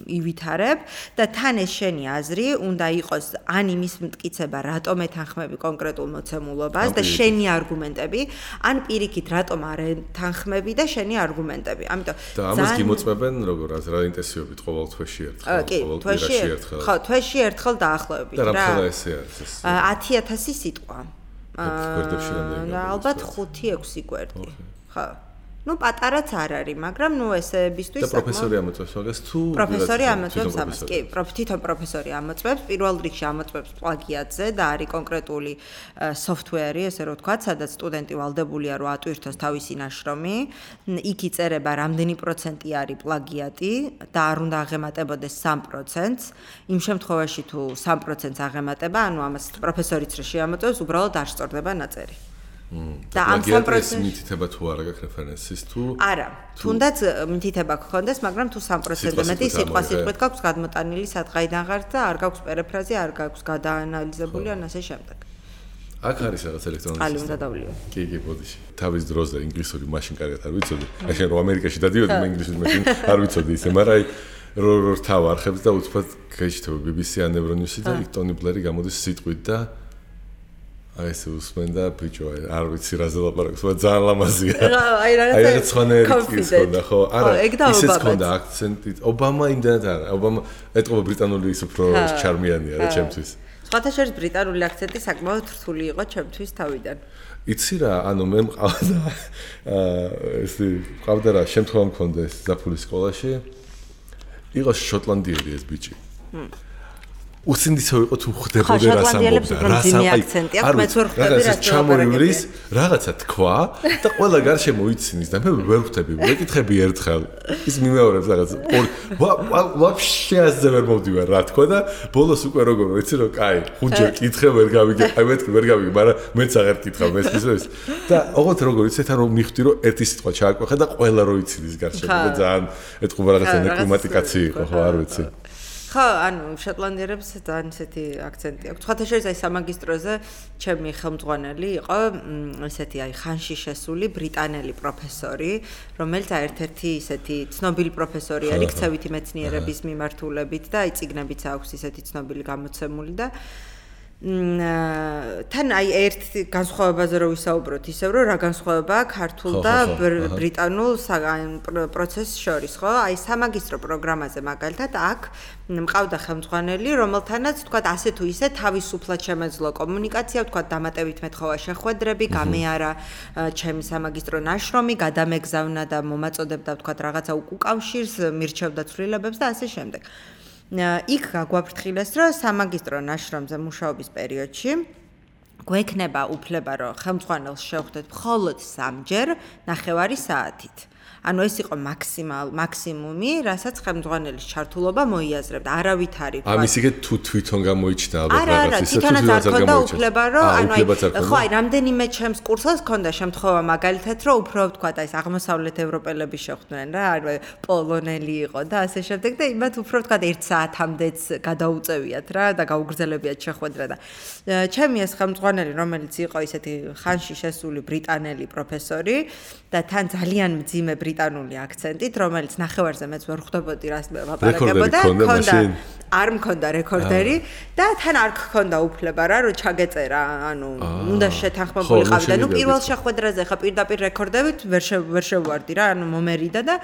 ივითარებ და თან ეს შენი აზრი უნდა იყოს ან იმის მტკიცება, რატომ ეთანხმები კონკრეტულ მოცემულობას და შენი არგუმენტები, ან პირიქით, რატომ არ ეთანხმები და შენი არგუმენტები. ამიტომ და ამას გიმოწმებენ როგორ რა ინტენსივობით ყოველ თვეში ერთხელ, ყოველ კვირაში ერთხელ. ხო, თვეში ერთხელ დაახლოებით რა. და რა ესე არის ეს? 10,000 სიტყვა. გვერდებში რამდენი? ალბათ 5-6 გვერდი. ხო. Ну, პატარაც არ არის, მაგრამ ესებისთვის და პროფესორი ამოწმებს მაგას თუ პროფესორი ამოწმებს ამას. კი, თვითონ პროფესორი ამოწმებს, პირველ რიგში ამოწმებს პლაგიატზე და არის კონკრეტული software-ი, ესე რომ ვთქვათ, სადაც სტუდენტი ვალდებულია რომ ატვირთოს თავისი ნაშრომი. იქ იწერება რამდენი პროცენტი არის პლაგიატი და არ უნდა აღემატებოდეს 3%. იმ შემთხვევაში თუ 3%-ს აღემატება, ანუ ამას პროფესორიც რა შეამოწმებს, უბრალოდ არ სწორდება ნაწერი. და ამ 3%-ს მითითება თუ არა გაქვს რეფერენსის თუ არა, თუნდაც მითითება გქონდეს, მაგრამ თუ 3%-ზე მეტი სიტყვით გაქვს გადმოტანილი სადღაიდან ღართ და არ გაქვს პერიფრაზი, არ გაქვს გადაანალიზებული ან ასე შემდეგ. აქ არის რაღაც ელექტრონული სისტემა. უნდა დავლიო. კი, ბოდიში. თავის დროზე ინგლისური მაშინ კარგად არ ვიცოდი. აი რომ ამერიკაში დადიოდი, მე ინგლისური მაშინ არ ვიცოდი ისე, მაგრამ აი რო თავარხებს და უცბად გაიჩნდება BBC ან Euronews და ტონი ბლერი გამოდის სიტყვით და აი ეს უსმენდა ბიჭო, არ ვიცი რა ზელაპარაკს, მაგრამ ძალიან ლამაზია. აი რაღაც სხვანაირი ხონდა, ხო? არა, ისეც ხონდა აქცენტით. ობამა იმდანაც არა. ობამა ეტყობა ბრიტანული ის უფრო ჩარმიანია რა ჩემთვის. სხვათა შორის ბრიტანული აქცენტი საკმაოდ რთული იყო ჩემთვის თავიდან. იცი რა, ანუ მე მყავდა ესე მყავდა რა, შემთხვევა მქონდა ეს ზაფხულის სკოლაში. იყო შოტლანდიელი ეს ბიჭი. უცინდისო იყო თუ ხდებოდა რა სამბობდა რა აქცენტი აქვს მეც ვერ ხვდები რა ჩამოივრის რაღაცა თქვა და ყველა გარშემო იცინს და მე ვერ ხვდები ვეკითხები ერთხელ ის მიმეორებს რაღაც ვაფშე ასე ვერ მოვდივარ რა თქვა და ბოლოს უკვე როგორ ვიცი რომ კაი ხუჯო კითხე ვერ გავიგე აი მე ვერ გავიგე მაგრამ მეც აღარ კითხავ მესმის და ოღონდ როგორ ვიცი თან რომ მიხვდი რომ ერთი სიტყვა ჩააკვეხა და ყველა რო იცინს გარშემო და ძალიან ეთყობა რაღაცა ნეკლიმატიკაცი იყო ხო არ ვიცი ხო, ანუ შოტლანდიელებს ძალიან ისეთი აქცენტი აქვს. სხვათა შორის აი სამაგისტროზე ჩემი ხელმძღვანელი იყო ესეთი აი ხანში შესული ბრიტანელი პროფესორი, რომელიც ერთ-ერთი ისეთი ცნობილი პროფესორი არის ქცევითი მეცნიერების მიმართულებით და აი წიგნებიც აქვს ისეთი ცნობილი გამოცემული და თან აი ერთ განსხვავებაზე რო ვისაუბროთ, ისევ რომ რა განსხვავება ქართულ და ბრიტანულ პროცესს შორის, ხო? აი სამაგისტრო პროგრამაზე მაგალითად აქ მყავდა ხელმძღვანელი, რომელთანაც თქვა ასე თუ ისე თავისუფლად შემეძლო კომუნიკაცია, თქვა დამატებით მეთხოვა შეხვედრები, გამეარა ჩემი სამაგისტრო ნაშრომი, გადამეგზავნა და მომაწოდებდა თქვა რაღაცა უკავშირს, მირჩევდა ცვლილებებს და ასე შემდეგ. იქ გაგვაფრთხილეს, რომ სამაგისტრო ნაშრომზე მუშაობის პერიოდში გვექნება უფლება, რომ ხელმძღვანელს შევხვდეთ მხოლოდ 3 ჯერ 9 საათით. ანუ ეს იყო მაქსიმუმი, რასაც ხელმძღვანელის ჩართულობა მოიაზრებდა. არავით არ იყო. ამის იგივე თუ თვითონ გამოიჩნდა ალბათ რაღაც ისე თვითონაც არ ქონდა უფლება, რომ ხო, რამდენიმე ჩემს კურსელს ქონდა შემთხვევა მაგალითად, რომ უფრო თქვა და ეს აღმოსავლეთ ევროპელები შეხვდნენ რა, პოლონელი იყო და ასე შემდეგ და იმათ უფრო თქვა 1 საათამდეც გადაუწევიათ რა და გაუგრძელებიათ შეხვედრა და ჩემი ეს ხელმძღვანელი, რომელიც იყო ისეთი ხანში შესული ბრიტანელი პროფესორი და თან ძალიან მძიმე ბრიტანული აქცენტით, რომელიც ნახევარზე მეც ვერ ხვდებოდი რას ლაპარაკებოდა, არ მქონდა რეკორდერი და თან არ გქონდა უფლება რა, რომ ჩაგეწერა, ანუ უნდა შეთანხმებულიყავი და ნუ პირველ შეხვედრაზე ხა პირდაპირ რეკორდებით ვერ შევვარდი რა, ანუ მომერიდა და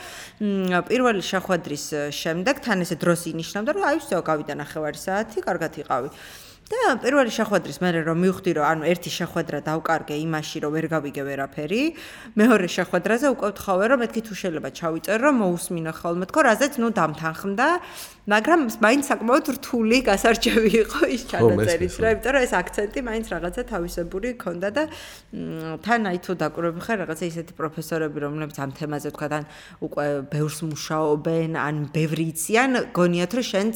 პირველი შეხვედრის შემდეგ თან ესე დროს ინიშნავდა, რომ აი всё, გავიდა ნახევარი საათი, კარგად იყავი. და პირველი შეხვედრის მერე რომ მივხვდი რომ ანუ ერთი შეხვედრა დავკარგე იმაში რომ ვერ გავიგე ვერაფერი, მეორე შეხვედრაზე უკვე ვთხოვე რომ მეთქი თუ შეიძლება ჩავიწერო რომ მოусმინო ხოლმე თქო რაზეც ნუ დამთანხმდა, მაგრამ მაინც საკმაოდ რთული გასარჩევი იყო ის ჩანაწერის რა, იმიტომ რომ ეს აქცენტი მაინც რაღაცა თავისებური ქონდა და თან აი თუ დაკვირვები ხარ რაღაცა ისეთი პროფესორები რომლებიც ამ თემაზე თქვა თან უკვე ბევრს მუშაობენ, ან ბევრი იციან, გონიათ რომ შენც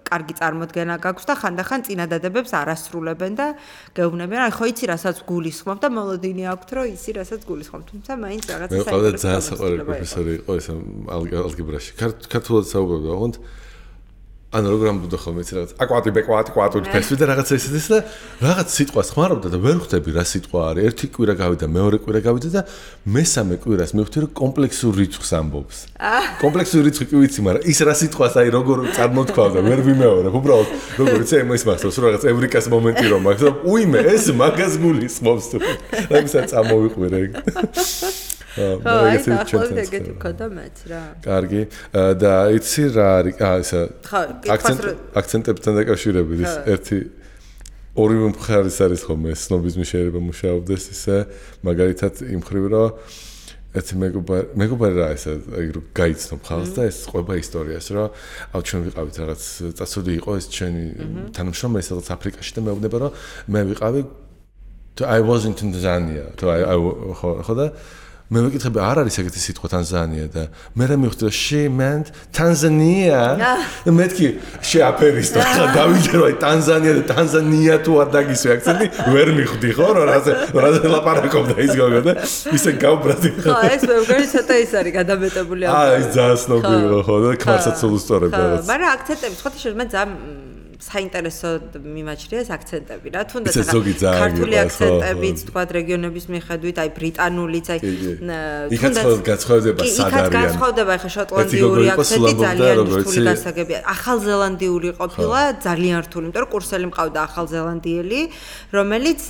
კარგი წარმოდგენა გაქვს და ხანდახან წინადადებებს არ ასრულებენ და გეუბნებიან, აი ხო იცი რასაც გულისხმობ და მოლოდინი აქვთ რომ იცი რასაც გულისხმობ, თუმცა მაინც რაღაცა საერთოდ მე ყავდა ძალიან საყვარელი პროფესორი იყო ეს ალგებრაში. ქართულად საუბრობდა, ოღონდ ანუ როგორ ამბობდა ხოლმე იცი რაღაც აკვატი ბეკვატი კვატური ფესვი და რაღაცა ისეთი და რაღაც სიტყვას ხმარობდა და ვერ ხვდები რა სიტყვა არის. ერთი კვირა გავიდა, მეორე კვირა გავიდა და მესამე კვირას მივხვდი რომ კომპლექსურ რიცხვს ამბობს. კომპლექსური რიცხვი კი ვიცი, მაგრამ ის რა სიტყვას აი როგორ წარმოთქვავდა, ვერ ვიმეორებ. უბრალოდ როგორ იცი იმის მახსოვს რომ რაღაც ევრიკას მომენტი რომ აქვს და უიმე ეს მაგას გულისხმობს თუ. რაღაცა წამოვიყვირე ეგ. ეგეთი ქონდა მეც რა. კარგი. და იცი რა არის? ისა აქცენტებთან დაკავშირებით ის ერთი ორივე მხარის არის ხოლმე სნობიზმის შეიძლება მუშაობდეს ისე მაგალითად იმ ხრივ რომ ერთი მეგობარი რა ესა რომ გაიცნობ ხალხს და ეს ყვება ისტორიას რომ აუ ჩვენ ვიყავით რაღაც წასული იყო ეს ჩვენი თანამშრომელი სადაც აფრიკაში და მეუბნება რომ მე ვიყავი I was in Tanzania ხო და მე მეკითხები არ არის ეგეთი სიტყვა ტანზანია და მე რა მივხვდი რომ she meant Tanzania და მეთქი შეაფერის და დავიდე რომ ტანზანია და ტანზანია თუ არ დაგისვი აქცენტი ვერ მივხვდი ხო რომ რაზე ლაპარაკობდა ის გოგო და ისე გავბრაზდი ხო ეს მეგონი ცოტა ის არის გადამეტებული ის ძალიან ცნობილი ხო და ქმარსაც სულუსტორებ რაღაც მაგრამ აქცენტები სხვა შეიძლება ძალიან საინტერესო მიმაჩნია ეს აქცენტები რა თუნდაც ქართული აქცენტებიც თქვა რეგიონების მიხედვით აი ბრიტანულიც აი თუნდაც გაცხადდება სად არის გაცხადდება ხა შოტლანდიური აქცენტი ძალიან რთული გასაგებია ახალზელანდიური ყოფილა ძალიან რთული იმიტომ რომ კურსელი მყავდა ახალზელანდიელი რომელიც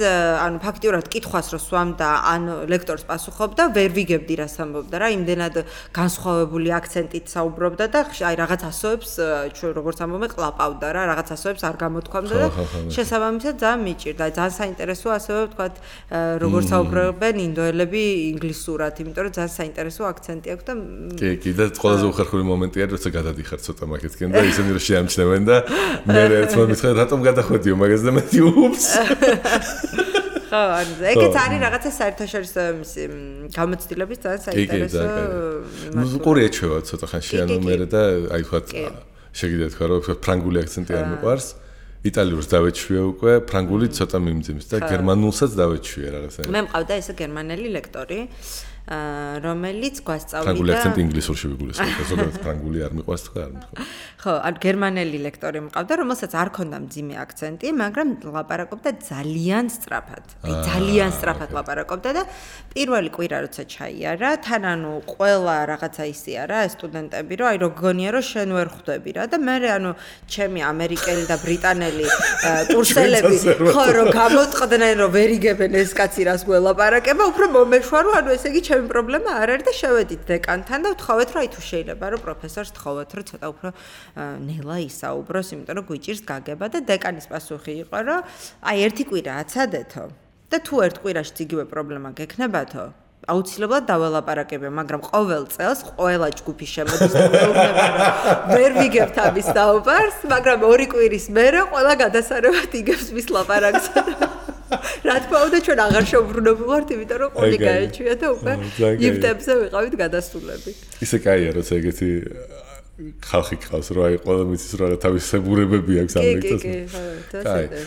ანუ ფაქტიურად კითხვას რო სვამდა ან ლექტორს პასუხობდა ვერ ვიგებდი რას ამბობდა რა იმდენად განსხვავებული აქცენტით საუბრობდა და აი რაღაც ასოებს ჩვენ როგორც ამბობენ ყლაპავდა რა რაღაც ასოებს არ გამოთქვამდა და შესაბამისად ძალიან მიჭირდა ძალიან საინტერესოა ასევე ვთქვათ როგორც საუბრობენ ინდოელები ინგლისურად იმიტომ რომ ძალიან საინტერესო აქცენტი აქვს და კი და ყველაზე უხერხული მომენტია როცა გადადიხარ ცოტა მაგეთკენ და ისინი რომ შეამჩნევენ და მე ერთმა მითხრა რატომ გადახვედიო მაგას და მეთი უპს ხო ეგეც არის რაღაცა საერთაშორისო მისი გამოცდილების ძალიან საინტერესო ყური ეჩვევა ცოტა ხანში ანუ მე და აი ვთქვათ შეგიძლიათ თქვა რომ ფრანგული აქცენტი არ მიყვარს იტალიურს დავეჩვიე უკვე ფრანგული ცოტა მიმძიმს და გერმანულსაც დავეჩვიე რაღაცა მე მყავდა ესე გერმანელი ლექტორი რომელიც გვასწავლიდა ფრანგული აქცენტი ინგლისურში ვიგულისხმობ ზოგადად ფრანგული არ მიყვარს თქვა არ მიყვარს ხო ან გერმანელი ლექტორი მყავდა რომელსაც არ ქონდა მძიმე აქცენტი მაგრამ ლაპარაკობდა ძალიან სწრაფად აი ძალიან სწრაფად ლაპარაკობდა და პირველი კვირა როცა ჩაიარა თან ანუ ყველა რაღაცა ისია რა სტუდენტები რომ აი როგგონია რომ შენ ვერ ხვდები რა და მე ანუ ჩემი ამერიკელი და ბრიტანელი კურსელები ხო რომ გამოტყდნენ რომ ვერ იგებენ ეს კაცი რას გველაპარაკება უფრო მომეშვა რომ ანუ ესე იგი ჩემი პრობლემა არ არის და შევედით დეკანთან და ვთხოვეთ რომ აი თუ შეიძლება რომ პროფესორს თხოვოთ რომ ცოტა უფრო ნელა ისაუბროს იმიტომ რომ გვიჭირს გაგება და დეკანის პასუხი იყო რომ აი ერთი კვირა აცადეთო და თუ ერთ კვირაში იგივე პრობლემა გექნებათო აუცილებლად დაველაპარაკებია მაგრამ ყოველ წელს ყველა ჯგუფი შემოდის და მეუბნება რომ ვერ ვიგებთ ამის დაუბარს მაგრამ ორი კვირის მერე ყველა გადასარევად იგებს მის ლაპარაკს რა თქმა უნდა ჩვენ აღარ შევბრუნებულ ვართ, იმიტომ რომ ყოლი გაეჩვია და უკვე იფტებზე ვიყავით გადასულები. ისე კაია, როცა ეგეთი ხალხი ყავს, რომ აი ყველა მიცის რა თავის სებურებები აქვს ამ ლექტორს. კი,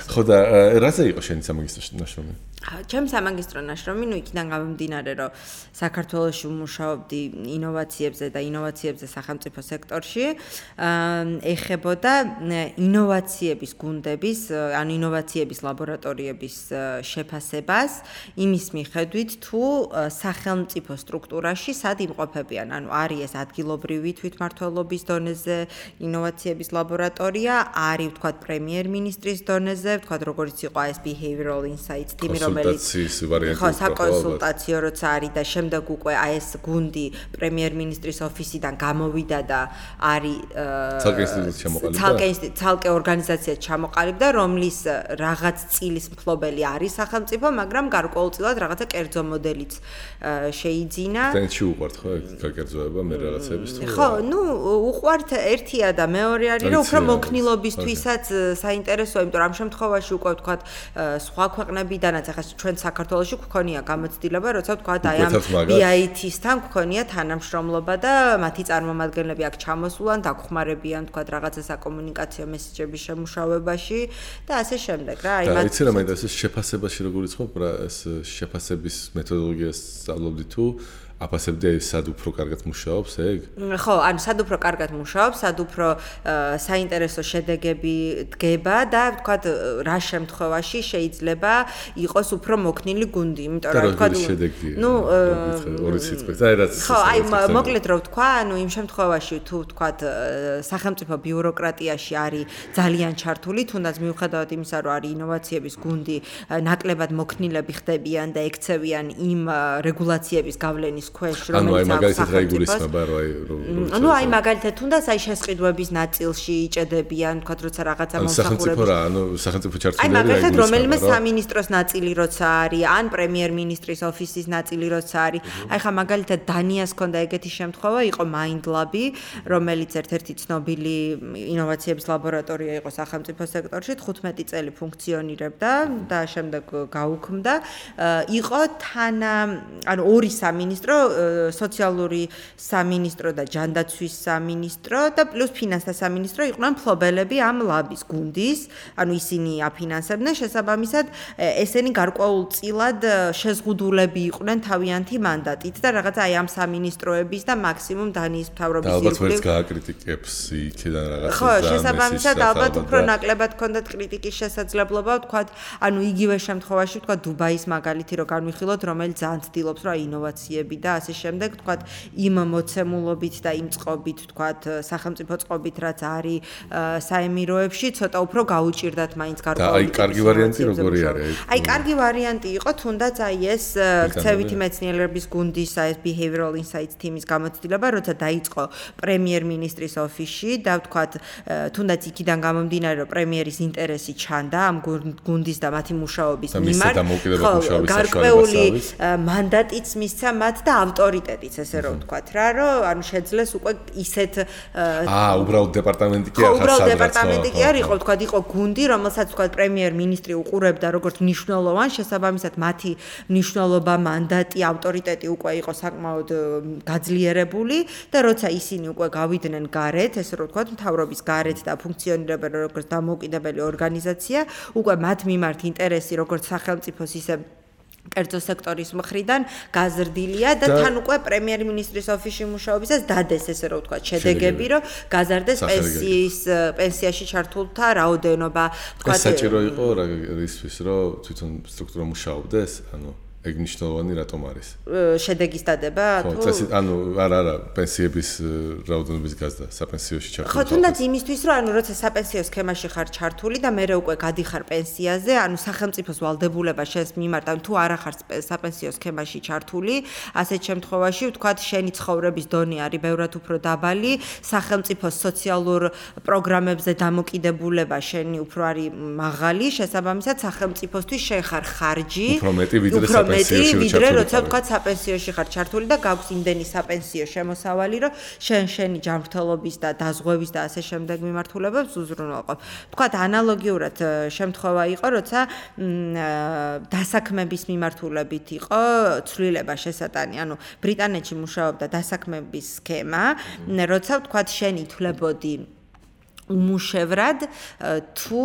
ხო და რაზე იყო შენი სამაგისტრო ნაშრომი? ჩემი სამაგისტრო ნაშრომი, იქიდან გამომდინარე, რომ საქართველოში ვმუშაობდი ინოვაციებზე და ინოვაციებზე სახელმწიფო სექტორში, ეხებოდა ინოვაციების გუნდების, ანუ ინოვაციების ლაბორატორიების შეფასებას, იმის მიხედვით, თუ სახელმწიფო სტრუქტურაში სად იმყოფებიან, ანუ არის ეს ადგილობრივი თვითმმართველობის დონეზე ინოვაციების ლაბორატორია, არის ვთქვათ პრემიერ-მინისტრის დონეზე, ვთქვათ როგორც იყო ეს behavioral insights team, რომელიც ხო საკონსულტაციო როცა არის და შემდეგ უკვე ეს გუნდი პრემიერ-მინისტრის ოფისიდან გამოვიდა და არის ცალკე ორგანიზაცია ჩამოყალიბდა, რომლის რაღაც წილის მფლობელი არის სახელმწიფო, მაგრამ გარკვეულწილად რაღაცა კერძო მოდელიც შეიძინა. ტენში უყვართ ხო გაკერძოება მე რაღაცების თუ ხო, უყვართ ერთია და მეორე არის რომ უფრო მოქნილობისთვისაც საინტერესოა, იმიტომ რომ ამ შემთხვევაში უკვე ვთქვათ სხვა ქვეყნებიდანაც ახლა ჩვენ საქართველოში გვქონია გამოცდილება, როცა ვთქვათ აი ამ BIT-სთან გვქონია თანამშრომლობა და მათი წარმომადგენლები აქ ჩამოსულან, დაგხმარებიან ვთქვათ რაღაცა საკომუნიკაციო მესეჯების შემუშავებაში და ასე შემდეგ რა. აი მათ იცი რა მე ეს შეფასებაში როგორ იწყებ რა ეს შეფასების მეთოდოლოგიას სწავლობდი თუ აფასებდი სად უფრო კარგად მუშაობს ეგ? ხო, ანუ სად უფრო კარგად მუშაობს, სად უფრო საინტერესო შედეგები დგება და ვთქვათ რა შემთხვევაში შეიძლება იყოს უფრო მოქნილი გუნდი, იმიტომ რომ ვთქვათ ორი სიტყვით აი რაც ხო, აი მოკლედ რო ვთქვა, ანუ იმ შემთხვევაში თუ ვთქვათ სახელმწიფო ბიუროკრატიაში არის ძალიან ჩართული, თუნდაც მიუხედავად იმისა, რომ არის ინოვაციების გუნდი, ნაკლებად მოქნილები ხდებიან და ექცევიან იმ რეგულაციების გავლენის ქვეშ, რომელიც აქვს სახელმწიფოს. ანუ აი მაგალითად თუნდაც აი შესყიდვების ნაწილში იჭედებიან, თქვათ როცა რაღაცა მომსახურება. სახელმწიფო რა, ანუ სახელმწიფო ჩართული არის. აი მაგალითად რომელიმე სამინისტროს ნაწილი როცა არის, ან პრემიერ-მინისტრის ოფისის ნაწილი როცა არის. აი ხა მაგალითად დანიას ჰქონდა ეგეთი შემთხვევა, იყო MindLab-ი, რომელიც ერთ-ერთი ცნობილი ინოვაციების ლაბორატორია იყო სახელმწიფო სექტორში, 15 წელი ფუნქციონირებდა და შემდეგ გაუქმდა. იყო ანუ ორი სამინისტრო, სოციალური სამინისტრო და ჯანდაცვის სამინისტრო და პლუს ფინანსთა სამინისტრო იყვნენ მფლობელები ამ ლაბის გუნდის, ანუ ისინი აფინანსებდნენ, შესაბამისად ესენი გარკვეულწილად შეზღუდულები იყვნენ თავიანთი მანდატით და რაღაცა აი ამ სამინისტროების და მაქსიმუმ დანიის მთავრობის ირგვლივ. ალბათ ვერც გააკრიტიკებს იქიდან რაღაცა. ხო, შესაბამისად ალბათ უფრო ნაკლებად ჰქონდათ კრიტიკის შესაძლებლობა, ვთქვათ, ანუ იგივე შემთხვევაში ვთქვათ დუბაის მაგალითი რო განვიხილოთ, რომელიც ძალიან ცდილობს რა ინოვაციები და ასე შემდეგ, ვთქვათ, იმ მოცემულობით და იმ წყობით, ვთქვათ, სახელმწიფო წყობით, რაც არის საემიროებში, ცოტა უფრო გაუჭირდათ მაინც გარკვეული. და აი კარგი ვარიანტი როგორი არის? აი კარგი ვარიანტი იყო, თუნდაც აი ეს ქცევითი მეცნიერების გუნდის ეს behavioral insights team-ის გამოცდილება, როცა დაიწყო პრემიერ-მინისტრის ოფისში და ვთქვათ, თუნდაც იქიდან გამომდინარე, რომ პრემიერის ინტერესი ჩანდა ამ გუნდის და მათი მუშაობის მიმართ, გარკვეული მანდატიც მისცა მათ და ავტორიტეტიც, ესე რომ ვთქვათ რა, რომ ანუ შეძლეს უკვე ისეთ უბრალოდ დეპარტამენტი კი არ ხარ უბრალოდ დეპარტამენტი კი არ იყო, ვთქვათ, იყო გუნდი, რომელსაც ვთქვათ პრემიერ-მინისტრი უყურებდა როგორც მნიშვნელოვან, შესაბამისად მათი მნიშვნელობა, მანდატი, ავტორიტეტი უკვე იყო საკმაოდ გაძლიერებული და როცა ისინი უკვე გავიდნენ გარეთ, ესე რომ ვთქვათ, მთავრობის გარეთ და ფუნქციონირებენ როგორც დამოუკიდებელი ორგანიზაცია, უკვე მათ მიმართ ინტერესი როგორც სახელმწიფოს ისე კერძო სექტორის მხრიდან გაზრდილია და თან უკვე პრემიერ-მინისტრის ოფისში მუშაობისას დადეს ესე რომ ვთქვათ შედეგები, რომ გაზარდეს პენსიაში ჩართულთა რაოდენობა, ვთქვათ. ეს საჭირო იყო რა ისთვის, რომ თვითონ სტრუქტურა მუშაობდეს, ანუ ეგ მნიშვნელოვანი რატომ არის? შედეგის დადება თუ? ხო, წესით, ანუ არა, პენსიების რაოდენობის გაზრდა საპენსიოში ჩართული. ხო, თუნდაც იმისთვის, რომ ანუ როცა საპენსიო სქემაში ხარ ჩართული და მე უკვე გადიხარ პენსიაზე, ანუ სახელმწიფოს ვალდებულება შენს მიმართ, ანუ თუ არა ხარ საპენსიო სქემაში ჩართული, ასეთ შემთხვევაში ვთქვათ, შენი ცხოვრების დონე არის ბევრად უფრო დაბალი, სახელმწიფოს სოციალურ პროგრამებზე დამოკიდებულება შენი უფრო არის მაღალი, შესაბამისად სახელმწიფოსთვის შენ ხარ ხარჯი, უფრო მეტი ვიდრე საპენსიო მეტი ვიდრე როცა თქვა საპენსიოში ხარ ჩართული და გაქვს იმდენი საპენსიო შემოსავალი რომ შენი ჯანმრთელობის და დაზღვევის და ასე შემდეგ მიმართულებებს უზრუნველყოფ. თქვა ანალოგიურად შემთხვევა იყო როცა დასაქმების მიმართულებით იყო ცვლილება შესატანი, ანუ ბრიტანეთში მუშაობდა დასაქმების სქემა, როცა თქვა შენ ითვლებოდი უმუშევრად თუ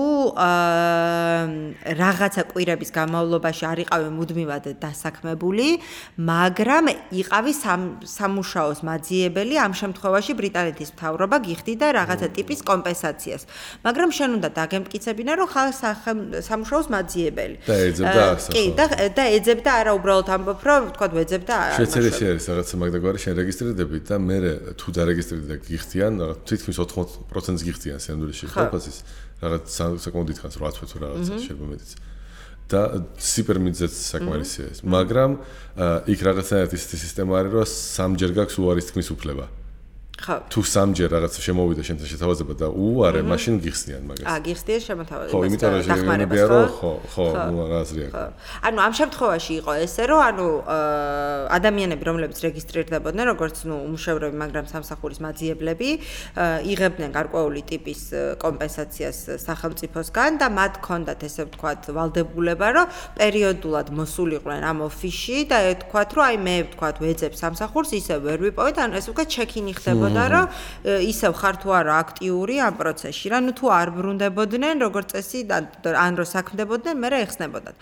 რაღაცა კვირების განმავლობაში არ იყავი მუდმივად დასაქმებული, მაგრამ იყავი სამუშაოს მაძიებელი, ამ შემთხვევაში ბრიტანეთის მთავრობა გიხდიდა რაღაცა ტიპის კომპენსაციას. მაგრამ შენ უნდა დაგემტკიცებინა, რომ ხარ სამუშაოს მაძიებელი. და ეძებდა ასა. კი, და ეძებდა არა უბრალოდ ამბობ, რომ თქვა ვეძებდა არა. შეცერესი არის რაღაცა მაგდაგვარი შენ რეგისტრირდები და მე თუ დარეგისტრირდი და გიხდიან, თითქმის 80%-ს გიხდიან. სენდურში ხალხის რაღაც საკმაოდ დიდხანს 8 თვე თუ რაღაცა შეიძლება მეტიც და სიპერმიძეც საკმარისია ეს მაგრამ იქ რაღაცნაირად ისეთი სისტემა არის რომ სამჯერ გაქვს უარის თქმის უფლება თუ სამჯერ რაღაცა შემოვიდა შენთან შეთავაზება და უარე მაშინ გიხსნიან მაგას გიხსნიან შემოთავაზებას ხო იმიტომ რომ შეგვიძლია რომ ხო აზრი აქვს ანუ ამ შემთხვევაში იყო ესე რომ ანუ ადამიანები რომლებიც რეგისტრირდებოდნენ როგორც უმუშევრები მაგრამ სამსახურის მაძიებლები იღებდნენ გარკვეული ტიპის კომპენსაციას სახელმწიფოსგან და მათ ჰქონდათ ესე ვთქვათ ვალდებულება რომ პერიოდულად მოსულიყვნენ ამ ოფისში და ეთქვათ რომ აი მე ვთქვათ ვეძებ სამსახურს ისე ვერ ვიპოვეთ ანუ ესე ვთქვათ ჩეკინი ხდება და რომ ისევ ხარ თუ არა აქტიური ამ პროცესში რა ნუ თუ არ ბრუნდებოდნენ როგორც წესი ან რო საქმდებოდნენ მე რა ეხსნებოდათ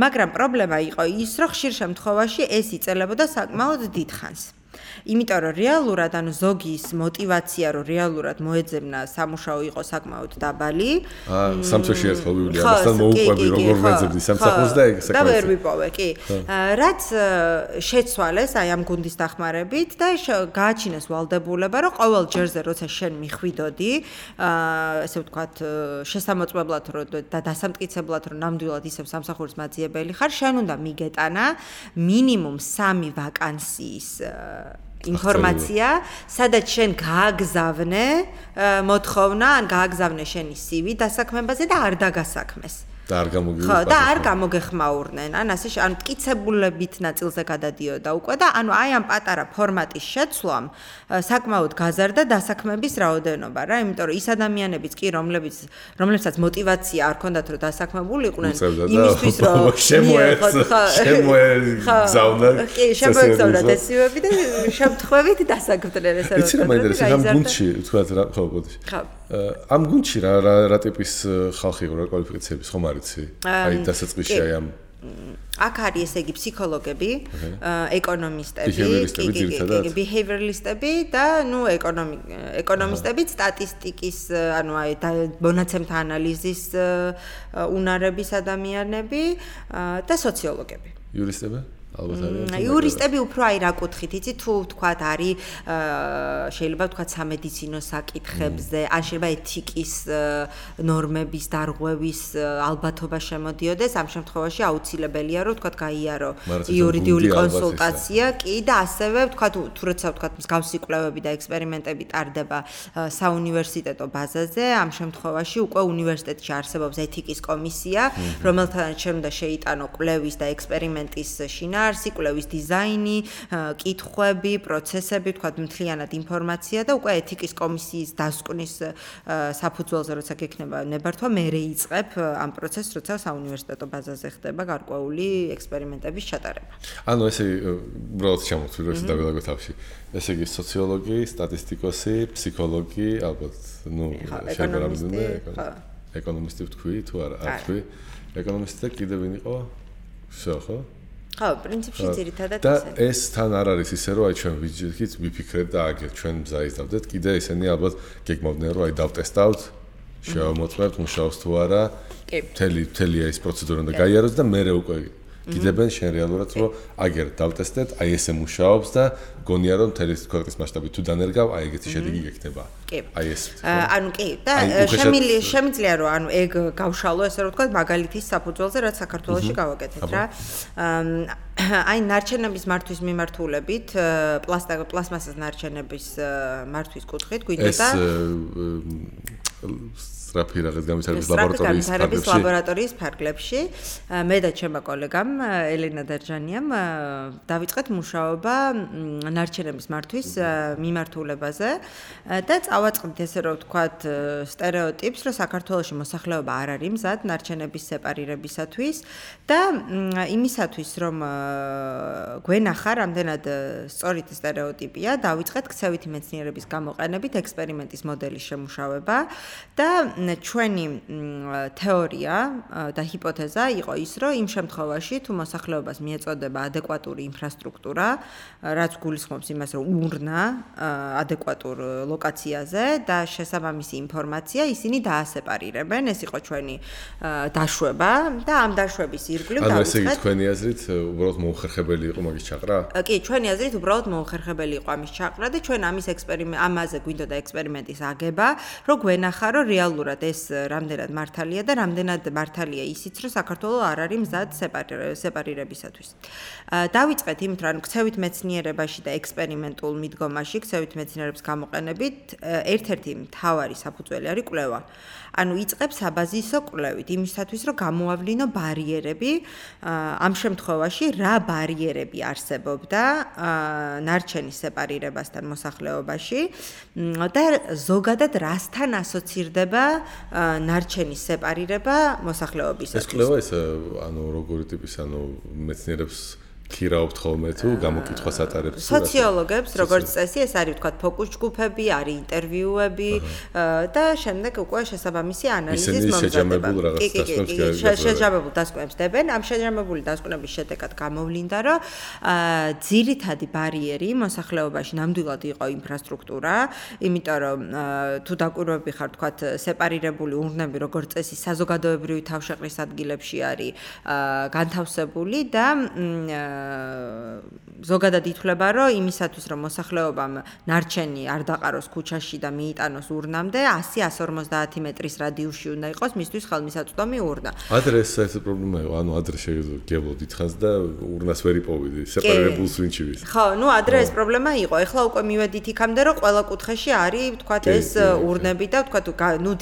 მაგრამ პრობლემა იყო ის რომ ხშირ შემთხვევაში ეს იწერებოდა საკმაოდ დიდხანს იმიტომ რომ რეალურად ანუ ზოგის мотиваცია რომ реалურად მოეძებნა სამუშაო იყო საკმაოდ დაბალი. სამწუხაროდ ერთხელ ვივლი ამასთან მოუყვები როგორ ვეძებდი სამსახურს და ეგ საკმაოდ. და ვერ ვიპოვე, კი. რაც შეცვალეს აი ამ გუნდის დახმარებით და გააჩინეს ვალდებულება რომ ყოველ ჯერზე როცა შენ მიხვიდოდი, ესე ვთქვათ, შესამოწმებლად და დასამტკიცებლად რომ ნამდვილად ისევ სამსახურის მაძიებელი ხარ, შენ უნდა მიგეტანა მინიმუმ 3 ვაკანსიის ინფორმაცია, სადაც შენ გააგზავნე მოთხოვნა, ან გააგზავნე შენი CV დასაქმებაზე და არ დაგასაქმეს. და არ გამოგიხმაურდნენ. ხო, და არ გამოგეხმაურნენ. ან ასე ანუ მტკიცებულებით ნაწილზე გადადიოდა უკვე და ანუ აი ამ პატარა ფორმატის შეცვლამ საკმაოდ გაზარდა დასაქმების რაოდენობა რა, იმიტომ რომ ის ადამიანებიც კი რომლებსაც мотиваცია არ ჰქონდათ რომ დასაქმებულიყვნენ იმისთვის რომ შემოეგზავნა. კი, შემოეგზავნა ესივები და შემთხვევით დასაქმდნენ ესე რომ. იცი რა მაინტერესებს ამ გუნდში თქვათ რა ხო ბოდიში. ხო. ამ გუნდში რა ტიპის ხალხი იყო რა კვალიფიკაციების ხომ არიცი? აი დასაწყისში აი ამ აქ არის ესე იგი ფსიქოლოგები, ეკონომისტები, behavioralistები და ნუ ეკონომისტები, სტატისტიკის, ანუ აი მონაცემთა ანალიზის უნარების ადამიანები და სოციოლოგები. იურისტები? ალბათ არის. იურისტები უფრო აი რა კუთხით, იცი თუ ვთქვათ არის შეიძლება ვთქვათ სამედიცინო საკითხებზე, ან შეიძლება ეთიკის ნორმების დარღვევის ალბათობა შემოდიოდეს, ამ შემთხვევაში აუცილებელია რომ ვთქვათ გაიარო იურიდიული კონსულტაცია, კი და ასევე ვთქვათ თუ როცა ვთქვათ მსგავსი კვლევები და ექსპერიმენტები ტარდება საუნივერსიტეტო ბაზაზე, ამ შემთხვევაში უკვე უნივერსიტეტში არსებობს ეთიკის კომისია, რომელთანაც შენ უნდა შეიტანო კვლევის და ექსპერიმენტის შინაარსი კვლევის დიზაინი, კითხვები, პროცესები, თქვა მთლიანად ინფორმაცია და უკვე ეთიკის კომისიის დასკვნის საფუძველზე როცა გექნება ნებართვა, მე რეიწყებ ამ პროცესს, როცა საუნივერსიტეტო ბაზაზე ხდება გარკვეული ექსპერიმენტების ჩატარება. ანუ ესე უბრალოდ ჩამოვთვლი, რომ ეს დავილაგო თავში. ესე იგი სოციოლოგი, სტატისტიკოსი, ფსიქოლოგი, ალბათ, ნუ შეიძლება რამოდენიმე ეკონომისტი ვთქვი თუ არა, არ ვთქვი. ეკონომისტი და კიდევ ვინ იყო? ხო? ხო, პრინციპში ძირითადად და ეს თან არ არის ისე რომ აი ჩვენ ვიჯექით, ვიფიქრეთ და აგერ ჩვენ მზაიზდავდეთ, კიდე ესენი ალბათ გეგმავდნენ რომ აი დავტესტავთ, შევამოწმებთ მუშაობს თუ არა. კი. მთელი ეს პროცედურა უნდა გაიაროს და მე უკვე გიდებენ შენ რეალურად რომ აგერ დავტესტეთ, აი ესე მუშაობს და გონია რომ მთელი ქვეყნის მასშტაბით თუ დანერგავ, აი ეგეთი შედეგი გექნება. კი. აი ეს. ანუ კი და შემიძლია რომ ანუ ეგ გავშალო ესე რომ ვთქვათ მაგალითის საფუძველზე რაც საქართველოში გავაკეთეთ რა. აი ნარჩენების მართვის მიმართულებით, პლასტმასის ნარჩენების მართვის კუთხით გვინდოდა სწრაფი რაღაც განვითარების ლაბორატორიის ფარგლებში მე და ჩემმა კოლეგამ ელენა დარჯანიამ დავიწყეთ მუშაობა ნარჩენების მართვის მიმართულებაზე და წავაწყდით ესე რომ ვთქვათ სტერეოტიპს, რომ საქართველოში მოსახლეობა არ არის მზად ნარჩენების სეპარირებისათვის და იმისათვის რომ გვენახა რამდენად სწორი სტერეოტიპია, დავიწყეთ ქცევითი მეცნიერების გამოყენებით ექსპერიმენტის მოდელის შემუშავება და ჩვენი თეორია და ჰიპოთეზა იყო ის, რომ იმ შემთხვევაში თუ მოსახლეობას მიეწოდება ადეკვატური ინფრასტრუქტურა, რაც გულისხმობს იმას, რომ ურნა ადეკვატურ ლოკაციაზე და შესაბამისი ინფორმაცია ისინი დაასეპარირებენ. ეს იყო ჩვენი დაშვება და ამ დაშვების ირგვლივ დავიწყეთ. ანუ ესე იგი თქვენი აზრით უბრალოდ მოუხერხებელი იყო მაგის ჩაყრა? კი, ჩვენი აზრით უბრალოდ მოუხერხებელი იყო ამის ჩაყრა და ჩვენ ამაზე გვინდოდა ექსპერიმენტის აგება, რომ გვენახა, რომ რეალურად ეს რამდენად მართალია და რამდენად მართალია ისიც, რომ საქართველოს არ არის მზად სეპარირებისათვის. დავიწყეთ იმით, რომ ქცევით მეცნიერებაში და ექსპერიმენტულ მიდგომაში, ქცევით მეცნიერების გამოყენებით ერთ-ერთი მთავარი საფუძველი არის კვლევა. ანუ იწყებს საბაზისო კვლევით იმისათვის, რომ გამოავლინო ბარიერები, ამ შემთხვევაში რა ბარიერები არსებობდა ნარჩენის სეპარირებასთან მოსახლეობაში და ზოგადად რასთან ასოცირდება ნარჩენის სეპარირება მოსახლეობისათვის. ეს კვლევა ის ანუ როგორი ტიპის ანუ მეცნიერებს ქირაობთ ხოლმე თუ გამოკითხვას ატარებთ? სოციოლოგებს, როგორც წესი, ეს არის ვთქვათ ფოკუს ჯგუფები, არის ინტერვიუები და შემდეგ უკვე შესაბამისი ანალიზის მომზადება. შეჯამებულ დასკვნებს დებენ. ამ შეჯამებული დასკვნების შედეგად გამოვლინდა, რომ ძირითადი ბარიერი მოსახლეობაში ნამდვილად იყო ინფრასტრუქტურა, იმიტომ რომ თუ დაკვირვები ხარ ვთქვათ სეპარირებული ურნები, როგორც წესი, საზოგადოებრივი თავშეყრის ადგილებში არის განთავსებული და ზოგადად ითვლება, რომ იმისათვის, რომ მოსახლეობამ ნარჩენი არ დაყაროს ქუჩაში და მიიტანოს ურნამდე, 100-150 მეტრის რადიუსში უნდა იყოს მისთვის ხელმისაწვდომი ურნა. ადრე ეს საერთოდ პრობლემა იყო, ანუ ადრე შეგეძლო დიდხანს და ურნას ვერ იპოვიდი, სეპარირებულს ვინ ჩივის. ხო, ადრე ეს პრობლემა იყო. ეხლა უკვე მივედით იქამდე, რომ ყველა კუთხეში არის, ვთქვათ, ეს ურნები და ვთქვათ,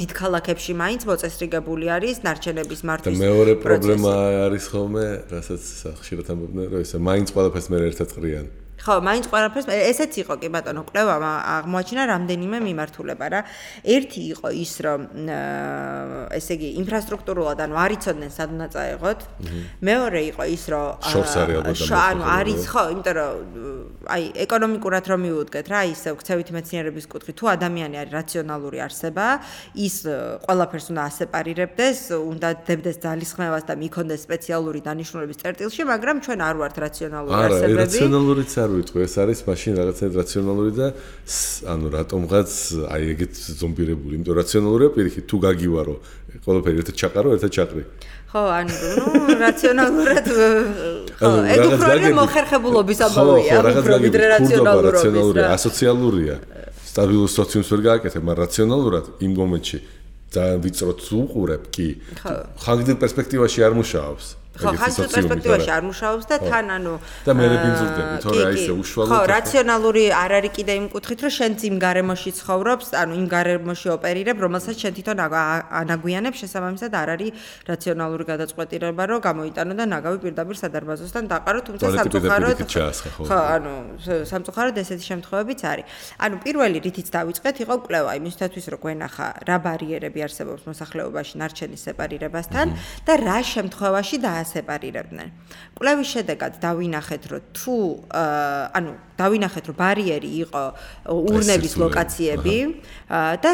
დიდ ქალაქებში მაინც მოწესრიგებული არის ნარჩენების მართვის პროცესი. და მეორე პრობლემა არის ხოლმე, რასაც ხშირად ამბობდნენ, რომ ესე მაინც ყველაფერს მე ერთად ყრიან. ხო, მაინც ყველაფერს ესეც იყო კი ბატონო, კვლევამ აღმოაჩინა რამდენიმე მიმართულება რა. ერთი იყო ის, რომ ესე იგი ინფრასტრუქტურულად ანუ არ იცოდნენ სად უნდა წაეღოთ. მეორე იყო ის, რომ შორს არის ალბათ ანუ არის ხო, იმიტომ რომ აი ეკონომიკურად რომ მივუდგეთ რა, ისე ქცევითი მეცნიერების კუთხით, თუ ადამიანი არის რაციონალური არსება, ის ყველაფერს უნდა ასეპარირებდეს, უნდა დებდეს ძალისხმევას და მიქონდეს სპეციალური დანიშნულების წერტილში, მაგრამ ჩვენ არ ვართ რაციონალური არსებები. არა, რაციონალურიც არ ვიტყვი, ეს არის მაშინ რაღაცა რაციონალური და ანუ რატომღაც აი ეგეთ ზომბირებული, იმიტომ რაციონალურია პირიქით, თუ გაგივარო, ყველაფერი ერთად ჩაყარო, ერთად ჩაყრი. ხო, ანუ რაციონალურად ხო, ეგ უფრო მოხერხებულობის ამბავია, უფრო ვიდრე რაციონალურობა. ასოციალურია. სტაბილურ სოციუმს ვერ გააკეთებ, მაგრამ რაციონალურად იმ მომენტში ძალიან ვიწროთ უყურებ კი. ხანგრძლივ პერსპექტივაში არ მუშაობს. ხო, ხანგრძლივ პერსპექტივაში არ მუშაობს და თან ანუ და მე რებინძურდები, თორე აი ესე უშუალოდ ხო, რაციონალური არ არის კიდე იმ კუთხით, რომ შენ იმ გარემოში ცხოვრობს, ანუ იმ გარემოში ოპერირებ, რომელსაც შენ თვითონ ანაგვიანებ, შესაბამისად არ არის რაციონალური გადაწყვეტილება, რომ გამოიტანო და ნაგავი პირდაპირ სადარბაზოსთან დაყარო, თუმცა სამწუხაროდ ხო, ანუ სამწუხაროდ ესეთი შემთხვევებიც არის. ანუ პირველი რითიც დავიწყეთ იყო კვლევა იმისათვის, რომ გვენახა რა ბარიერები არსებობს მოსახლეობაში ნარჩენის სეპარირებასთან და რა შემთხვევაში სეპარირებდნენ. კვლევის შედეგად დავინახეთ, რომ თუ ანუ დავინახეთ, რომ ბარიერი იყო ურნების ლოკაციები და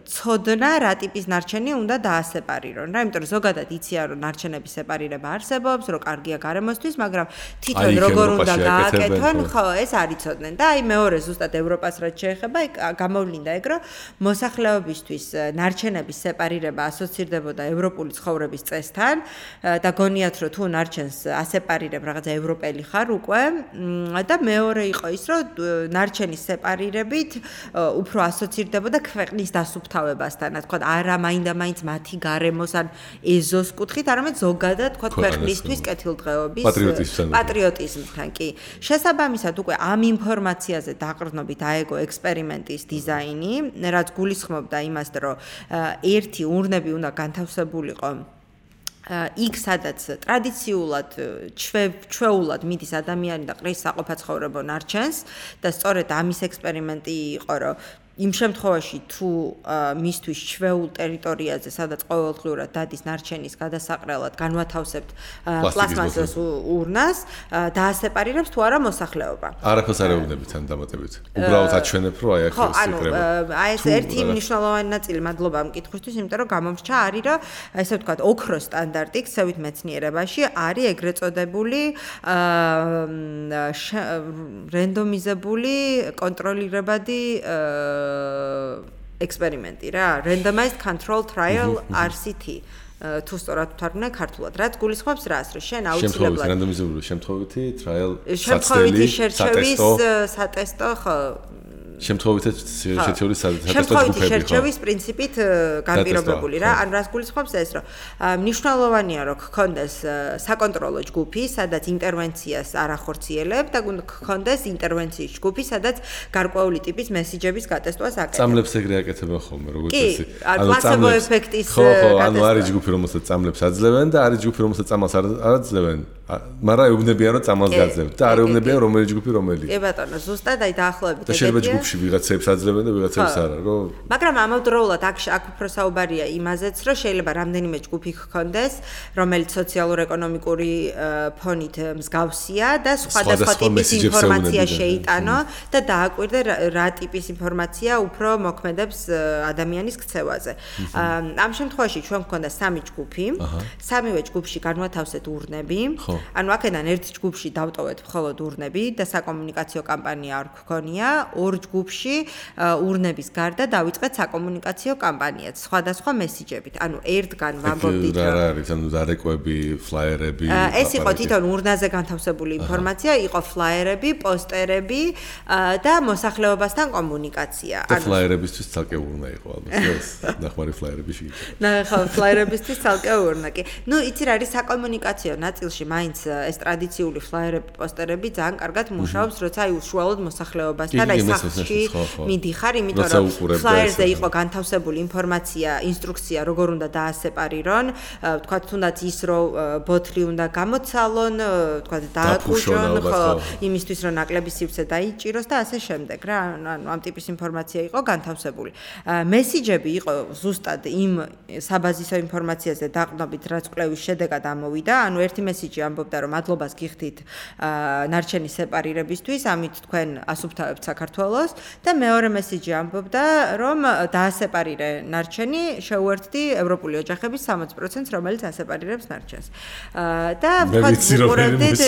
ცოდნა რა ტიპის ნარჩენი უნდა დაასეპარირონ. რა, იმიტომ რომ zogადად იციან, რომ ნარჩენების სეპარირება არსებობს, რომ კარგია გარემოსთვის, მაგრამ თვითონ როგორ უნდა გააკეთონ, ხო, ეს არ იცოდნენ. და აი მეორე ზუსტად ევროპას რაც შეეხება, გამოვლინდა ეგ, რომ მოსახლეობისთვის ნარჩენების სეპარირება ასოცირდებოდა ევროპული ცხოვრების წესთან და გონიათ რომ თუ ნარჩენს ასეპარირებ რაღაცა ევროპელი ხარ უკვე და მეორე იყო ის რომ ნარჩენის სეპარირებით უფრო ასოცირდებოდა ქვეყნის დასუფთავებასთან, თქვა არა მაინდა-მაინც მათი გარემოს ან ეზოს კუთხით, არამედ ზოგადად თქვა ქვეყნისთვის კეთილდღეობის პატრიოტიზმთან კი. შესაბამისად უკვე ამ ინფორმაციაზე დაყრდნობით აეგო ექსპერიმენტის დიზაინი, რაც გულისხმობდა იმას, რომ ერთი ურნები უნდა განთავსებულიყო იქ სადაც ტრადიციულად ჩვეულად მიდის ადამიანი და ყრის საყოფაცხოვრებო ნარჩენს და სწორედ ამის ექსპერიმენტი იყო, რომ იმ შემთხვევაში თუ მისთვის ჩვეულ ტერიტორიაზე, სადაც ყოველდღიურად დადის ნარჩენის გადასაყრელად, განვათავსებთ პლასმასის ურნას, დაასეპარირებს თუ არა მოსახლეობა. არაფერს არ ეუბნებით ამ დამატებით. უბრალოდ აჩვენებ, რომ აი აქ სიკრება. აი ეს ერთი მნიშვნელოვანი ნაწილი მადლობა ამ კითხვისთვის, იმიტომ რომ გამომრჩა არის, რომ ესე ვთქვათ, ოქროს სტანდარტი ქსევით მეცნიერებაში არის ეგრეთ წოდებული რენდომიზებული კონტროლირებადი ექსპერიმენტი რა, randomized control trial RCT. თუ სწორად ვთარგმნე ქართულად, რაც გულისხმობს რას, რომ შენ აუცილებლად რანდომიზებული შემთხვევითი trial შემთხვევითი შერჩევის სატესტო ხო შემთხვევითი შერჩევის სატესტო შემთხვევითი შერჩევის პრინციპით განპირობებული რა. ან რას გულისხმობს ეს, რომ მნიშვნელოვანია რომ გქონდეს საკონტროლო ჯგუფი, სადაც ინტერვენციას არ ახორციელებ და გქონდეს ინტერვენციის ჯგუფი, სადაც გარკვეული ტიპის მესიჯების გატესტვას აკეთებ. წამლებს ეგრე აკეთებენ ხოლმე, როგორც ესე. ანუ პლაცებო ეფექტის ანუ არის ჯგუფი, რომელსაც წამლებს აძლევენ და არის ჯგუფი, რომელსაც წამალს არ აძლევენ. მაგრამ ეუბნებიან რომ წამალს გაძლევთ და არ ეუბნებიან რომელი ჯგუფი რომელი. კი ბატონო, ზუსტად აი დაახლოებით ეგეთია. და შეიძლება ჯგუფში ვიღაცებს აძლევენ და ვიღაცებს არა, რომ მაგრამ ამავდროულად აქ უფრო საუბარია იმაზეც, რომ შეიძლება რამდენიმე ჯგუფი გქონდეს, რომელიც სოციალურ-ეკონომიკური ფონით მსგავსია და სხვადასხვა ტიპის ინფორმაცია შეიტანო და დააკვირდე რა ტიპის ინფორმაცია უფრო მოქმედებს ადამიანის ქცევაზე. ამ შემთხვევაში ჩვენ გქონდა 3 ჯგუფი, 3-ვე ჯგუფში განვათავსეთ ურნები. ანუ აქედან ერთ ჯგუფში დავტოვეთ მხოლოდ ურნები და საკომუნიკაციო კამპანია არ გქონია, ორ ჯგუფში ურნების გარდა დავიწყეთ საკომუნიკაციო კამპანიაც სხვადასხვა მესიჯებით. ანუ ერთგან ვამბობდით რა არის, ანუ დარეკვები, ფლაიერები. ეს იყო თვითონ ურნაზე განთავსებული ინფორმაცია, იყო ფლაიერები, პოსტერები და მოსახლეობასთან კომუნიკაცია. და ფლაიერებისთვის ცალკე урна იყო ალბათ, ეს ნახმარი ფლაიერები შეიძლება. ხო, ფლაიერებისთვის ცალკე урна კი. ნუ იცი რა არის საკომუნიკაციო ნაწილში მაინც ეს ტრადიციული ფლაიერები, პოსტერები ძალიან კარგად მუშაობს, როცა აი უშუალოდ მოსახლეობასთან აი სახლში მიდიხარ, იმიტომ რომ ფლაიერზე იყო განთავსებული ინფორმაცია, ინსტრუქცია, როგორ უნდა დაასეპარირონ, თქვათ თუნდაც ის რომ ბოთლი უნდა გამოცალონ, თქვათ დააკუჭონ, ხო, იმისთვის რომ ნაკლები სივრცე დაიჭიროს და ასე შემდეგ რა, ანუ ამ ტიპის ინფორმაცია იყო განთავსებული. მესიჯები იყო ზუსტად იმ საბაზისო ინფორმაციაზე დაყრდნობით, რაც კვლევის შედეგად ამოვიდა, ანუ ერთი მესიჯი ამბობდა რომ მადლობას გიხდით ნარჩენის სეპარირებისთვის, ამით თქვენ ასუფთავებთ საქართველოს და მეორე მესიჯი ამბობდა რომ დაასეპარირე ნარჩენი, შეუერთდი ევროპული ოჯახების 60%, რომელიც ასეპარირებს ნარჩენს. და ვთქვათ უყურებდით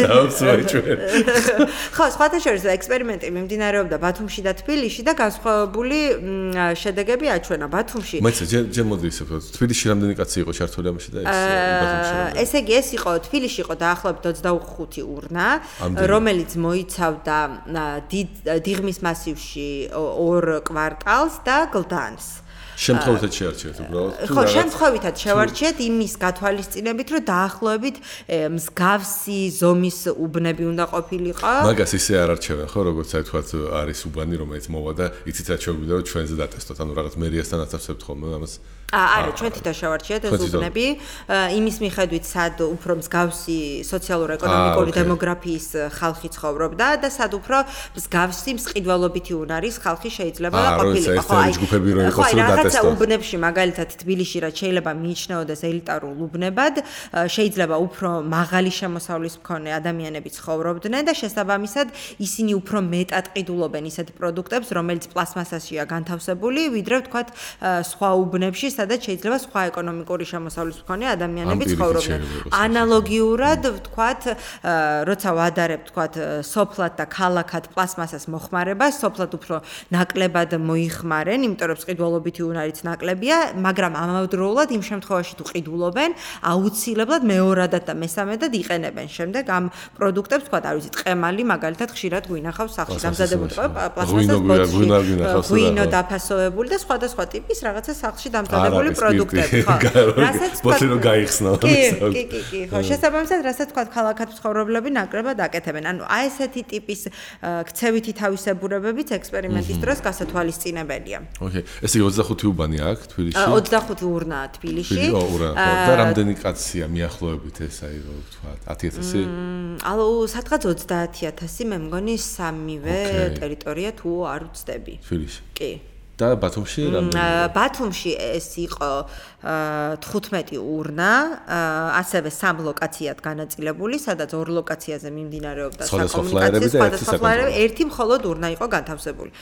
ხო, სხვათა შორის ექსპერიმენტი მიმდინარეობდა ბათუმში და თბილისში და განსხვავებული შედეგები აჩვენა ბათუმში. მაინც ჯერ მოდი ისე ვთქვათ, თბილისში რამდენი კაცი იყო ჩართული ამაში და ბათუმში? ესე იგი ეს იყო თბილისში იყო დაახლოებით 25 урна, რომელიც მოიცავდა დიღმის მასივში 2 კვარტალს და გლდანს. შემთხვევითად შეარჩიეთ უბრალოდ. ხო, შემთხვევითად შევარჩიეთ იმის გათვალისწინებით, რომ დაახლოებით მსგავსი ზომის უბნები უნდა ყოფილიყო. მაგას ისე არ არჩევენ, ხო, როგორც აი თქვათ არის უბანი, რომელიც მოვა და იცით რა შეგვიძლია რომ ჩვენზე დატესტოთ, ანუ რაღაც მერიასთან აცავსებთ ხოლმე ამას. არა, ჩვენ თვითონ შევარჩიეთ ეს უბნები, იმის მიხედვით, სად უფრო მსგავსი სოციალურ-ეკონომიკური დემოგრაფიის ხალხი ცხოვრობდა და სად უფრო მსგავსი მსყიდველობითი უნარის ხალხი შეიძლება ყოფილიყო. ხო, აი ჯგუფები რო იყოს რომ დატესტოთ. უბნებში მაგალითად თბილისში რაც შეიძლება მიიჩნეოდეს ელიტარულ უბნებად, შეიძლება უფრო მაღალი შემოსავლის მქონე ადამიანები ცხოვრობდნენ და შესაბამისად ისინი უფრო მეტად ყიდულობენ ისეთ პროდუქტებს, რომელიც პლასმასაშია განთავსებული, ვიდრე ვთქვათ სხვა უბნებში, სადაც შეიძლება სხვა ეკონომიკური შემოსავლის მქონე ადამიანები ცხოვრობდნენ. ანალოგიურად ვთქვათ, როცა ვადარებ ვთქვათ სოფლად და ქალაქად პლასმასას მოხმარებას, სოფლად უფრო ნაკლებად მოიხმარენ, იმიტომ რომ ყიდულობითი არის ნაკლებია, მაგრამ ამავდროულად იმ შემთხვევაში თუ ყიდულობენ, აუცილებლად მეორადად და მესამედად იყენებენ შემდეგ ამ პროდუქტებს, თქვა, არ ვიცი, ტყემალი მაგალითად ხშირად გვინახავს სახლში დამზადებული პლასმასის ბოთლი, ღვინო დაფასოვებული და სხვადასხვა ტიპის რაღაცა სახლში დამზადებული პროდუქტები, ხო. რასაც ბოთლი რო გაიხსნა. კი, ხო, შესაბამისად, რასაც თქვა, ქალაქად მცხოვრებლები ნაკლებად აკეთებენ. ანუ აი ესეთი ტიპის ქცევითი თავისებურებებიც ექსპერიმენტის დროს გასათვალისწინებელია. ოკეი. ესე 25 უბანი აქვს თბილისში? 25 ურნაა თბილისში. და რამდენი კაცია მიახლოებით ეს აი რო ვთქვა 10000-ი? ალო, სადღაც 30000, მე მგონი სამივე ტერიტორია თუ არ ვცდები. თბილისში. კი. და ბათუმში რამდენი? ბათუმში ეს იყო 15 ურნა, ასევე 3 ლოკაციად განაწილებული, სადაც 2 ლოკაციაზე მიმდინარეობდა საკომუნიკაციო სხვადასხვა, ერთი მხოლოდ ურნა იყო განთავსებული.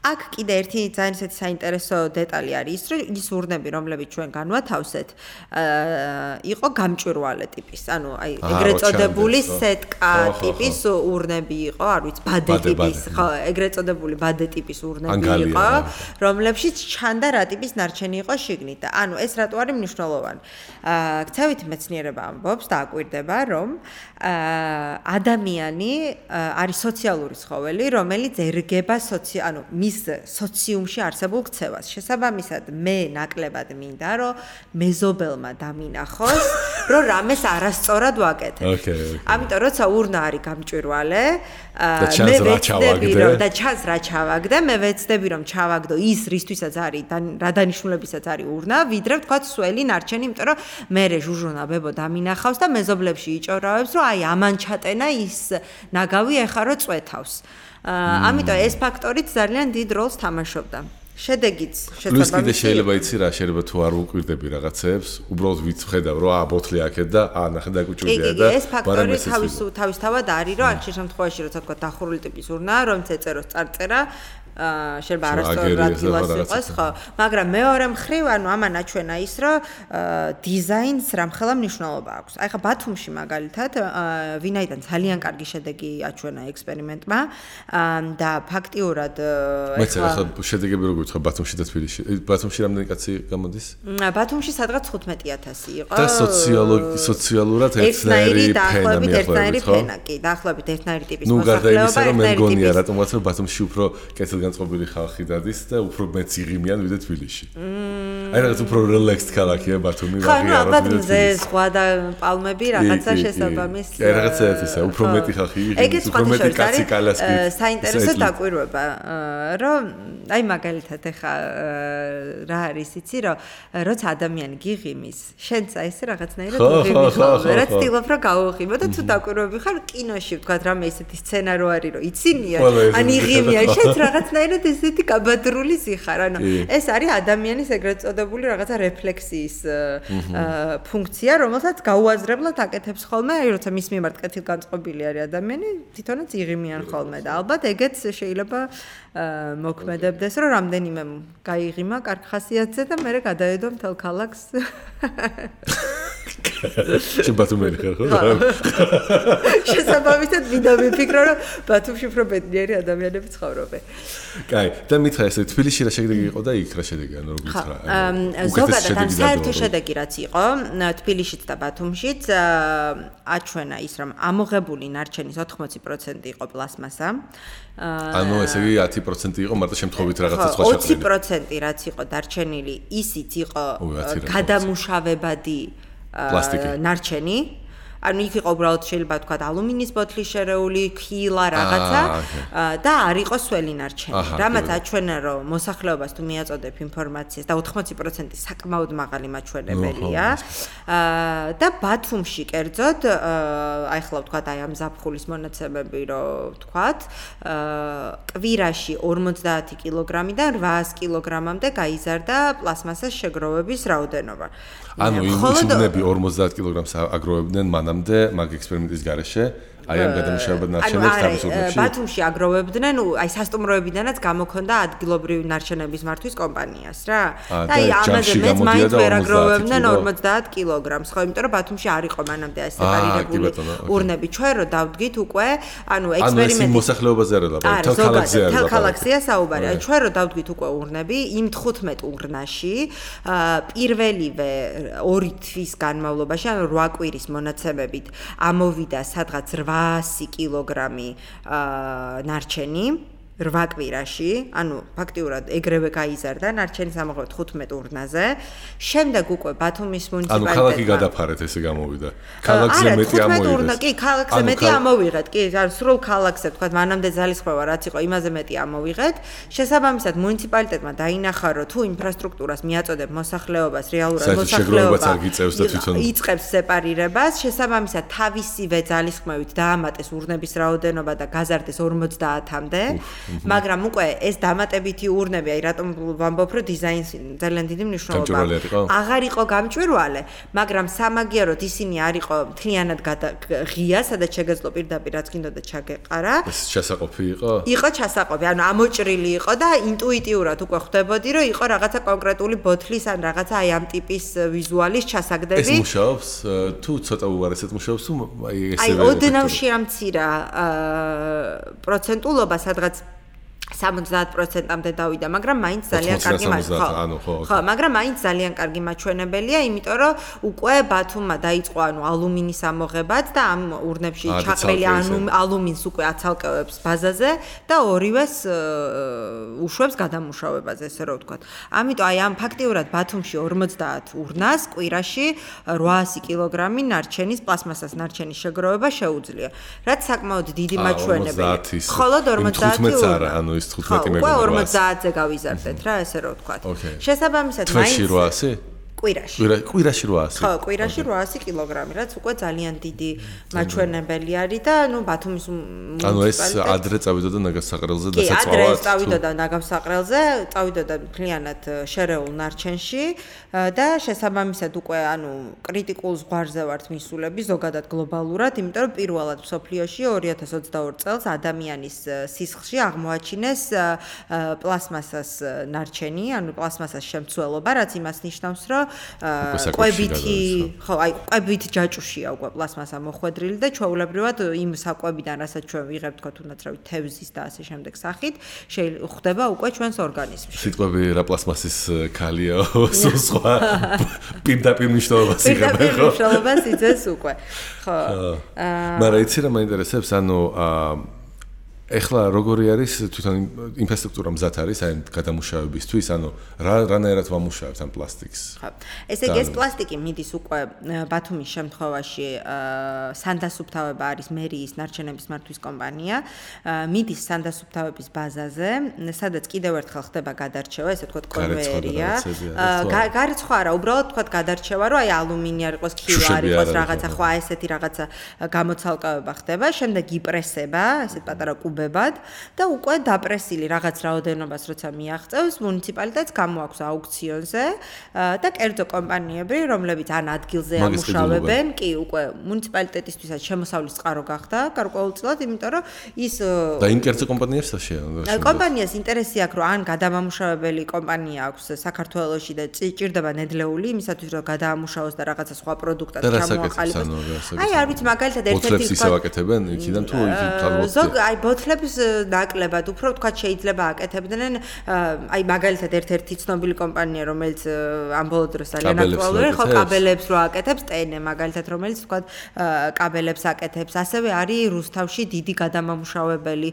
აქ კიდე ერთი ძალიან ისეთი საინტერესო დეტალი არის ის, რომ ის ურნები, რომლებიც ჩვენ განვათავსეთ, იყო გამჭვირვალე ტიპის, ანუ აი ეგრეთ წოდებული სეტკა ტიპის ურნები იყო, არ ვიცი, ბადე ტიპის, ხო, ეგრეთ წოდებული ბადე ტიპის ურნები იყო, რომლებშიც ჩანდა რა ტიპის ნარჩენი იყო შიგნით და ანუ ეს რატო არის მნიშვნელოვანი. ქცევითი მეცნიერება ამბობს და აკვირდება, რომ ადამიანი არის სოციალური ცხოველი, რომელიც ერგება ანუ მის სოციუმში არსებულ ქცევას. შესაბამისად, მე ნაკლებად მინდა, რომ მეზობელმა დამინახოს, რომ რამეს არასწორად ვაკეთებ. ამიტომ როცა ურნა არის გამჭვირვალე, მე ვეცდები რომ და ჩანს რა ჩავაგდე, მე ვეცდები რომ ჩავაგდო ის რისთვისაც არის რა დანიშნულებისაც არის ურნა, ვიდრე ვთქვათ სველი ნარჩენი, იმიტომ რომ მე ჟუჟუნა ბებო დამინახავს და მეზობლებში იჭორავებს, რომ აი ამან ჩატენა ის ნაგავი ეხა რო წვეთავს. ამიტომ ეს ფაქტორიც ძალიან დიდ როლს თამაშობდა. შედეგიც შესაბამისად. კიდე შეიძლება იცი რა, შეიძლება თუ არ უკვირდები რაღაცებს, უბრალოდ ვიცხედავ რომ ბოთლი აქეთ და ნახე დაგუჭირდია და ეს ფაქტორი თავისთავად არის, რომ ამ შემთხვევაში როცა თქვა დახურული ტიპის ურნა, რომ წეწეროს წარწერა შეიძლება არასწორად ადგილას იყოს, ხო, მაგრამ მეორე მხრივ, ანუ ამან აჩვენა ის, რომ დიზაინს რამხელა მნიშვნელობა აქვს. აი ხა ბათუმში მაგალითად, ვინაიდან ძალიან კარგი შედეგი აჩვენა ექსპერიმენტმა და ფაქტიურად მეც ახლა შედეგები როგორ ვთქვა ბათუმში და თბილისში. ბათუმში რამდენი კაცი გამოდის? ბათუმში სადღაც 15000 იყო. და სოციალურად ერთნაირი ფენა მიახლოებით, ხო? კი, დაახლოებით ერთნაირი ტიპის მოსახლეობა. ნუ გარდა იმისა, რომ მე მგონია რატომაც ბათუმში უფრო კეთილ განწყობილი ხალხი დადის და უფრო მეც იღიმიან ვიდრე თბილისში. აი რაღაც უფრო რელექსდ ქალაქია ბათუმი, ვაღიაროთ ვიდრე მზე ზღვა და პალმები რაღაცა შესაბამის. კი, რაღაცა ეთისა, უფრო მეტი ხალხი იღიმის, უფრო მეტი კაცი კალასკი. საინტერესო დაკვირვება, რომ აი მაგალითად ეხა რა არის იცი, რომ როცა ადამიანი გიღიმის, შენც აი ეს რაღაცნაირად იღიმი ხოლმე, რაც ცდილობ რომ გაუღიმო და თუ დაკვირვები ხარ კინოში ვთქვათ რამე ესეთი სცენა რო არის, რომ იცინია, ან იღიმიან, შენც რაღაცნაირად ესეთი კაბადრული სიხარ, ანუ ეს არის ადამიანის ეგრეთ წოდებული რაღაცა რეფლექსიის ფუნქცია, რომელსაც გაუაზრებლად აკეთებს ხოლმე, აი როცა მის მიმართ კეთილგანწყობილი არის ადამიანი, თვითონაც იღიმიან ხოლმე და ალბათ ეგეც შეიძლება მოქმედებდეს, რომ რამდენიმე გაიღიმა კარგ ხასიათზე და მე გადაედო მთელ ქალაქს. შენ ბათუმელი ხარ ხო? შესაბამისად მინდა ვიფიქრო, რომ ბათუმში უფრო ბედნიერი ადამიანები ცხოვრობენ. კაი, და მითხრა ესე თბილისში რა შედეგი იყო და იქ რა შედეგი, ანუ როგორ გითხრა? ზოგადად ამ საერთო შედეგი რაც იყო, თბილისშიც და ბათუმშიც აჩვენა ის, რომ ამოღებული ნარჩენის 80% იყო პლასმასა. ანუ ესე იგი 10% იყო მარტო შემთხვევით რაღაცა სხვა შეხედვით. 20% რაც იყო დარჩენილი, ისიც იყო გადამუშავებადი პლასტიკი. ნარჩენი. ანუ იქ იყო უბრალოდ შეიძლება თქვა ალუმინის ბოთლი შერეული, ქილა რაღაცა და არ იყო სველი ნარჩენი. რამაც აჩვენა რომ მოსახლეობას თუ მიაწოდებ ინფორმაციას და 80% საკმაოდ მაღალი მაჩვენებელია. და ბათუმში კერძოდ აი ხლა ვთქვა აი ამ ზაფხულის მონაცემები რომ ვთქვათ, კვირაში 50 კილოგრამიდან 800 კილოგრამამდე გაიზარდა პლასმასის შეგროვების რაოდენობა. ანუ იმ უბნები 50 კილოგრამს აგროვებდნენ მანამდე მაგ ექსპერიმენტის გარეშე, აი ამ გადამუშავებად ნარჩენებს თავის უბნებში? ბათუმში აგროვებდნენ, აი სასტუმროებიდანაც გამოქონდა ადგილობრივი ნარჩენების მართვის კომპანიას რა. და აი ამაზე მეც მაინც ვერ აგროვებდნენ 50 კილოგრამს, ხო, იმიტომ რომ ბათუმში არ იყო მანამდე აი სეპარირებული ურნები. ჩვენ რო დავდგით უკვე, ანუ ექსპერიმენტი მოსახლეობაზე არ ლაპარაკობ, თელ ქალაქზე არ ლაპარაკობ. თელ ქალაქზეა საუბარი. აი ჩვენ რო დავდგით უკვე ურნები, იმ 15 ურნაში პირველივე 2 თვის განმავლობაში, ანუ 8 კვირის მონაცემებით ამოვიდა სადღაც 800 კილოგრამი ნარჩენი 8 კვირაში, ანუ ფაქტიურად ეგრევე გაიზარდა ნარჩენის ამოღება 15 ურნაზე. შემდეგ უკვე ბათუმის მუნიციპალიტეტმა ანუ ქალაქი გადაფარეთ ესე გამოვიდა. ქალაქზე მეტი ამოვიღეს. კი, ქალაქზე მეტი ამოვიღეთ. კი, ანუ სრულ ქალაქზე თქვა მანამდე ძალისხმევა რაც იყო, იმაზე მეტი ამოვიღეთ. შესაბამისად მუნიციპალიტეტმა დაინახა, რომ თუ ინფრასტრუქტურას მიაწოდებ მოსახლეობას, რეალურად მოსახლეობა იწყებს სეპარირებას, შესაბამისად თავისივე ძალისხმევით დაამატეს ურნების რაოდენობა და გაზარდეს 50-მდე. მაგრამ უკვე ეს დამატებითი ურნები, აი რატომ ვამბობ, რომ დიზაინს ძალიან დიდი მნიშვნელობა აქვს. აღარ იყო გამჭვირვალე, მაგრამ სამაგიეროდ ისინი არ იყო მთლიანად ღია, სადაც შეგეძლო პირდაპირ რაც გინდოდა ჩაგეყარა. ეს ჩასაყოფი იყო? იყო ჩასაყოფი, ანუ ამოჭრილი იყო და ინტუიტიურად უკვე ხვდებოდი, რომ იყო რაღაცა კონკრეტული ბოთლის ან რაღაცა აი ამ ტიპის ვიზუალის ჩასაგდები. ეს მუშაობს? თუ ცოტა უარესად მუშაობს, თუ აი ესე აი ოდნავ შეამცირა პროცენტულობა, სადღაც 70%-მდე დავიდა, მაგრამ მაინც ძალიან კარგი ხო, მაგრამ მაინც ძალიან კარგი მაჩვენებელია, იმიტომ რომ უკვე ბათუმმა დაიწყო ანუ ალუმინის ამოღებაც და ამ ურნებში ჩაყრილი ალუმინს უკვე აცალკევებს ბაზაზე და ორივეს უშვებს გადამუშავებაზე, ესე რომ ვთქვათ. ამიტომ აი ამ ფაქტიურად ბათუმში 50 ურნას კვირაში 800 კილოგრამი ნარჩენის პლასმასას ნარჩენის შეგროვება შეუძლია, რაც საკმაოდ დიდი მაჩვენებელია. ხოლო 50 ანუ ის 15 მეგობრად. უკვე 50-ზე გავიზარდეთ რა, ესე რომ ვთქვათ. შესაბამისად მაინც 800 კვირაში 800. ხო, კვირაში 800 კილოგრამი, რაც უკვე ძალიან დიდი მაჩვენებელი არის და ნუ ბათუმის ანუ ეს ადრე წავიდოდა ნაგავსაყრელზე და საწვავად. კი, ადრე წავიდოდა ნაგავსაყრელზე, წავიდოდა მთლიანად შერეულ ნარჩენში და შესაბამისად უკვე ანუ კრიტიკულ ზღვარზე ვართ მისულები ზოგადად გლობალურად, იმიტომ რომ პირველად მსოფლიოში 2022 წელს ადამიანის სისხლში აღმოაჩინეს პლასმასას ნარჩენი, ანუ პლასმასას შემცველობა, რაც იმას ნიშნავს, რომ კვებითი, ხო, აი კვებით ჯაჭუშია უკვე პლასმასა მოხვედრილი და ჩვეულებრივად იმ საკვებიდან, რასაც ჩვენ ვიღებთ, თქო თუნდაც რავი, თევზის და ასე შემდეგ სახით, ხდება უკვე ჩვენს ორგანიზმში. სიტყვები რა პლასმასის ქალია, სხვა პირდაპირ მნიშვნელობას იღებენ, ხო? პირდაპირ მნიშვნელობას იძლევს უკვე. ხო. მაგრამ იცი რა მაინტერესებს, ანუ ეხლა როგორი არის თვითონ ინფრასტრუქტურა მზად არის აი გადამუშავებისთვის, ანუ რანაირად ვამუშავებთ ამ პლასტიკს? ხო. ესე იგი ეს პლასტიკი მიდის უკვე ბათუმის შემთხვევაში სანდასუფთავება არის მერიის ნარჩენების მართვის კომპანია, მიდის სანდასუფთავების ბაზაზე, სადაც კიდევ ერთხელ ხდება გადარჩევა, ესე ვთქვათ კონვეიერია. გარიცხვა არა, უბრალოდ ვთქვათ გადარჩევა, რომ აი ალუმინი არ იყოს, ქივა არ იყოს, რაღაცა ხო ესეთი რაღაცა გამოცალკევება ხდება, შემდეგ იპრესება, ესეთ პატარა და უკვე დაპრესილი რაღაც რაოდენობას როცა მიაღწევს მუნიციპალიტეტს გამოაქვს აუქციონზე და კერძო კომპანიები რომლებიც ან ადგილზე ამუშავებენ კი უკვე მუნიციპალიტეტისთვისაც შემოსავლის წყარო გახდა გარკვეულწილად იმიტომ რომ ის და იმ კერძო კომპანიებს შეა კომპანიას ინტერესი აქვს რომ ან გადამამუშავებელი კომპანია აქვს საქართველოში და ჭირდება ნედლეული იმისათვის რომ გადაამუშავოს და რაღაცა სხვა პროდუქტად ჩამოაყალიბოს აი არ ვიცი მაგალითად ერთ-ერთი ისევ აკეთებენ იქიდან თუ აი ბოთლებს ნაკლებად უფრო თქვა შეიძლება აკეთებდნენ აი მაგალითად ერთ-ერთი ცნობილი კომპანია რომელიც ამ ბოლო დროს ძალიან აქტუალურია ხო კაბელებს რო აკეთებს ტენე მაგალითად რომელიც თქვა კაბელებს აკეთებს ასევე არის რუსთავში დიდი გადამამუშავებელი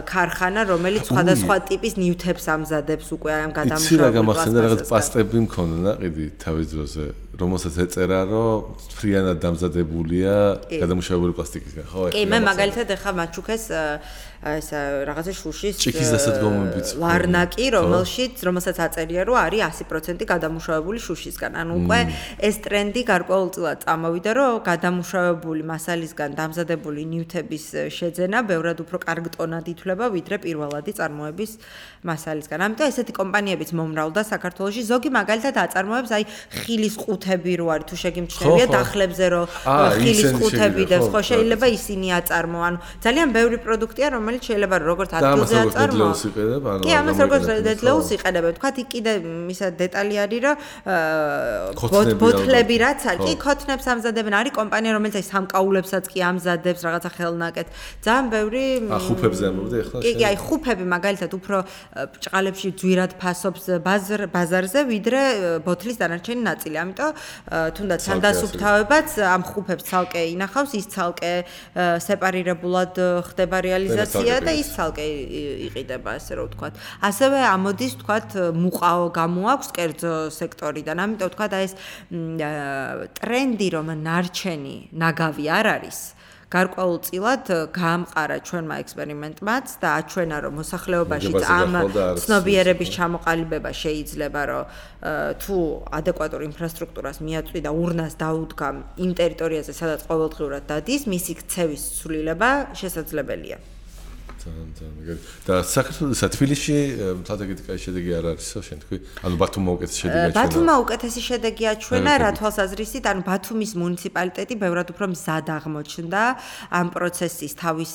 ქარხანა რომელიც სხვადასხვა ტიპის ნივთებს ამზადებს უკვე ამ გადამუშავებელ იცი რა გამახსენდა რაღაც პასტები მქონდა ყიდი თავის დროზე რომელსაც ეწერა რომ ფრიანად დამზადებულია გადამუშავებული პლასტიკისგან ხო კი მე მაგალითად ახლა მაჩუქეს ეს რაღაცა შუშის ჭიქის დასადგომებიც ლარნაკი რომელსაც აწერია რომ არის 100% გადამუშავებული შუშისგან ანუ უკვე ეს ტრენდი გარკვეულწილად წამოვიდა რომ გადამუშავებული მასალისგან დამზადებული ნივთების შეძენა ბევრად უფრო კარგ ტონად ითვლება ვიდრე პირველადი წარმოების მასალისგან ამიტომ ესეთი კომპანიებიც მომრავლდა საქართველოში ზოგი მაგალითად აწარმოებს აი ხილის ყუთებს ყუთები რო არის თუ შეგიმჩნევია დახლებზე რო ხილის ყუთები და ხო შეიძლება ისინი აწარმოან. ძალიან ბევრი პროდუქტია რომელიც შეიძლება როგორც ადგილზე აწარმოონ. კი, ამას როგორც დედლეულს იყენებენ. თქვათ იქ კიდე ისა დეტალი არის რომ ბოთლები რაც არის, კი ქოთნებს ამზადებენ. არის კომპანია რომელიც აი სამკაულებსაც კი ამზადებს რაღაცა ხელნაკეთს. ძალიან ბევრი ხუფებზე ამბობდი ახლა. კი, აი ხუფები მაგალითად უფრო ჭყალებში ძვირად ფასობს ბაზარზე ვიდრე ბოთლის დანარჩენი ნაწილი. ამიტომ თუნდაც სანდასუფთავებაც ამ ხუფებს ცალკე ინახავს, ის ცალკე სეპარირებულად ხდება რეალიზაცია და ის ცალკე იყიდება, ასე რომ ვთქვათ. ასევე ამოდის, ვთქვათ, მუყაო გამოაქვს კერძო სექტორიდან. ამიტომ ვთქვათ, აი ეს ტრენდი, რომ ნარჩენი ნაგავი არ არის, გარკვეულწილად გაამყარა ჩვენმა ექსპერიმენტმაც და აჩვენა, რომ მოსახლეობაშიც ამ ცნობიერების ჩამოყალიბება შეიძლება, რომ თუ ადეკვატურ ინფრასტრუქტურას მიაწვი და ურნას დაუდგა იმ ტერიტორიაზე, სადაც ყოველდღიურად დადის, მისი ქცევის ცვლილება შესაძლებელია. და საქართველოს თბილისში თათაგით კაი შედეგი არ არისო შენ თქვი? ანუ ბათუმმა უკეთესი შედეგი აჩვენა. ბათუმმა უკეთესი შედეგი აჩვენა, რა თვალსაზრისით, ანუ ბათუმის მუნიციპალიტეტი ბევრად უფრო მზად აღმოჩნდა ამ პროცესის თავის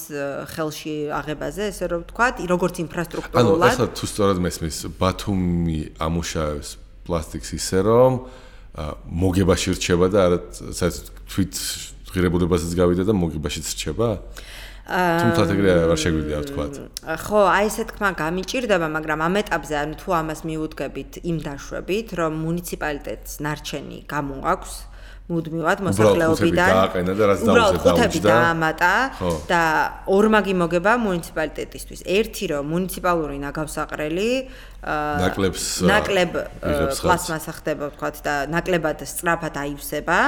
ხელში აღებაზე, ესე რომ ვთქვათ, როგორც ინფრასტრუქტურულად. ანუ ახლა თუ სწორად მესმის, ბათუმი ამუშავებს პლასტიკს ისე რომ მოგებაში რჩება და არა თვით ღირებულებასაც გავიდა და მოგებაშიც რჩება? თუმცა ეგრე არ შეგვიძლია ვთქვათ. ხო, აი ესე თქმა გამიჭირდება, მაგრამ ამ ეტაპზე ანუ თუ ამას მიუდგებით იმ დაშვებით, რომ მუნიციპალიტეტს ნარჩენი გამოაქვს მუდმივად მოსახლეობიდან უბრალოდ ხუთები დაამატა და ორმაგი მოგება მუნიციპალიტეტისთვის. ერთი რომ მუნიციპალური ნაგავსაყრელი ნაკლებ პლასმასა ხდება ვთქვათ და ნაკლებად სწრაფად აივსება.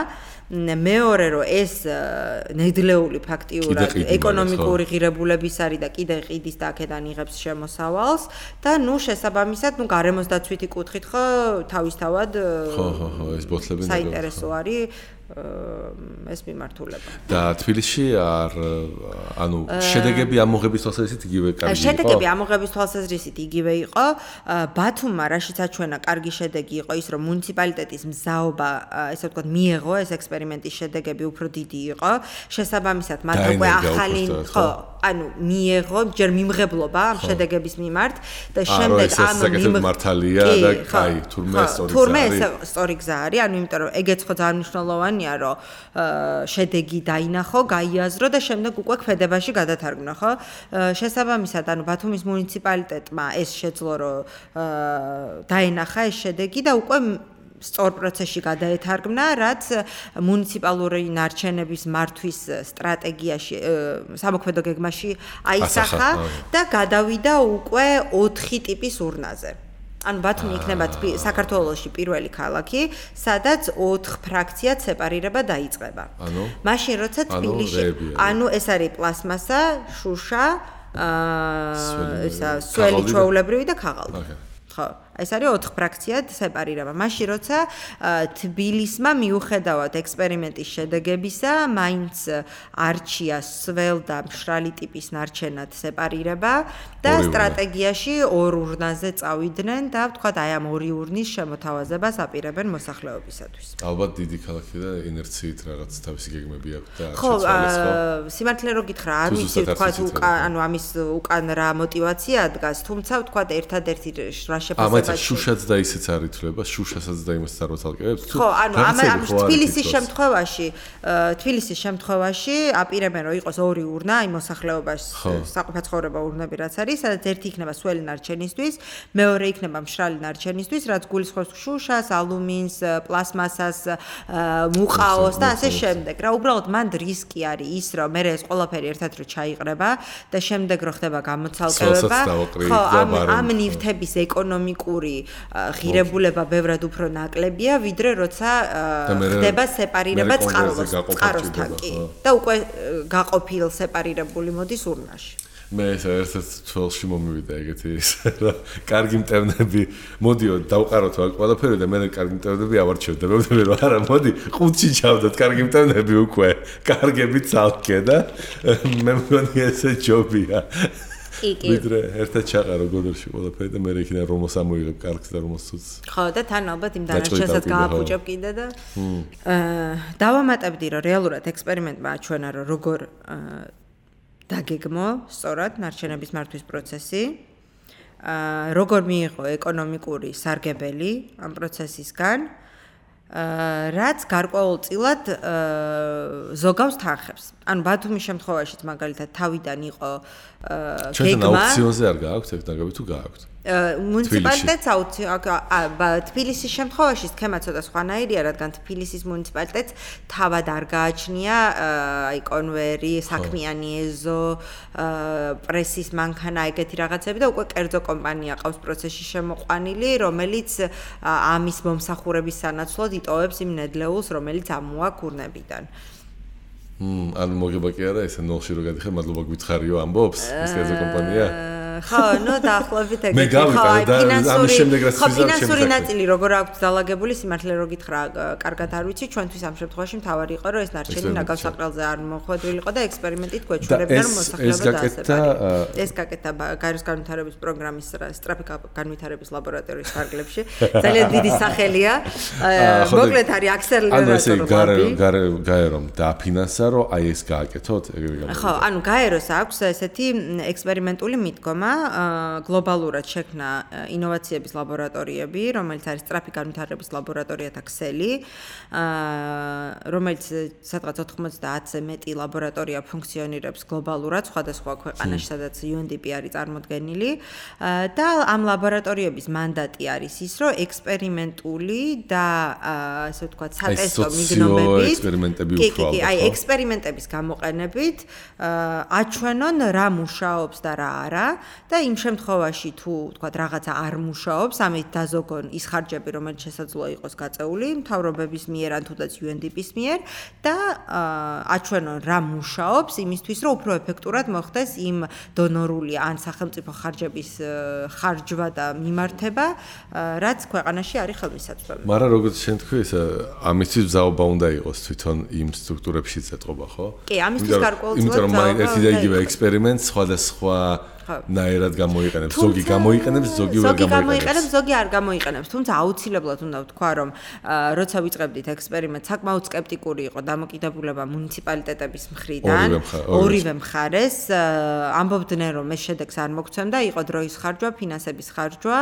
მეორე რომ ეს ნედლეული ფაქტიურად ეკონომიკური ღირებულების არის და კიდე ყიდის და აქედან იღებს შემოსავალს და ნუ შესაბამისად ნუ გარემოს დაცვითი კუთხით ხო თავისთავად ეს ბოთლები საინტერესო არის ეს მიმართულება. და თბილისში ანუ შედეგები ამოღების თვალსაზრისით იგივე კარგი იყო? შედეგები ამოღების თვალსაზრისით იგივე იყო. ბათუმმა რაშიც აჩვენა კარგი შედეგი იყო ის, რომ მუნიციპალიტეტის მზაობა, ესე ვთქვათ, მიეღო ეს ექსპერიმენტის შედეგები უფრო დიდი იყო. შესაბამისად, მათ უკვე ახალი ხო, ანუ მიეღო ჯერ მიმღებლობა ამ შედეგების მიმართ და შემდეგ ამ მართალია და კაი, თურმე სწორი გზა არის, ანუ იმიტომ რომ ეგეც ხო ძალიან მნიშვნელოვანია, რომ შედეგი დაინახო, გაიაზრო და შემდეგ უკვე ქმედებაში გადათარგმნა, ხო? შესაბამისად, ანუ ბათუმის მუნიციპალიტეტმა ეს შეძლო, რომ დაენახა ეს შედეგი და უკვე სწორ პროცესში გადაეთარგმნა, რაც მუნიციპალური ნარჩენების მართვის სტრატეგიაში, სამოქმედო გეგმაში აისახა და გადავიდა უკვე 4 ტიპის ურნაზე. ანუ ბათუმი იქნება საქართველოში პირველი ქალაქი, სადაც 4 ფრაქციად სეპარირება დაიწყება. მაშინ როცა თბილისში, ანუ ეს არის პლასმასა, შუშა, სველი ჩვეულებრივი და ქაღალდი. ხო, ეს არის 4 ფრაქციად სეპარირება. მაშინ როცა თბილისმა მიუხედავად ექსპერიმენტის შედეგებისა, მაინც არჩია სველ და მშრალი ტიპის ნარჩენად სეპარირება და სტრატეგიაში 2 ურნაზე წავიდნენ და ვთქვათ, აი ამ 2 ურნის შემოთავაზებას აპირებენ მოსახლეობისათვის. ალბათ დიდი ქალაქი და ინერციით რაღაც თავისი გეგმები აქვს და ხო, სიმართლე რო გითხრა, არ ვიცი ვთქვათ, ანუ ამის უკან რა мотиваცია დგას, თუმცა ვთქვათ, ერთადერთი რა ამაც შუშაც და ისეც არ ითვლება, შუშასაც და იმასაც არ ვაცალკევებს. ხო, ანუ ამ თბილისის შემთხვევაში აპირებენ რომ იყოს 2 ურნა, აი მოსახლეობას საყოფაცხოვრებო ურნები რაც არის, სადაც ერთი იქნება სველი ნარჩენისთვის, მეორე იქნება მშრალი ნარჩენისთვის, რაც გულისხმობს შუშას, ალუმინს, პლასმასას, მუყაოს და ასე შემდეგ. რა უბრალოდ მანდ რისკი არის ის, რომ მე ეს ყველაფერი ერთად რო ჩაიყრება და შემდეგ რო ხდება გამოცალკევება, ხო, ამ ნივთების ეკონომიკური ღირებულება ბევრად უფრო ნაკლებია, ვიდრე როცა ხდება სეპარირება წყაროსთან კი და უკვე გაყოფილ სეპარირებული მოდის ურნაში. მე ერთ-ერთ თვალში მომივიდა ეგეთი ის რა კარგი მტევნები მოდიო დავყაროთ აქ ყველაფერი და მე კარგი მტევნები ავარჩევ და მე რომ არა მოდი ყუთში ჩავდოთ კარგი მტევნები უკვე კარგები ცალკე და მე მგონი ესე ჯობია ვიდრე ერთად ჩაყარო გოდორში ყველაფერი და მე იქიდან რომოს ამოიღებ კარგს და რომოს ცუცს. ხო და თან ალბათ იმ დანარჩენსაც გააფუჭებ კიდე და დავამატებდი რომ რეალურად ექსპერიმენტმა აჩვენა რომ როგორ დაგეგმო სწორად ნარჩენების მართვის პროცესი. როგორ მიიღო ეკონომიკური სარგებელი ამ პროცესისგან, რაც გარკვეულწილად ზოგავს თანხებს. ანუ ბათუმის შემთხვევაშიც მაგალითად თავიდან იყო გეგმა. ჩვენ აუქციონზე არ გააქვთ ეგ დაგები თუ გააქვთ? მუნიციპალიტეტს თბილისის შემთხვევაში სქემა ცოტა სხვანაირია, რადგან თბილისის მუნიციპალიტეტს თავად არ გააჩნია აი კონვერი, საქმიანი ეზო, პრესის მანქანა ეგეთი რაღაცები და უკვე კერძო კომპანია ყავს პროცესში შემოყვანილი, რომელიც ამის მომსახურების სანაცვლოდ იტოვებს იმ ნედლეულს, რომელიც ამოა კურნებიდან. ანუ მოგება კი არა ესე ნოლში რო გადიხარ, მადლობა გითხარიო ამბობს ეს კერძო კომპანია? ხო, ნუ დაახლოებით ეგეთი. ხო, ფინანსური ნაწილი როგორ აქვს დალაგებული, სიმართლე რო გითხრა, კარგად არ ვიცი, ჩვენთვის ამ შემთხვევაში მთავარი იყო, რომ ეს ნარჩენი ნაგავსაყრელზე არ მოხვედრილიყო და ექსპერიმენტით გვეჩვენებდა, რომ მოსახლეობა დაასწრებია. ეს გაკეთდა გაეროს განვითარების პროგრამის სწრაფი განვითარების ლაბორატორიის ფარგლებში. ძალიან დიდი სახელია. მოკლედ არის აქსელერატორი. გაერომ დააფინანსა, რომ აი ეს გააკეთოთ, ეგრე გამოვიდა. ხო, ანუ გაეროს აქვს ესეთი ექსპერიმენტული მიდგომა. გლობალურად შექმნა ინოვაციების ლაბორატორიები, რომელიც არის სწრაფი განვითარების ლაბორატორიათა ქსელი, რომელიც სადღაც 90-ზე მეტი ლაბორატორია ფუნქციონირებს გლობალურად სხვადასხვა ქვეყანაში, სადაც UNDP არის წარმოდგენილი და ამ ლაბორატორიების მანდატი არის ის, რომ ექსპერიმენტული და ასე ვთქვათ, სატესტო მიგნობებით, აი ექსპერიმენტების გამოყენებით აჩვენონ რა მუშაობს და რა არა. და იმ შემთხვევაში თუ ვთქვათ რაღაცა არ მუშაობს, ამით დაზოგონ ის ხარჯები, რომელიც შესაძლოა იყოს გაწეული მთავრობების მიერ ან თუნდაც UNDP-ის მიერ და აჩვენონ რა მუშაობს იმისთვის, რომ უფრო ეფექტურად მოხდეს იმ დონორული ან სახელმწიფო ხარჯების ხარჯვა და მიმართება, რაც ქვეყანაში არის ხელმისაწვდომი. მაგრამ როგორც შენ თქვი, ეს ამისთვის ზაობა უნდა იყოს თვითონ იმ სტრუქტურებში წეთყობა, ხო? კი, ამისთვის გარკვეულწილად იმიტომ რომ ერთი და იგივე ექსპერიმენტს სხვადასხვა ნაერად გამოიყენებს, ზოგი გამოიყენებს, ზოგი ვერ გამოიყენებს, ზოგი არ გამოიყენებს. თუმცა აუცილებლად უნდა ვთქვა, რომ როცა ვიწყებდით ექსპერიმენტს, საკმაოდ სკეპტიკური იყო დამოკიდებულება მუნიციპალიტეტების მხრიდან, ორივე მხარეს. ამბობდნენ, რომ ეს შედეგს არ მოგცემდა, იყო დროის ხარჯვა, ფინანსების ხარჯვა,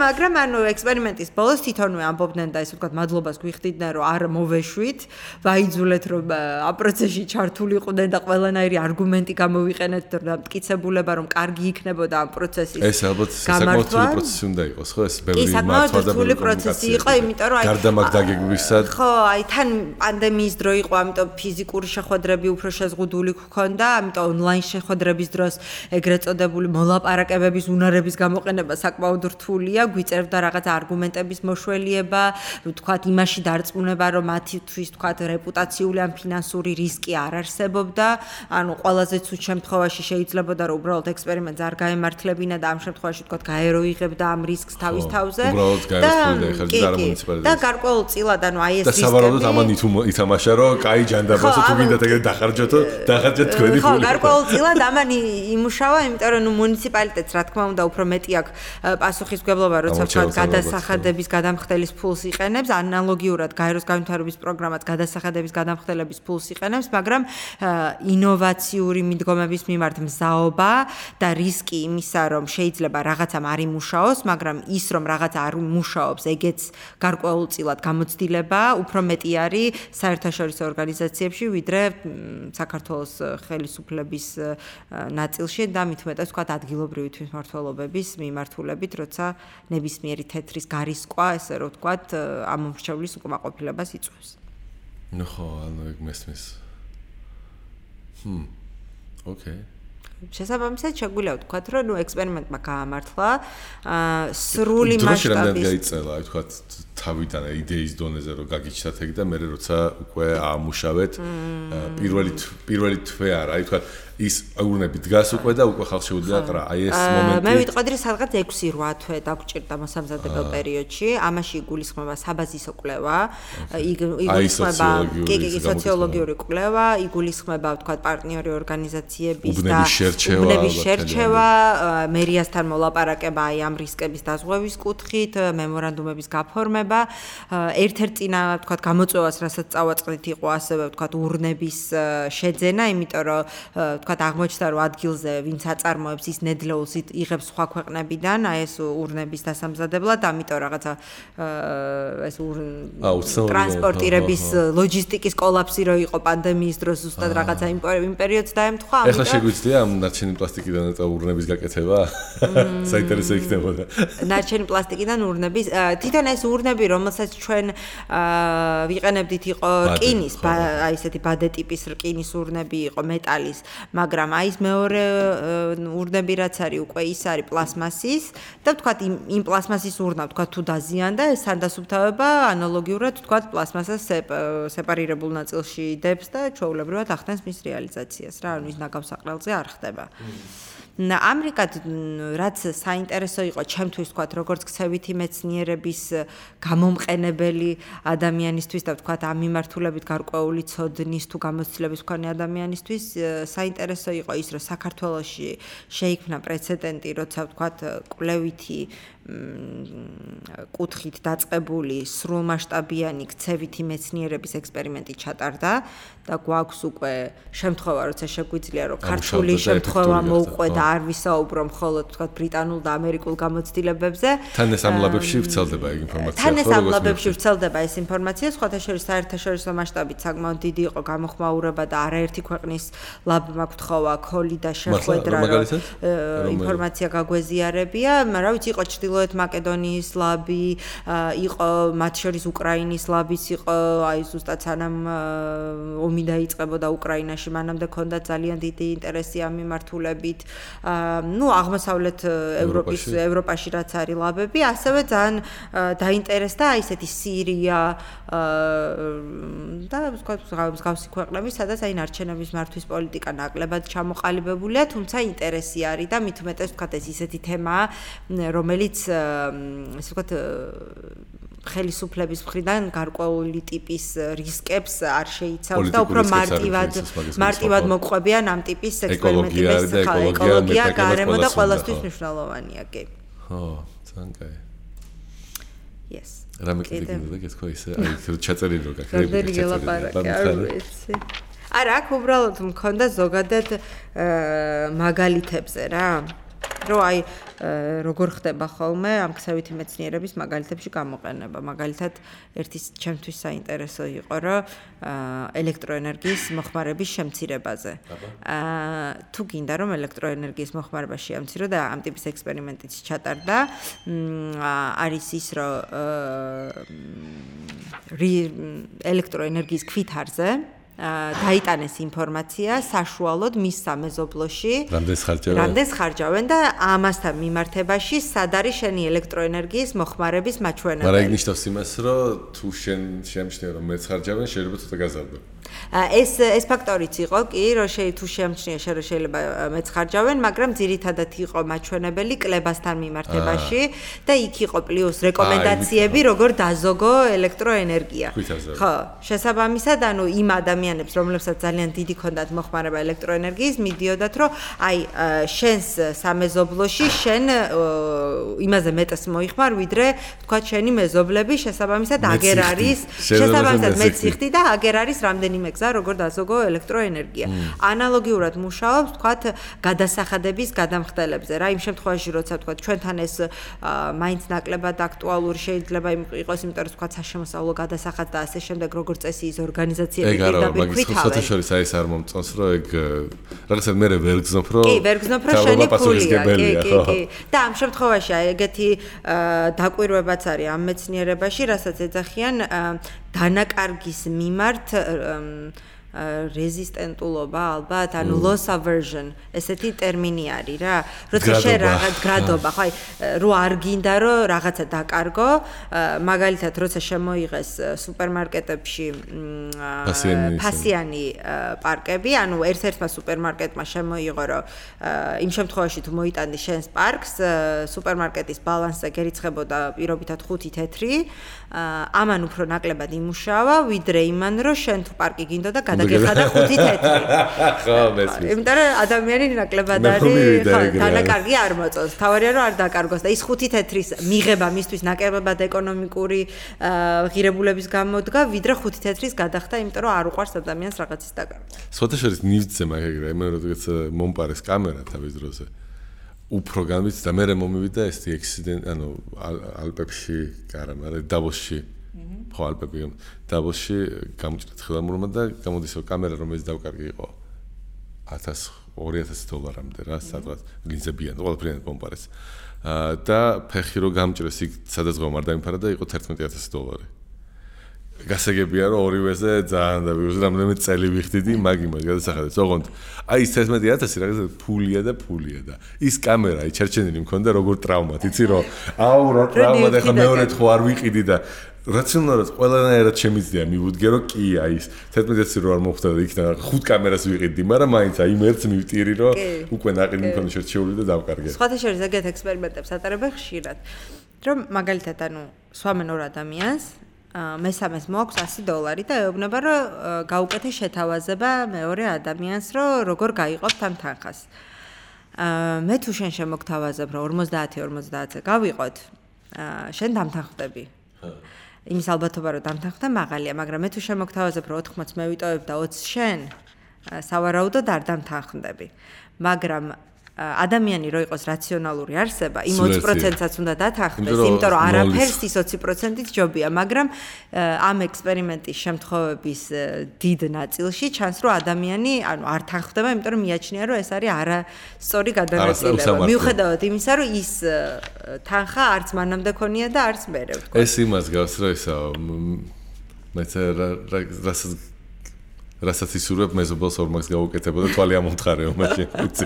მაგრამ ანუ ექსპერიმენტის ბოლოს თვითონვე ამბობდნენ და ესე ვთქვათ, მადლობას გვიხდიდნენ, რომ არ მოვეშვით, ვაიძულეთ, რომ ამ პროცესში ჩართული იყვნენ და ყველანაირი არგუმენტი გამოვიყენეთ და მტკიცებულება რომ კარგი იქნებოდა ამ პროცესის ეს ალბათ საკმაოდ რთული პროცესი უნდა იყოს, ხო? ეს ბევრი მართვა და რთული პროცესი იყო, იმიტომ რომ გარდამაგ დაგეგმვისად ხო, აი თან პანდემიის დრო იყო, ამიტომ ფიზიკური შეხვედრები უფრო შეზღუდული გქონდა, ამიტომ ონლაინ შეხვედრების დროს ეგრეთ წოდებული მოლაპარაკებების უნარების გამოყენება საკმაოდ რთულია, გვიწერდა რაღაც არგუმენტების მოშველიება, ვთქვათ, იმაში დარწმუნება, რომ მათთვის ვთქვათ, რეპუტაციული ან ფინანსური რისკი არ არსებობდა. ანუ ყველაზე ცუდ შემთხვევაში შეიძლებოდა რომ უბრალოდ ექსპერიმენტს არ გაემართლებინა და ამ შემთხვევაში თქვა გაერო იღებდა ამ რისკს თავის თავზე და გარკვეულწილად ანუ აი ეს რისკები და სავარაუდოდ ამან ითამაშა რომ კაი ჯანდაბასო თუ გინდათ ეგრე დახარჯოთო დახარჯეთ თქვენი ხო გარკვეულწილად ამან იმუშავა იმიტომ რომ მუნიციპალიტეტს რა თქმა უნდა უფრო მეტი აქვს პასუხისმგებლობა როცა თქვა გადასახადების გადამხდელის ფულს იყენებს ანალოგიურად გაეროს განვითარების პროგრამაც გადასახადების გადამხდელების ფულს იყენებს მაგრამ ინოვაციური მიდგომების მიმართ მზაობა და რისკი იმისა, რომ შეიძლება რაღაცამ არ იმუშაოს, მაგრამ ის, რომ რაღაცა არ იმუშაობს, ეგეც გარკვეულწილად გამოცდილება, უფრო მეტი არის საერთაშორისო ორგანიზაციებში, ვიდრე საქართველოს ხელისუფლების ნაწილში და მით უმეტეს ვთქვათ ადგილობრივი თვითმმართველობების მიმართულებით, როცა ნებისმიერი თეთრის გარისკვა, ესე რომ ვთქვათ, ამ მომრჩევლის უკმაყოფილებას იწვევს. ნუ ხო, ანუ ეგ მესმის. Okay. შესაბამისად შეგვიძლია ვთქვათ, რომ ექსპერიმენტმა გაამართლა სრული მასშტაბის დროში რამდენად გაიწელა, აი ვთქვათ, თავიდან იდეის დონეზე რომ გაგიჩნდათ ეგ და მე როცა უკვე აამუშავეთ პირველი თვე არა, აი ვთქვათ ის ურნები დგას უკვე და უკვე ხალხს შეუძლია ყრა. აი ეს მომენტი. მე ვიტყოდი რომ სადღაც 6-8 თვე დაგჭირდა მოსამზადებელ პერიოდში. ამაში იგულისხმება საბაზისო კვლევა, იგულისხმება სოციოლოგიური კვლევა, იგულისხმება ვთქვათ პარტნიორი ორგანიზაციების და უბნების შერჩევა, მერიასთან მოლაპარაკება აი ამ რისკების დაზღვევის კუთხით, მემორანდუმების გაფორმება, ერთ-ერთი წინა ვთქვათ გამოწვევას, რასაც წავაწყდით, იყო ასევე ვთქვათ ურნების შეძენა, იმიტომ რომ ვთქვათ აღმოჩნდა რომ ადგილზე ვინც აწარმოებს ის ნედლეულს იღებს სხვა ქვეყნებიდან, აი ეს ურნების დასამზადებლად, ამიტომ რაღაცა ეს ტრანსპორტირების ლოჯისტიკის კოლაფსი რო იყო პანდემიის დროს ზუსტად რაღაცა იმ პერიოდს დაემთხვა, ამიტომ ეხლა შეგვიძლია ამ ნარჩენი პლასტიკიდან ურნების გაკეთება? საინტერესო იქნებოდა. ნარჩენი პლასტიკიდან ურნების, თვითონ ეს ურნები, რომელსაც ჩვენ ვიყენებდით, იყო რკინის, აი ესეთი ბადე ტიპის რკინის ურნები იყო, მეტალის, მაგრამ აი ეს მეორე ურნები რაც არის, უკვე ის არის პლასმასის და ვთქვათ იმ პლასმასის ურნა ვთქვათ თუ დაზიანდა, ეს სანდასუფთავება ანალოგიურად ვთქვათ პლასმასას სეპარირებულ ნაწილში დებს და ჩვეულებრივად ახდენს მის რეალიზაციას რა, ანუ ის ნაგავსაყრელზე არ ხდება. ამრიგად რაც საინტერესო იყო ჩემთვის ვთქვათ როგორც ქცევითი მეცნიერების გამომყენებელი ადამიანისთვის და ვთქვათ ამ მიმართულებით გარკვეული ცოდნის თუ გამოცდილების მქონე ადამიანისთვის საინტერესო იყო ის რომ საქართველოში შეიქმნა პრეცედენტი როცა ვთქვათ კვლევითი კუთხით დაწყებული სრულმასშტაბიანი ქცევითი მეცნიერების ექსპერიმენტი ჩატარდა და გვაქვს უკვე შემთხვევა როცა შეგვიძლია რომ ქართული შემთხვევა მოუყვე და არ ვისაუბრო მხოლოდ ვთქვათ ბრიტანულ და ამერიკულ გამოცდილებებზე. თან ეს ამ ლაბებში ვრცელდება ეგ ინფორმაცია. თან ეს ამ ლაბებში ვრცელდება ეს ინფორმაცია, სხვათა შორის საერთაშორისო მასშტაბით საკმაოდ დიდი იყო გამოხმაურება და არაერთი ქვეყნის ლაბმა გთხოვა ქოლი და შეხვედრა ინფორმაცია გაგვეზიარებია, რა ვიცი იყო ჩრდილოეთ მაკედონიის ლაბი, იყო მათ შორის უკრაინის ლაბიც იყო, აი ზუსტად სანამ ომი დაიწყებოდა უკრაინაში, მანამდე ქონდა ძალიან დიდი ინტერესი ამ მიმართულებით. ნუ აღმოსავლეთ ევროპაში რაც არის ლაბები, ასევე ძალიან დაინტერესდა აი ესეთი სირია და მსგავსი ქვეყნები, სადაც აი ნარჩენების მართვის პოლიტიკა ნაკლებად ჩამოყალიბებულია, თუმცა ინტერესი არის და მით უმეტეს ვთქვათ ეს ისეთი თემაა, რომელიც ესე ვთქვათ ხელისუფლების მხრიდან გარკვეული ტიპის რისკებს არ შეიცავს და უფრო მარტივად მოყვებიან ამ ტიპის ექსპერიმენტების ეკოლოგია, გარემო და ყველასთვის მნიშვნელოვანია, კი. ხო, ძალიან კაი. Yes. რამე კიდე გეთქვა ისე, აი ჩაწერილი რო გაქრები. რამდენი გელაპარაკე, არ ვიცი. არა, აქ უბრალოდ მქონდა ზოგადად მაგალითებზე რა. რომ აი როგორ ხდება ხოლმე ამ ქცევითი მეცნიერების მაგალითებში გამოყენება. მაგალითად, ერთი ჩემთვის საინტერესო იყო, რომ ელექტროენერგიის მოხმარების შემცირებაზე. თუ გინდა რომ ელექტროენერგიის მოხმარება შეამცირო და ამ ტიპის ექსპერიმენტიც ჩატარდა, არის ის, რომ ელექტროენერგიის ქვითარზე დაიტანეს ინფორმაცია საშუალოდ მის სამეზობლოში რამდენს ხარჯავენ და ამასთან მიმართებაში სად არის შენი ელექტროენერგიის მოხმარების მაჩვენებელი. მაგრამ ეგ ნიშნავს იმას, რომ თუ შენ შემჩნევ რომ მეც ხარჯავენ, შეიძლება ცოტა გაზარდო. ეს ფაქტორიც იყო კი, რომ თუ შემჩნია რომ შეიძლება მეც ხარჯავენ, მაგრამ ძირითადად იყო მაჩვენებელი კლებასთან მიმართებაში და იქ იყო პლუს რეკომენდაციები, როგორ დაზოგო ელექტროენერგია. ხო, შესაბამისად, ანუ იმ ადამიანებს, რომლებსაც ძალიან დიდი ქონდათ მოხმარება ელექტროენერგიის, მიდიოდათ, რომ აი შენს სამეზობლოში შენ იმაზე მეტს მოიხმარ, ვიდრე თქვა შენი მეზობლები, შესაბამისად აგერ არის, შესაბამისად მეც იხდი და აგერ არის რამდენიმე გზა, როგორ დაზოგო ელექტროენერგია. ანალოგიურად მუშაობს, თქვათ, გადასახადების გადამხდელებზე. რა იმ შემთხვევაში, როცა თქვათ, ჩვენთან ეს მაინც ნაკლებად აქტუალური შეიძლება იყოს, იმიტომ რომ თქვათ, საშემოსავლო გადასახადს და ასე შემდეგ, როგორც წესი ის ორგანიზაციები პირდაპირ ქვითავენ. სათა შორის აი ეს არ მომწონს, რომ ეგ რაღაცა მე ვერ გზნობ, რომ კი, ვერ გზნობ, რომ შენი ფულია, კი. და ამ შემთხვევაში აი ეგეთი დაკვირვებაც არის ამ მეცნიერებაში, რასაც ეძახიან დანაკარგის მიმართ რეზისტენტულობა ალბათ, ანუ loss aversion, ესეთი ტერმინი არის რა. როცა შენ რაღაც გრადობა, ხო, რო არ გინდა რომ რაღაცა დაკარგო, მაგალითად, როცა შემოიღეს სუპერმარკეტებში ფასიანი პარკები, ანუ ერთ-ერთმა სუპერმარკეტმა შემოიღო, რომ იმ შემთხვევაში თუ მოიტანდი შენს პარკს, სუპერმარკეტის ბალანსზე გერიცხებოდა პირობითად 5 თეთრი, ამან უფრო ნაკლებად იმუშავა, ვიდრე იმან, რომ შენ თუ პარკი გინდოდა გადაგეხადა 5 თეთრი. ხო, მესმის. იმიტომ რომ ადამიანი ნაკლებად არის, ხო, დანაკარგი არ მოწონს. თავარია რომ არ დაკარგოს და ის 5 თეთრის მიღება მისთვის ნაკლებად ეკონომიკური ღირებულების გამოდგა, ვიდრე 5 თეთრის გადახდა, იმიტომ რომ არ უყვარს ადამიანს რაღაცის დაკარგვა. სხვათა შორის ნივთზე მაგერია, მე როდესაც მომპარეს კამერა თავის დროზე. უფრო განვიცდი და მე მომივიდა ეს ექსიდენტი, ანუ ალპებში, არა, მაგრამ დავოსში. ხო, ალპები, დავოსში გამოჭრეთ ხელამურმა და გამოდის რომ კამერა რომელიც დავკარგი იყო $2000 რა, სადღაც ლინზებიან, ყველაფრიანად მომპარეს. და ფეხი რო გამჭრეს იქ სადაც ღომ არ დამიფარა და იყო $11000. გასაგებია რომ ორივეზე ძალიან დავიღოს რამდენიმე წელი ვიხდიდი მაგ იმას გადასახადებს. ოღონდ აი ეს 11000 რაღაცა ფულია და ის კამერა აი ჩერჩენილი მქონდა როგორ ტრავმად, იცი რომ აუ რა ტრავმა და ხა მეორედ ხო არ ვიყიდი და რაციონალურად ყველანაირად შემიძლია მივუდგე რომ კი აი ეს 11000 რო არ მოხდა და იქიდან 5 კამერას ვიყიდი, მაგრამ მაინც აი მერც მივტირი რომ უკვე ნაყინი მქონდა შერჩეული და დავკარგე. სხვათა შორის ეგეთ ექსპერიმენტებს ატარებენ ხშირად. რომ მაგალითად ანუ სვამენ ორ ადამიანს მესამეს მოაქვს $100 და ეუბნება რომ გაუკეთე შეთავაზება მეორე ადამიანს რომ როგორ გაიყოფთ ამ თანხას. მე თუ შენ შემოგთავაზებ რომ 50-50-ზე გავიყოთ, შენ დამთანხმდები. იმის ალბათობა რომ დამთანხმდე მაღალია, მაგრამ მე თუ შემოგთავაზებ რომ 80 მე ვიტოვებ და 20 შენ, სავარაუდოდ არ დამთანხმდები. მაგრამ ადამიანი რო იყოს რაციონალური არსება, იმ 20%-საც უნდა დათანხმდეს, იმიტომ რომ არაფერს ის 20%-ით ჯობია, მაგრამ ამ ექსპერიმენტის შემთხვევების დიდ ნაწილში ჩანს, რომ ადამიანი, ანუ არ თანხმდება, იმიტომ რომ მიაჩნია, რომ ეს არის არასწორი გადანაწილება. მიუხედავად იმისა, რომ ის თანხა არც მანამდე ქონია და არც მერე ვთქვა. ეს იმას გავს, რომ ისა მეც რასაც ისურვებ მეზობელს ორმაგს გაუკეთებოდა თვალი ამომთხარეო მაშინ ვიცი.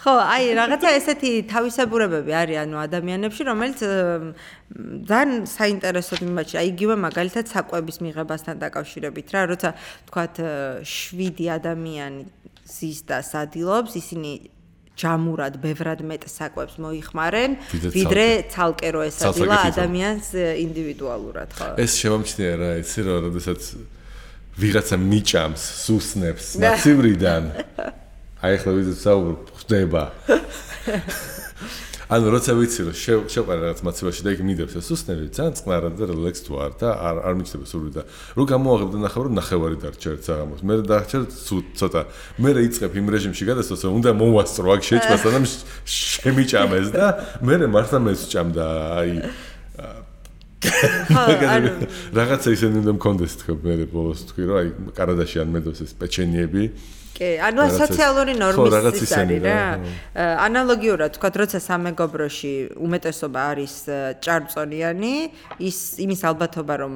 ხო, აი რაღაცა ესეთი თავისებურებები არის ანუ ადამიანებში, რომელიც ძალიან საინტერესოდ მიმაჩნია. აი იგივე მაგალითად საკვების მიღებასთან დაკავშირებით რა, როცა თქვათ 7 ადამიანი ზის და სადილობს, ისინი ჯამურად ბევრად მეტ საკვებს მოიხმარენ, ვიდრე ცალკე რო ესადილა ადამიანს ინდივიდუალურად, ხო. ეს შემომჩნია რა, იცი რა, როდესაც ვიღაცა მიჭამს, სუსნებს მაცივრიდან. აი ახლა ვიზეთ საუბრობ, ხდება. ანუ როცა ვიცი რომ შევყარე რაღაც მაცივაში და იქ მიდევს ეს სუსნები, ძალიან წყნარად და რელექს თუ არ და არ მიჩნდება სული და რო გამოაღებ და ნახევ რომ ნახევარი დარჩა ერთ საღამოს. მე დარჩა ცოტა. მე იწყებ იმ რეჟიმში გადასვლას, რომ უნდა მოვასწრო აქ შეჭმას, ანუ შემიჭამეს და მე მართლა მესჭამდა აი რაღაცა ისინი უნდა მქონდეს თქო მე ბოლოს თქვი რომ აი კარადაში ან მედოს ეს პეჩენიები კი, ანუ სოციალური ნორმის ის არის რა. ანალოგიურად თქვა, როცა სამეგობროში უმეტესობა არის ჭარბწონიანი, იმის ალბათობა რომ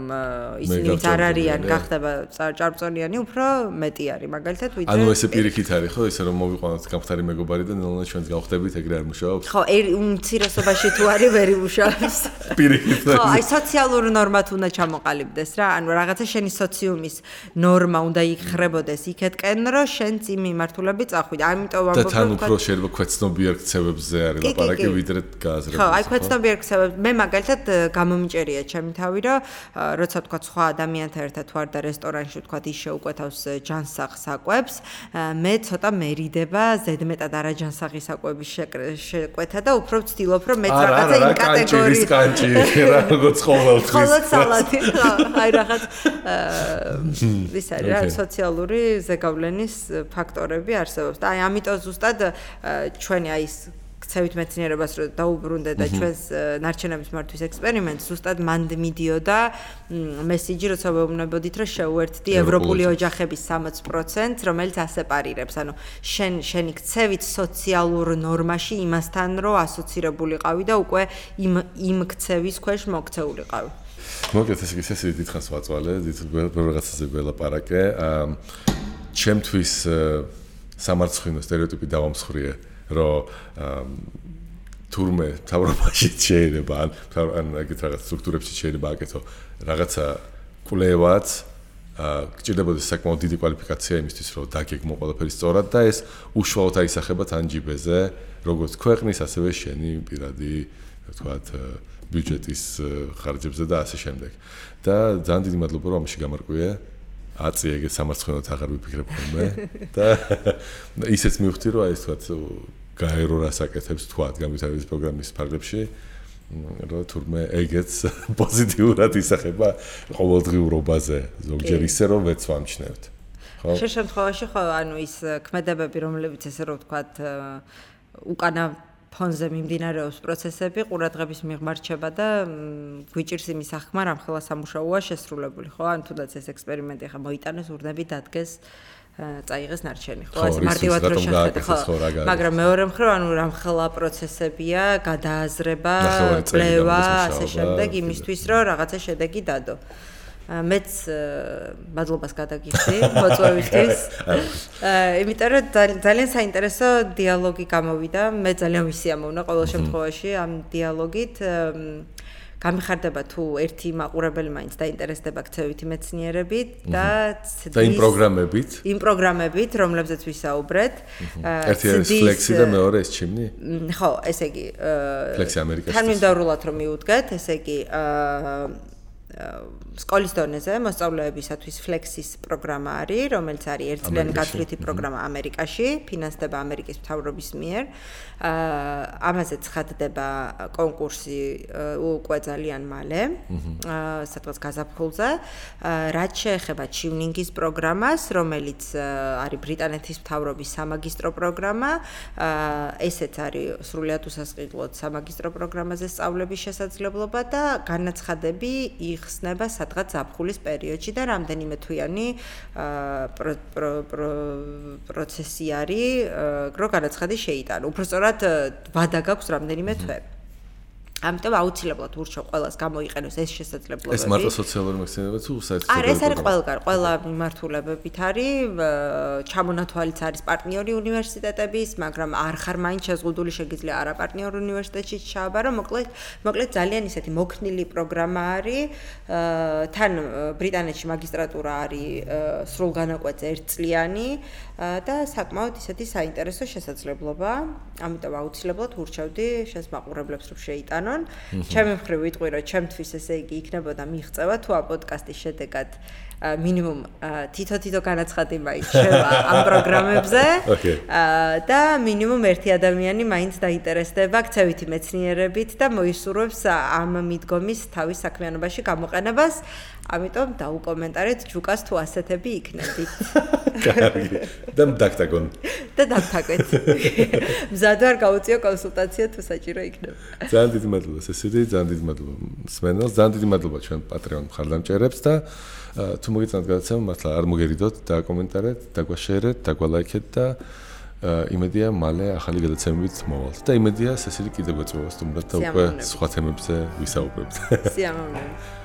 ისინი არ არიან გახდება ჭარბწონიანი, უფრო მეტი არის. მაგალითად, ვიდრე ანუ ესე პირიქით არის, ხო, ისე რომ მოვიყვანოთ გამხდარი მეგობარი და ნელ-ნელა ჩვენს გავხდებით, ეგრე არ მუშაობს. ხო, უმცირესობაში თუ არის ვერ იმუშაობს. პირიქით. ხო, აი სოციალური ნორმა უნდა ჩამოყალიბდეს რა. ანუ რაღაცა შენი სოციუმის ნორმა უნდა იხრებოდეს იქეთკენ, რომ შენ იმ მიმართულებით წახვიდე. ამიტომ ვამბობ, და თან უფრო შეიძლება ქვეცნობიერ ქცევებზე არის ლაპარაკი, ვიდრე გააზრებული. ხო, აი ქვეცნობიერ ქცევებზე. მე მაგალითად გამომიჭერია ჩემი თავი, რომ როცა თქვა სხვა ადამიანთან ერთად ვარ და რესტორანში თქვა ის შეუკვეთავს ჯანსაღ საკვებს, მე ცოტა მერიდება ზედმეტად არაჯანსაღი საკვების შეკვეთა და უფრო ვცდილობ, რომ მეც რაღაცა იმ კატეგორიის კანჭი რა, როგორც ყოველთვის. ხოლმე სალათი, ხო, აი რაღაც ის არის რა, სოციალური ზეგავლენის ფაქტორები არსებობს და აი ამიტომ ზუსტად ჩვენი აი ეს ქცევით მეცნიერებას რო დაუბრუნდე და ჩვენს ნარჩენების მართვის ექსპერიმენტს ზუსტად მანდ მიდიოდა მესიჯი, როცა ვეუბნებოდით, რომ შეუერთდი ევროპული ოჯახების 60%, რომელიც ასეპარირებს, ანუ შენი ქცევით სოციალურ ნორმაში იმასთან რო ასოცირებულიყავი და უკვე იმ ქცევის ქვეშ მოქცეულიყავი. მოკლედ ეს ისე დიდხანს ვაწვალე, რაღაცაზე ველაპარაკე. ჩემთვის სამარცხვინო სტერეოტიპი დავამსხვრიე, რომ თურმე თავრობაში შეიძლება ან ეგეთ რაღაც სტრუქტურებში შეიძლება აკეთო რაღაცა კვლევაც გჭირდებოდეს საკმაოდ დიდი კვალიფიკაცია იმისთვის, რომ დაგეგმო ყველაფერი სწორად და ეს უშუალოდ აისახება თან ჯიბეზე, როგორც ქვეყნის, ასევე შენი პირადი, ვთქვათ, ბიუჯეტის ხარჯებზე და ასე შემდეგ. და ძალიან დიდი მადლობა, რომ ამაში გამარკვიე. აწი ეგეთ სამარცხვინოდ აღარ ვიფიქრებ ხოლმე და ისეც მივხვდი, რომ აი ეს ვთქვათ, გაერო რას აკეთებს თქვათ განვითარების პროგრამის ფარგლებში, რომ თურმე ეგეც პოზიტიურად ისახება ყოველდღიურობაზე, ზოგჯერ ისე რომ ვეც ვამჩნევთ. ხო? შენ შემთხვევაში ხო ანუ ის ქმედებები, რომლებიც ესე რომ ვთქვათ, უკანა ფონზე მიმდინარეობს პროცესები, ყურადღების მიღმა რჩება და გვიჭირს იმის ახმა, რამ ხელა სამუშაოა შესრულებული, ხო? ან თუნდაც ეს ექსპერიმენტი ხა მოიტანეს, ურნები დადგეს წაიღეს ნარჩენი, ხო? ეს მარტივად რო შეხედე, ხო? მაგრამ მეორე მხრივ, ანუ რამხელა პროცესებია, გადააზრება, კვლევა, ასე შემდეგ, იმისთვის, რომ რაღაცა შედეგი დადო. მეც მადლობას გადაგიხდი მოწვევისთვის. იმიტომ რომ ძალიან საინტერესო დიალოგი გამოვიდა. მე ძალიან ვისიამოვნა ყოველ შემთხვევაში ამ დიალოგით. გამიხარდება თუ ერთი მაყურებელი მაინც დაინტერესდება ქცევითი მეცნიერებით და იმ პროგრამებით, რომლებზეც ვისაუბრეთ. ერთი არის ფლექსი და მეორე ეს ჩიმნი? ხო, ესე იგი ფლექსი ამერიკაში. თანმიმდევრულად რომ მიუდგეთ, ესე იგი სკოლის დონეზე მოსწავლეებისათვის ფლექსის პროგრამა არის, რომელიც არის ერთწლიანი გათვლითი პროგრამა ამერიკაში, ფინანსდება ამერიკის მთავრობის მიერ. ამაზე ცხადდება კონკურსი უკვე ძალიან მალე, სადღაც გაზაფხულზე. რაც შეეხება ჩივნინგის პროგრამას, რომელიც არის ბრიტანეთის მთავრობის სამაგისტრო პროგრამა, ესეც არის სრულიად უსასყიდლოდ სამაგისტრო პროგრამაზე სწავლების შესაძლებლობა და განაცხადები იხსნება სადღაც ზაფხულის პერიოდში და რამდენიმე თვიანი პროცესი არის, რომ განაცხადი შეიტანო. უბრალოდ ვადა გაქვს რამდენიმე თვე. ამიტომ აუცილებლად ურჩევ ყველას გამოიყენოს ეს შესაძლებლობები. ეს მარტო სოციალური მეცნიერება თუ საერთოდ? არა, ეს არის ყველგან, ყველა მიმართულებებით არის. ჩამონათვალიც არის პარტნიორი უნივერსიტეტების, მაგრამ არ ხარ მაინც შეზღუდული, შეგიძლია არა პარტნიორ უნივერსიტეტში ჩააბარო. მოკლედ ძალიან ისეთი მოქნილი პროგრამა არის. თან ბრიტანეთში მაგისტრატურა არის სრულგანაკვეთზე ერთწლიანი და საკმაოდ ისეთი საინტერესო შესაძლებლობა. ამიტომ აუცილებლად ურჩევდი შენს მაყურებლებს რომ შეიტანონ. ჩემი მხრივ ვიტყვი, რომ ჩემთვის ესე იგი იქნებოდა მიღწევა თუ ამ პოდკასტის შედეგად მინიმუმ თითო განაცხადი მაინც შევა ამ პროგრამებზე და მინიმუმ ერთი ადამიანი მაინც დაინტერესდება ქცევითი მეცნიერებით და მოისურვებს ამ მიდგომის თავის საქმიანობაში გამოყენებას. ამიტომ დაუკომენტარეთ ჯუკას თუ ასეთები იქნებით. კარგი. და დაგტაგონ. და დაგტაგვეთ. მზად ვარ გაუწიო კონსულტაცია თუ საჭირო იქნება. ძალიან დიდი მადლობა სესილი, ძალიან დიდი მადლობა სმენელს, ძალიან დიდი მადლობა ჩვენ პატრიონ მხარდამჭერებს და თუ მოგეწონათ გადაცემა, მართლა არ მოგერიდოთ, დაკომენტარეთ, დაგვაშერეთ, დაგვალაიქეთ და იმედია მალე ახალი გადაცემებით მოვალთ. და იმედია სესილი კიდევ გვეწევა სტუმრად და უკვე სხვა თემებზე ვისაუბრებთ. სიამოვნებით.